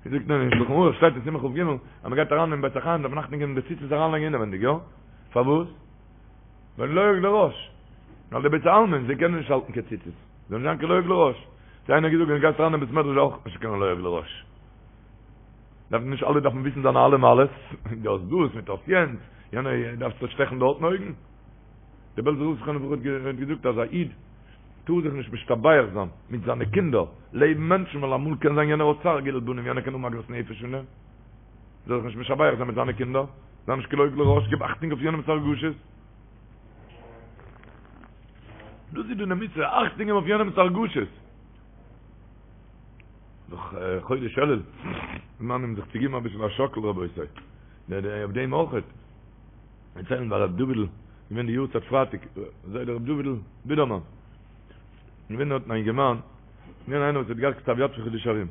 ווי זאגט מען אין שלחן ערוך שטייט אין סימן כ"ג אז מ'גייט אריין אין בית החיים דארף מען אכטונג געבן די ציצית אריינלייגן אינעווענדיג, יא? פארוואס? ווייל לועג לרש. ווייל די בית העלמין זיי קענען נישט האלטן קיין ציצית. זאל נישט זיין קיין לועג לרש. האט איינער געזאגט ווען גייסט אריין אין בית מדרש אויך נישט קיין לועג לרש. דארף נישט אלע דארפן וויסן זיינע אלע מעלות, דו האסט דאס מיט האסט יענץ, יענער דארפסט זיך שטעכן דארטן אויגן. דער בעלזער רב זכרונו לברכה האט געזאגט אז א איד טאר זיך נישט משתבח זיין מיט זיינע קינדער לעבן מענטשן ווייל אמאל קען זיין יענער האט צער גידול בנים יענער קען האבן עגמת נפש פון דעם. זאל זיך נישט משבח זיין מיט זיינע קינדער, זיי נישט קיין לועג לרש, גיב אכטונג אויף יענעמ'ס הרגשות. דאס איז די מצוה, אכטונג געבן אויף יענעמ'ס הרגשות. דאך חודש אלול, זמנים זיך צו געבן אביסל א שאקל רבותי. אויף דעם אויך. דערציילן ביי ר' דוד'ל, געווען די יארצייט פרייטאג, זיידע ר' דוד'ל בידערמאן. געווען דארטן א אינגערמאן, געווען איינער וואס האט געהאט כתב יד פון חידושי הרי"ם.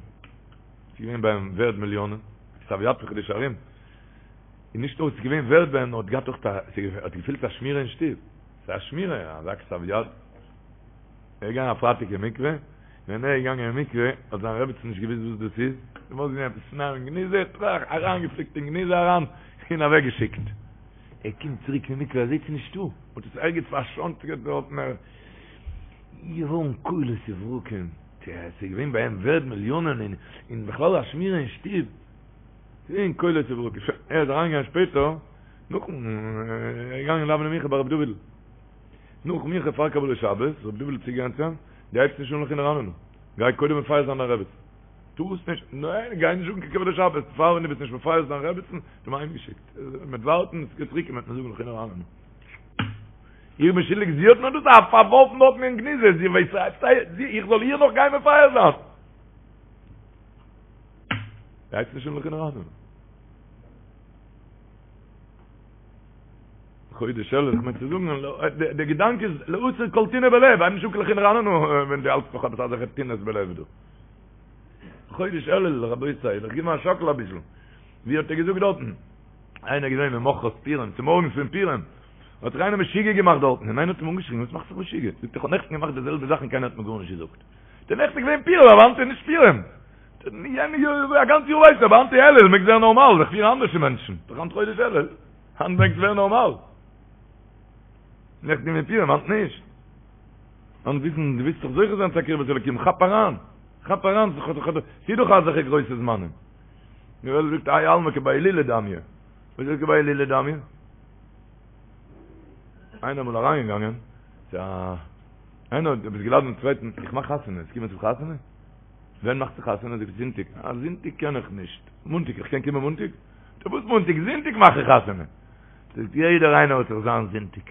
ס'איז געווען ביי אים ווערד מיליאנען, כתב יד פון חידושי הרי"ם. און נישט נאר ס'איז געווען ווערד ביי אים, נאר האט געהאט אויך א, האט געפילט א שמירה אין שטוב. ס'איז א שמירה, אזא כתב יד. ער איז געגאנגען א פרייטאג אין מקווה, ווען ער איז געגאנגען אין מקווה האט זיין רעבעצן נישט געוואוסט וואס דאס איז, זי האט געזען עפעס שנאר אין גניזה, טראך, אריינגעפליקט אין גניזה אריין, און אוועקגעשיקט. ער קומט צוריק פון מקווה, ער זעט ס'איז נישטא, מ'האט עס ערגעץ פארשאנקען דארטן, ער איז געווארן קולות וברקים, ס'איז געווען ביי אים ווערד מיליאנען, און און בכלל א שמירה אין שטוב, ס'איז געווען קולות וברקים, שוין, ער איז אריינגעגאנגען שפעטער, נאכן, ער איז געגאנגען דאווענען מנחה ביי רבי דוד'ל. נאך מנחה פאר קבלת שבת, ר' דוד'ל איז צוגעגאנגען צו אים, דו הייבסט נישט אן לכו נרננה, גיי קודם מפייס זיין דיין רעבעצן. טארסט נישט, ניין, גיי נישט אן קיין קבלת שבת, פאר ווען דו ביסט נישט מפייס דיין רעבעצן, האט אים אהיימגעשיקט, מ'וועט ווארטן, עס גייט צוריק און מ'וועט מיר זאגן לכו נרננה. איך בין שולדיג, זי האט מיר דאס פארווארפן דארטן אין גניזה, זי ווייסט, איך זאל איר נאך גיין מפייס זיין? דו הייבסט נישט אן לכו נרננה. חודש אלול, איך מיין צו זאגן, דער געדאנק איז להסיר כל טינא בלב, הייב נישט אן לכו נרננה ווען דו האלטסט נאך עפעס אזעלכע טינות בלב דא. חודש אלול, רבותי, זיך געבן א שאקל אביסל. ווי האט ער געזאגט דארטן? איינער געווען ממחרת פורים, צומארגנס פון פורים, האט זיך איינער משוגע געמאכט דארטן, און איינער האט אים אנגעשריגן, וואס מאכסט זיך משוגע? זאגט ער, איך האב נעכטן געמאכט די זעלבע זאך און קיינער האט מיר גארנישט געזאגט. דער נעכטן איז געווען פורים, אבער היינט איז נישט פורים. יענע יאר, א גאנץ יאר ווייסטו, אבער היינט איז אלול, מעגסט ווערן נארמאל, זיך פירן אנדערש ווי מענטשן. דאך היינט חודש אלול. היינט מעגסט ווערן נארמאל. נעכטן געווען פורים, היינט נישט. היינט וויסן, דו ווילסט דאך זוכה זיין צו א קרבת אלוקים, כאפ אריין. כאפ אריין, ס'איז דאך אזעלכע גרויסע זמנים. די וועלט זאגט האי עלמא כבי הילולא דמיא. וואס איז כבי הילולא דמיא? איינער אמאל אריינגעגאנגען צו א איינער האט עפעס געלאדענט דעם צווייטן, איך מאך חתונה, וועסט קומען צום חתונה? ווען מאכסטו חתונה? זאגט ער זונטאג. אה, זונטאג קען איך נישט. מאנטאג, איך קען קומען מאנטאג? זאגט ער, וואס מאנטאג? זונטאג מאך איך חתונה. זאגט, יעדער איינער האט זיך זיין זונטאג.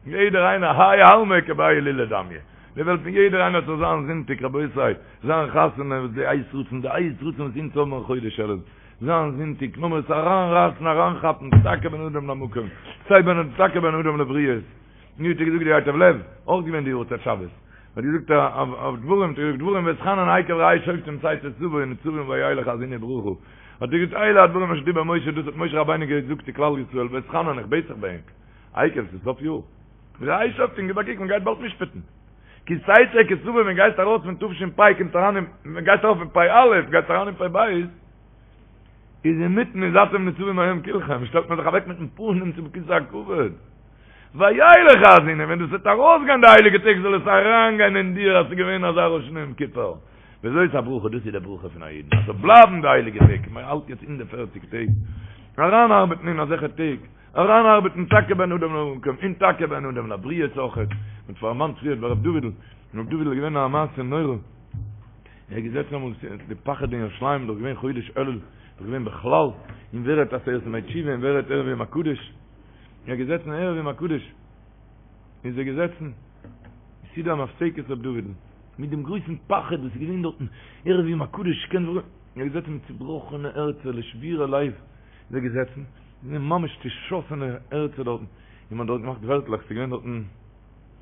יעדער איינער, האי עלמא כבי הילולא דמיא. די וועלט פון יעדער איינער האט זיך זיין זונטאג, רבותי, זיין חתונה, וואס די עת רצון, די עת רצון וואס אונז האבן אין חודש אלול. זיין זונטאג, לאמיר עס אריינרייסן, אריינכאפן, טאקע בין אדם למקום, סיי בין טאקע בין אדם לבריות. ווי האט ער געזאגט די ייטב לב, אויך געווען די יארצייט שבת, האט געזאגט אויף דברים, האט ער געזאגט דברים ואתחנן עקב ראה שופטים תצא תבוא נצבים וילך האזינו ברכה, האט ער געזאגט אלה הדברים אשר דיבר משה, דאס האט משה רבינו געזאגט צו כלל ישראל, ואתחנן איך בעט זיך ביי ענק, עקב ס'איז סוף יאר, ראה שופטים גיב א קוק מען גייט באלד משפט'ן, כי תצא כי תבוא ווען גייסט ארויס פון תש"פ קומט אריין אין, ווען גייסט ארויף פון פ"א גייסט אריין אין פ"ב, איז אינמיטן איז אתם נצבים היום כולכם, שטעלט מען זיך אוועק מיטן פנים צום כסא הכבוד. וילך האזינו, ווען דאס וועט ארויסגיין די הייליגע טעג זאל עס אריינגיין אין דיר אז ס'איז געווען אזא ראש השנה יום כיפור. וזאת הברכה, דאס איז די ברכה פון א אידן, אז ס'זאל בלייבן די הייליגע טעג, מען האלט יעצט אין די פערציג טעג, אריינארבעטן אין אזעלכע טעג, אריינארבעטן טאקע בין אדם למקום, און טאקע בין אדם לבריות אויכעט, מ'האט דערמאנט פריער ביי ר' דוד'ל, ר' דוד'ל איז געווען א מעשה נורא, ער איז געזעצן אמאל, די פחד אין ירושלים איז דאך געווען חודש אלול, איז דאך געווען בכלל, און ווער רעדט עשרת ימי תשובה, און ווער רעדט ערב יום הקדוש, ער איז געזעצן ערב יום הקדוש, איז ער געזעצן, סעודה המפסקת ר' דוד'ל, מיט דעם גרויסן פחד וואס איז געווען דארטן, ערב יום הקדוש, קען זיך, ער איז געזעצן מיט צובראכענע הערצער, לשבורי לב, איז ער געזעצן, געווען ממש צושאסענע הערצער דארטן, און מען האט דארט געמאכט ווערטלעך, ס'איז געווען דארטן,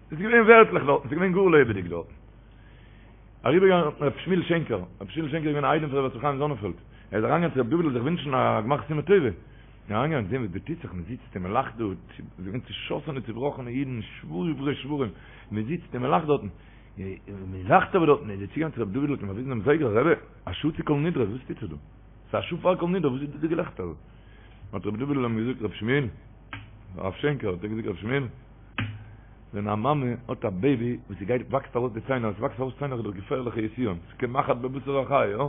ס'איז געווען ווערטלעך דארטן, ס'איז געווען גאר לעבעדיג דארטן. אריבערגעגאנגען ר' שמואל שענקער, ר' שמואל שענקער איז געווען א איידעם פון ר' יוסף חיים זאנענפעלד, ער איז אריינגעגאנגען צו ר' דוד'ל זיך ווינטשן א גמר חתימה טובה. אריינגעגאנגען זען וואס דא טוט זיך, מען זיצט און מען לאכט דא, געווען צעשאסענע צעבראכענע אידן, שבורי שברים, מען זיצט און מען לאכט דארטן, מען לאכט אבער דארטן, איז ער צוגעגאנגען צו רבי דוד'ל האט אים באוויזן דעם זייגער, רבי, א שעה צו כל נדרי, וואס טוט זיך דא? ס'איז א שעה פאר כל נדרי, וואס איז דא די געלעכטער? האט רבי דוד'ל אים געזאגט, רבי שמואל, הרב שענקער האט ער געזאגט, רבי שמואל, ווען א מאמע האט א בעיבי וואס ס'גייט וואקסט ארויס די ציינער, עס וואקסט ארויס ציינער איז דאך געפערליכע יסורים, ס'איז כמחט בבשר החי, יא?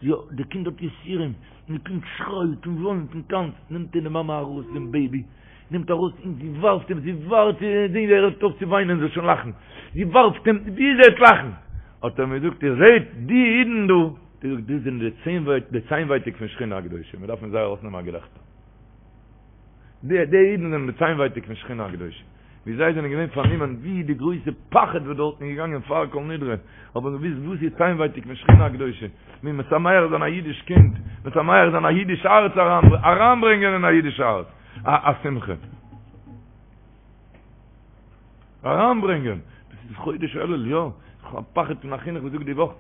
יא, די קינד האט יסורים, און די קינד שרייט און וויינט און טאנצט, נעמט די מאמע ארויס דעם בעיבי, נעמט ארויס און זי ווארפט אים, זי ווארט צו זען ווי ער הערט אויף צו וויינען זאל שוין לאכן, זי ווארפט אים ביז ער וועט לאכן, האט ער מיר געזאגט, איר זעט די אידן דא, האט ער געזאגט, דאס זענען די ציינווייטאג פון שכינה הקדושה, מען דארף פון זיי ארויסנעמען א געלעכטער. די די אידן זענען די ציינווייטאג פון שכינה הקדושה, ווי זיי זענען געווען פארנומען ווי די גרויסע פחד וואס דארטן איז געגאנגען פאר כל נדרי, האבן געוואוסט וואס איז ציינווייטאג פון שכינה הקדושה, ווי משמח זיין א אידיש קינד, משמח זיין א אידיש הארץ, אריינברענגען אין א אידיש הארץ א שמחה. אריינברענגען, דאס איז חודש אלול, יא, איך האב א פחד פון א חינוך וואס זאגט די וואך,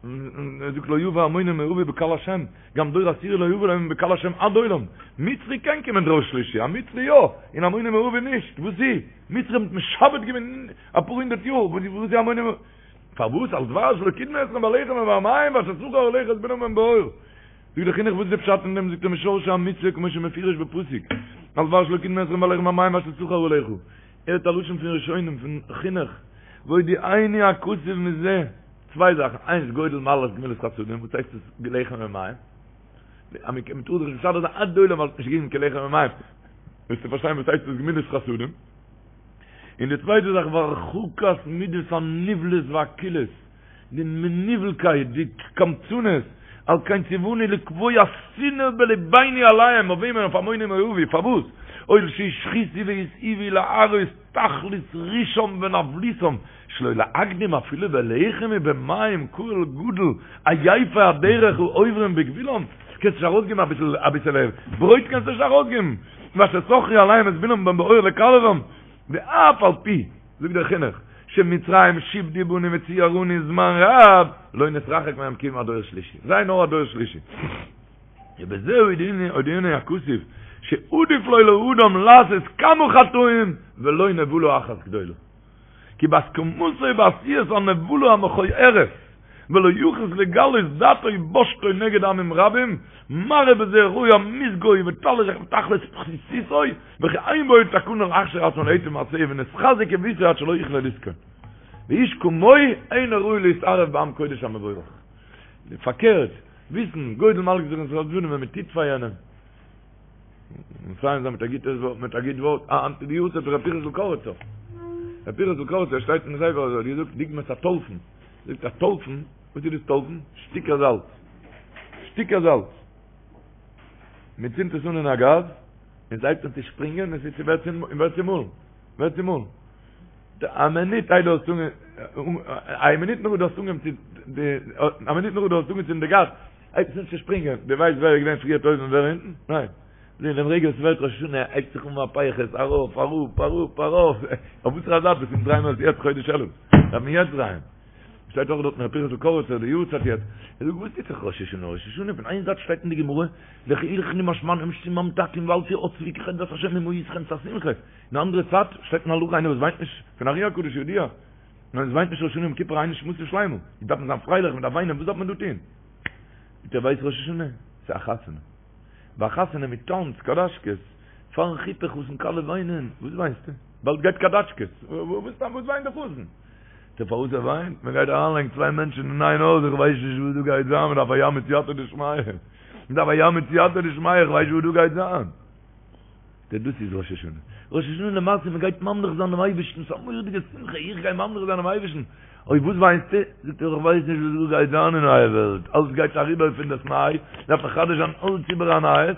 ער זאגט לא יבא עמוני ומואבי בקהל השם, גם דור עשירי לא יבא להם בקהל השם עד עולם, מצרי קען קומען דור שלישי, א מצרי יא, און עמוני ומואבי נישט, וואס איז? מצרים האט משעבד געווען אפאר הונדערט יאר, וואס איז עמוני ומואבי? פארוואס על דבר שלא קדמו אתכם בלחם ובמים ואשר שכר עליך את בלעם בן בעור? זאגט דער חינוך וואס איז די פשט אין דעם, זאגט ער משרשי המצוה כמו שמפורש בפסוק, על דבר שלא קדמו אתכם בלחם ובמים ואשר שכר עליך, ער האט א לשון פון ראשונים פון חינוך, והודיעני הכתוב מזה, צוויי זאכן, איינס גודל מעלת גמילות חסדים, וואס הייסט עס לחם ומים? אז מען קען טאר זיך נישט משדך זיין עד עולם ווייל האט נישט געגעבן קיין לחם ומים, וועסטו פארשטיין וואס הייסט עס גמילות חסדים. און די צווייטע זאך והרחקת מידות הנבלות והקולות, די מנוולקייט, די קמצנות, על כן ציוונו לקבוע שנאה בלבינו עליהם, אויף וועמען? אויף עמוני ומואבי, פארוואס? הואיל שהשחיתו והתעיבו להראות תכלית רשעם ונבלותם, שלא להקדים אפילו בלחם ובמים קהל גדול עייפי הדרך העוברים בגבולם, קענסט נישט ארויסגעבן אביסל אביסעלע ברויט קענסטו נישט ארויסגעבן, ואשר שכרו עליהם את בלעם בן בעור לקללם, ואף על פי, זאגט דער חינוך, שמצרים שעבדו בנו וציערונו זמן רב, לא נתרחק מהם כי אם עד דור שלישי, זיי נאר א דור שלישי. ובזה הודיענו הכתוב, שעדיף לו לאדם לעשות כמה חטאים ולא נבלה אחת גדולה. כי בהסכמתו בעשיית הנבלה המכוערת, ולא יחוס לגלות דעתו ובושתו נגד עמים רבים, מראה בזה רוע מזגו ותכלית פחיתותו, וכי אין בו תקנה להכשיר עצמו להיטיב מעשהו ונתחזק עוותו עד שלא יכלה לזכון. ואיש כמוהו אינו ראוי להתערב בעם קודש המבורך. פארקערט, וויסן, גודל מעלת גמילות חסדים ווען מען טוט פאר יענעם. מסיים זיין מיט א גוטע ווארט, מיט א גוט ווארט, אה, היינט איז די יארצייט פון ר' פנחס'ל קאריצער. ר' פנחס'ל קאריצער שטייט אין ספר אז ער האט געזאגט דוגמת הטולפן. זאגט א טולפן, וואס איז דאס טולפן? שטיקער זאלץ. שטיקער זאלץ. מען צינדט עס אן אין א גאז, און עס הייבט אן צו שפרינגען, און עס ווערט צומאלן. ווערט צומאלן. א מינוט איידער האסט אנגע א מינוט נאך דו האסט אנגעהויבן צו א מינוט נאך דו האסט אנגעצינדן די גאז, הייבט עס אן צו שפרינגען, דו ווייסט ווער איז געווען פריער אויבן און ווער אונטן? ניין. זע אין דעם רגע וואס ס'ווערט ראש השנה הייבט זיך אן מהפכות, ארויף, אראפ, אראפ, ארויף, אויף וואסערע זייט ביסטו? אונז דרייען מיר עס יעצט חודש אלול, דארף מען יעצט דרייען. שטייט אויך דארט אין ר' פנחס'ל קאריצער די יארצייט יעצט, ער זאגט וואס טוט זיך ראש השנה, ראש השנה פון איין זייט שטייט אין די גמרא לכו אכלו משמנים ושתו ממתקים ואל תעצבו כי חדות השם היא מאתכם ס'א שמחה, אין די אנדערע צייט שטייט אין הלכה איינער וואס וויינט נישט פון ארי הקדוש ידוע, איינער וואס וויינט נישט ראש השנה יום כיפור אין נשמתו שלימה, דארף מען זיין פרייליך מען דארף וויינען וואס דארף מען דא טון? זאגט ער ווייסט ראש השנה ס'איז א חתונה, ביי א חתונה מען טאנצט קאדאשקעס, פארן חופה חתן כלה וויינען, וואס וויינסטו? באלד גייט קאדאטשקעס, וואס וויינט די חתן? זאגט ער פארוואס ער וויינט? מען גייט אריינלייגן צוויי מענטשן אין איין הויז, איך ווייס נישט וואס דא גייט זיין, מען דארף א ים מיט סייעתא דשמיא, מען דארף א ים מיט סייעתא דשמיא, איך ווייס נישט וואס דא גייט זיין. זאגט ער דאס איז ראש השנה, ראש השנה למעשה מען גייט ממליך זיין דעם אייבערשטן, ס'איז א מורא'דיגע שמחה, איך גיי ממליך זיין דעם אייבערשטן, אוי וואס וויינסטו? זאגט ער איך ווייס נישט וואס דא גייט זיין אין נייע וועלט, אלץ גייט אריבער פון דאס ניי, דארף מחדש זיין אלץ איבער א נייעס,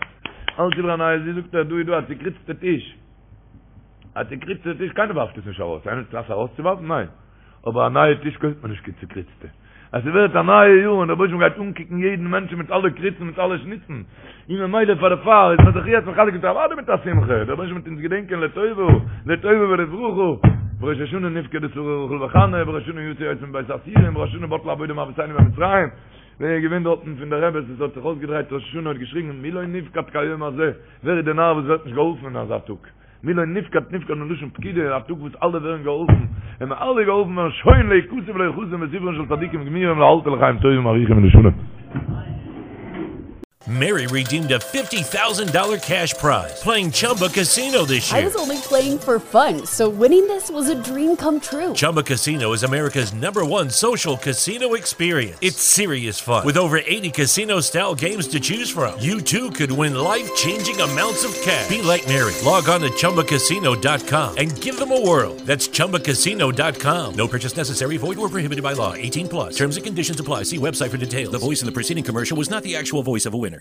אלץ איבער א נייעס, ווי זאגט ער דא איז דא א צוקריצטע טיש, א צוקריצטע טיש, קיינער ווארפט עס נישט ארויס, איינער האט קלאס ארויסצואווארפן? ניין. אבער א נייע טיש קויפט מען נישט קיין צוקריצטע. אז ס'ווערט א נייע יאר און דער רבוש"ע גייט אנקוקן יעדן מענטשן מיט אלע קריצן מיט אלע שניצן, און ממילא פאר דערפאר איז מען זיך יעצט מחזק מיט אוודאי מיט א שמחה, דער רבוש"ע וועט אונז געדענקען לטובה, לטובה ולברכה, בראש השנה נפקדה שרה רחל וחנה, בראש השנה יצא יוסף מבית האסורים, בראש השנה בטלה עבודה מאבותינו במצרים. ווער איז געווען דארטן פון די רעבעס וואס האט זיך אויסגעדרייט ראש השנה האט געשריגן מי לא נפקד כהיום הזה, ווער איז די נאר וואס ווערט נישט געהאלפן אין אזא טאג? מי לא נפקד נפקד מלשון פקידה, א טאג וואס אלע ווערן געהאלפן, ווען מיר אלע געהאלפן ווערן שוין להיכתב ולהיחתם בספרן של צדיקים גמורים לאלתר לחיים טובים ארוכים ולשלום. Mary redeemed a $50,000 cash prize playing Chumba Casino this I year. was only playing for fun, so winning this was a dream come true. Chumba Casino is America's number one social casino experience. It's serious fun. With over 80 casino style games to choose from, you too could win life changing amounts of cash. Be like Mary. Log on to chumbacasino.com and give them a whirl. That's chumbacasino.com. No purchase necessary, void or prohibited by law. 18 plus. Terms and conditions apply. See website for details. The voice in the preceding commercial was not the actual voice of a winner.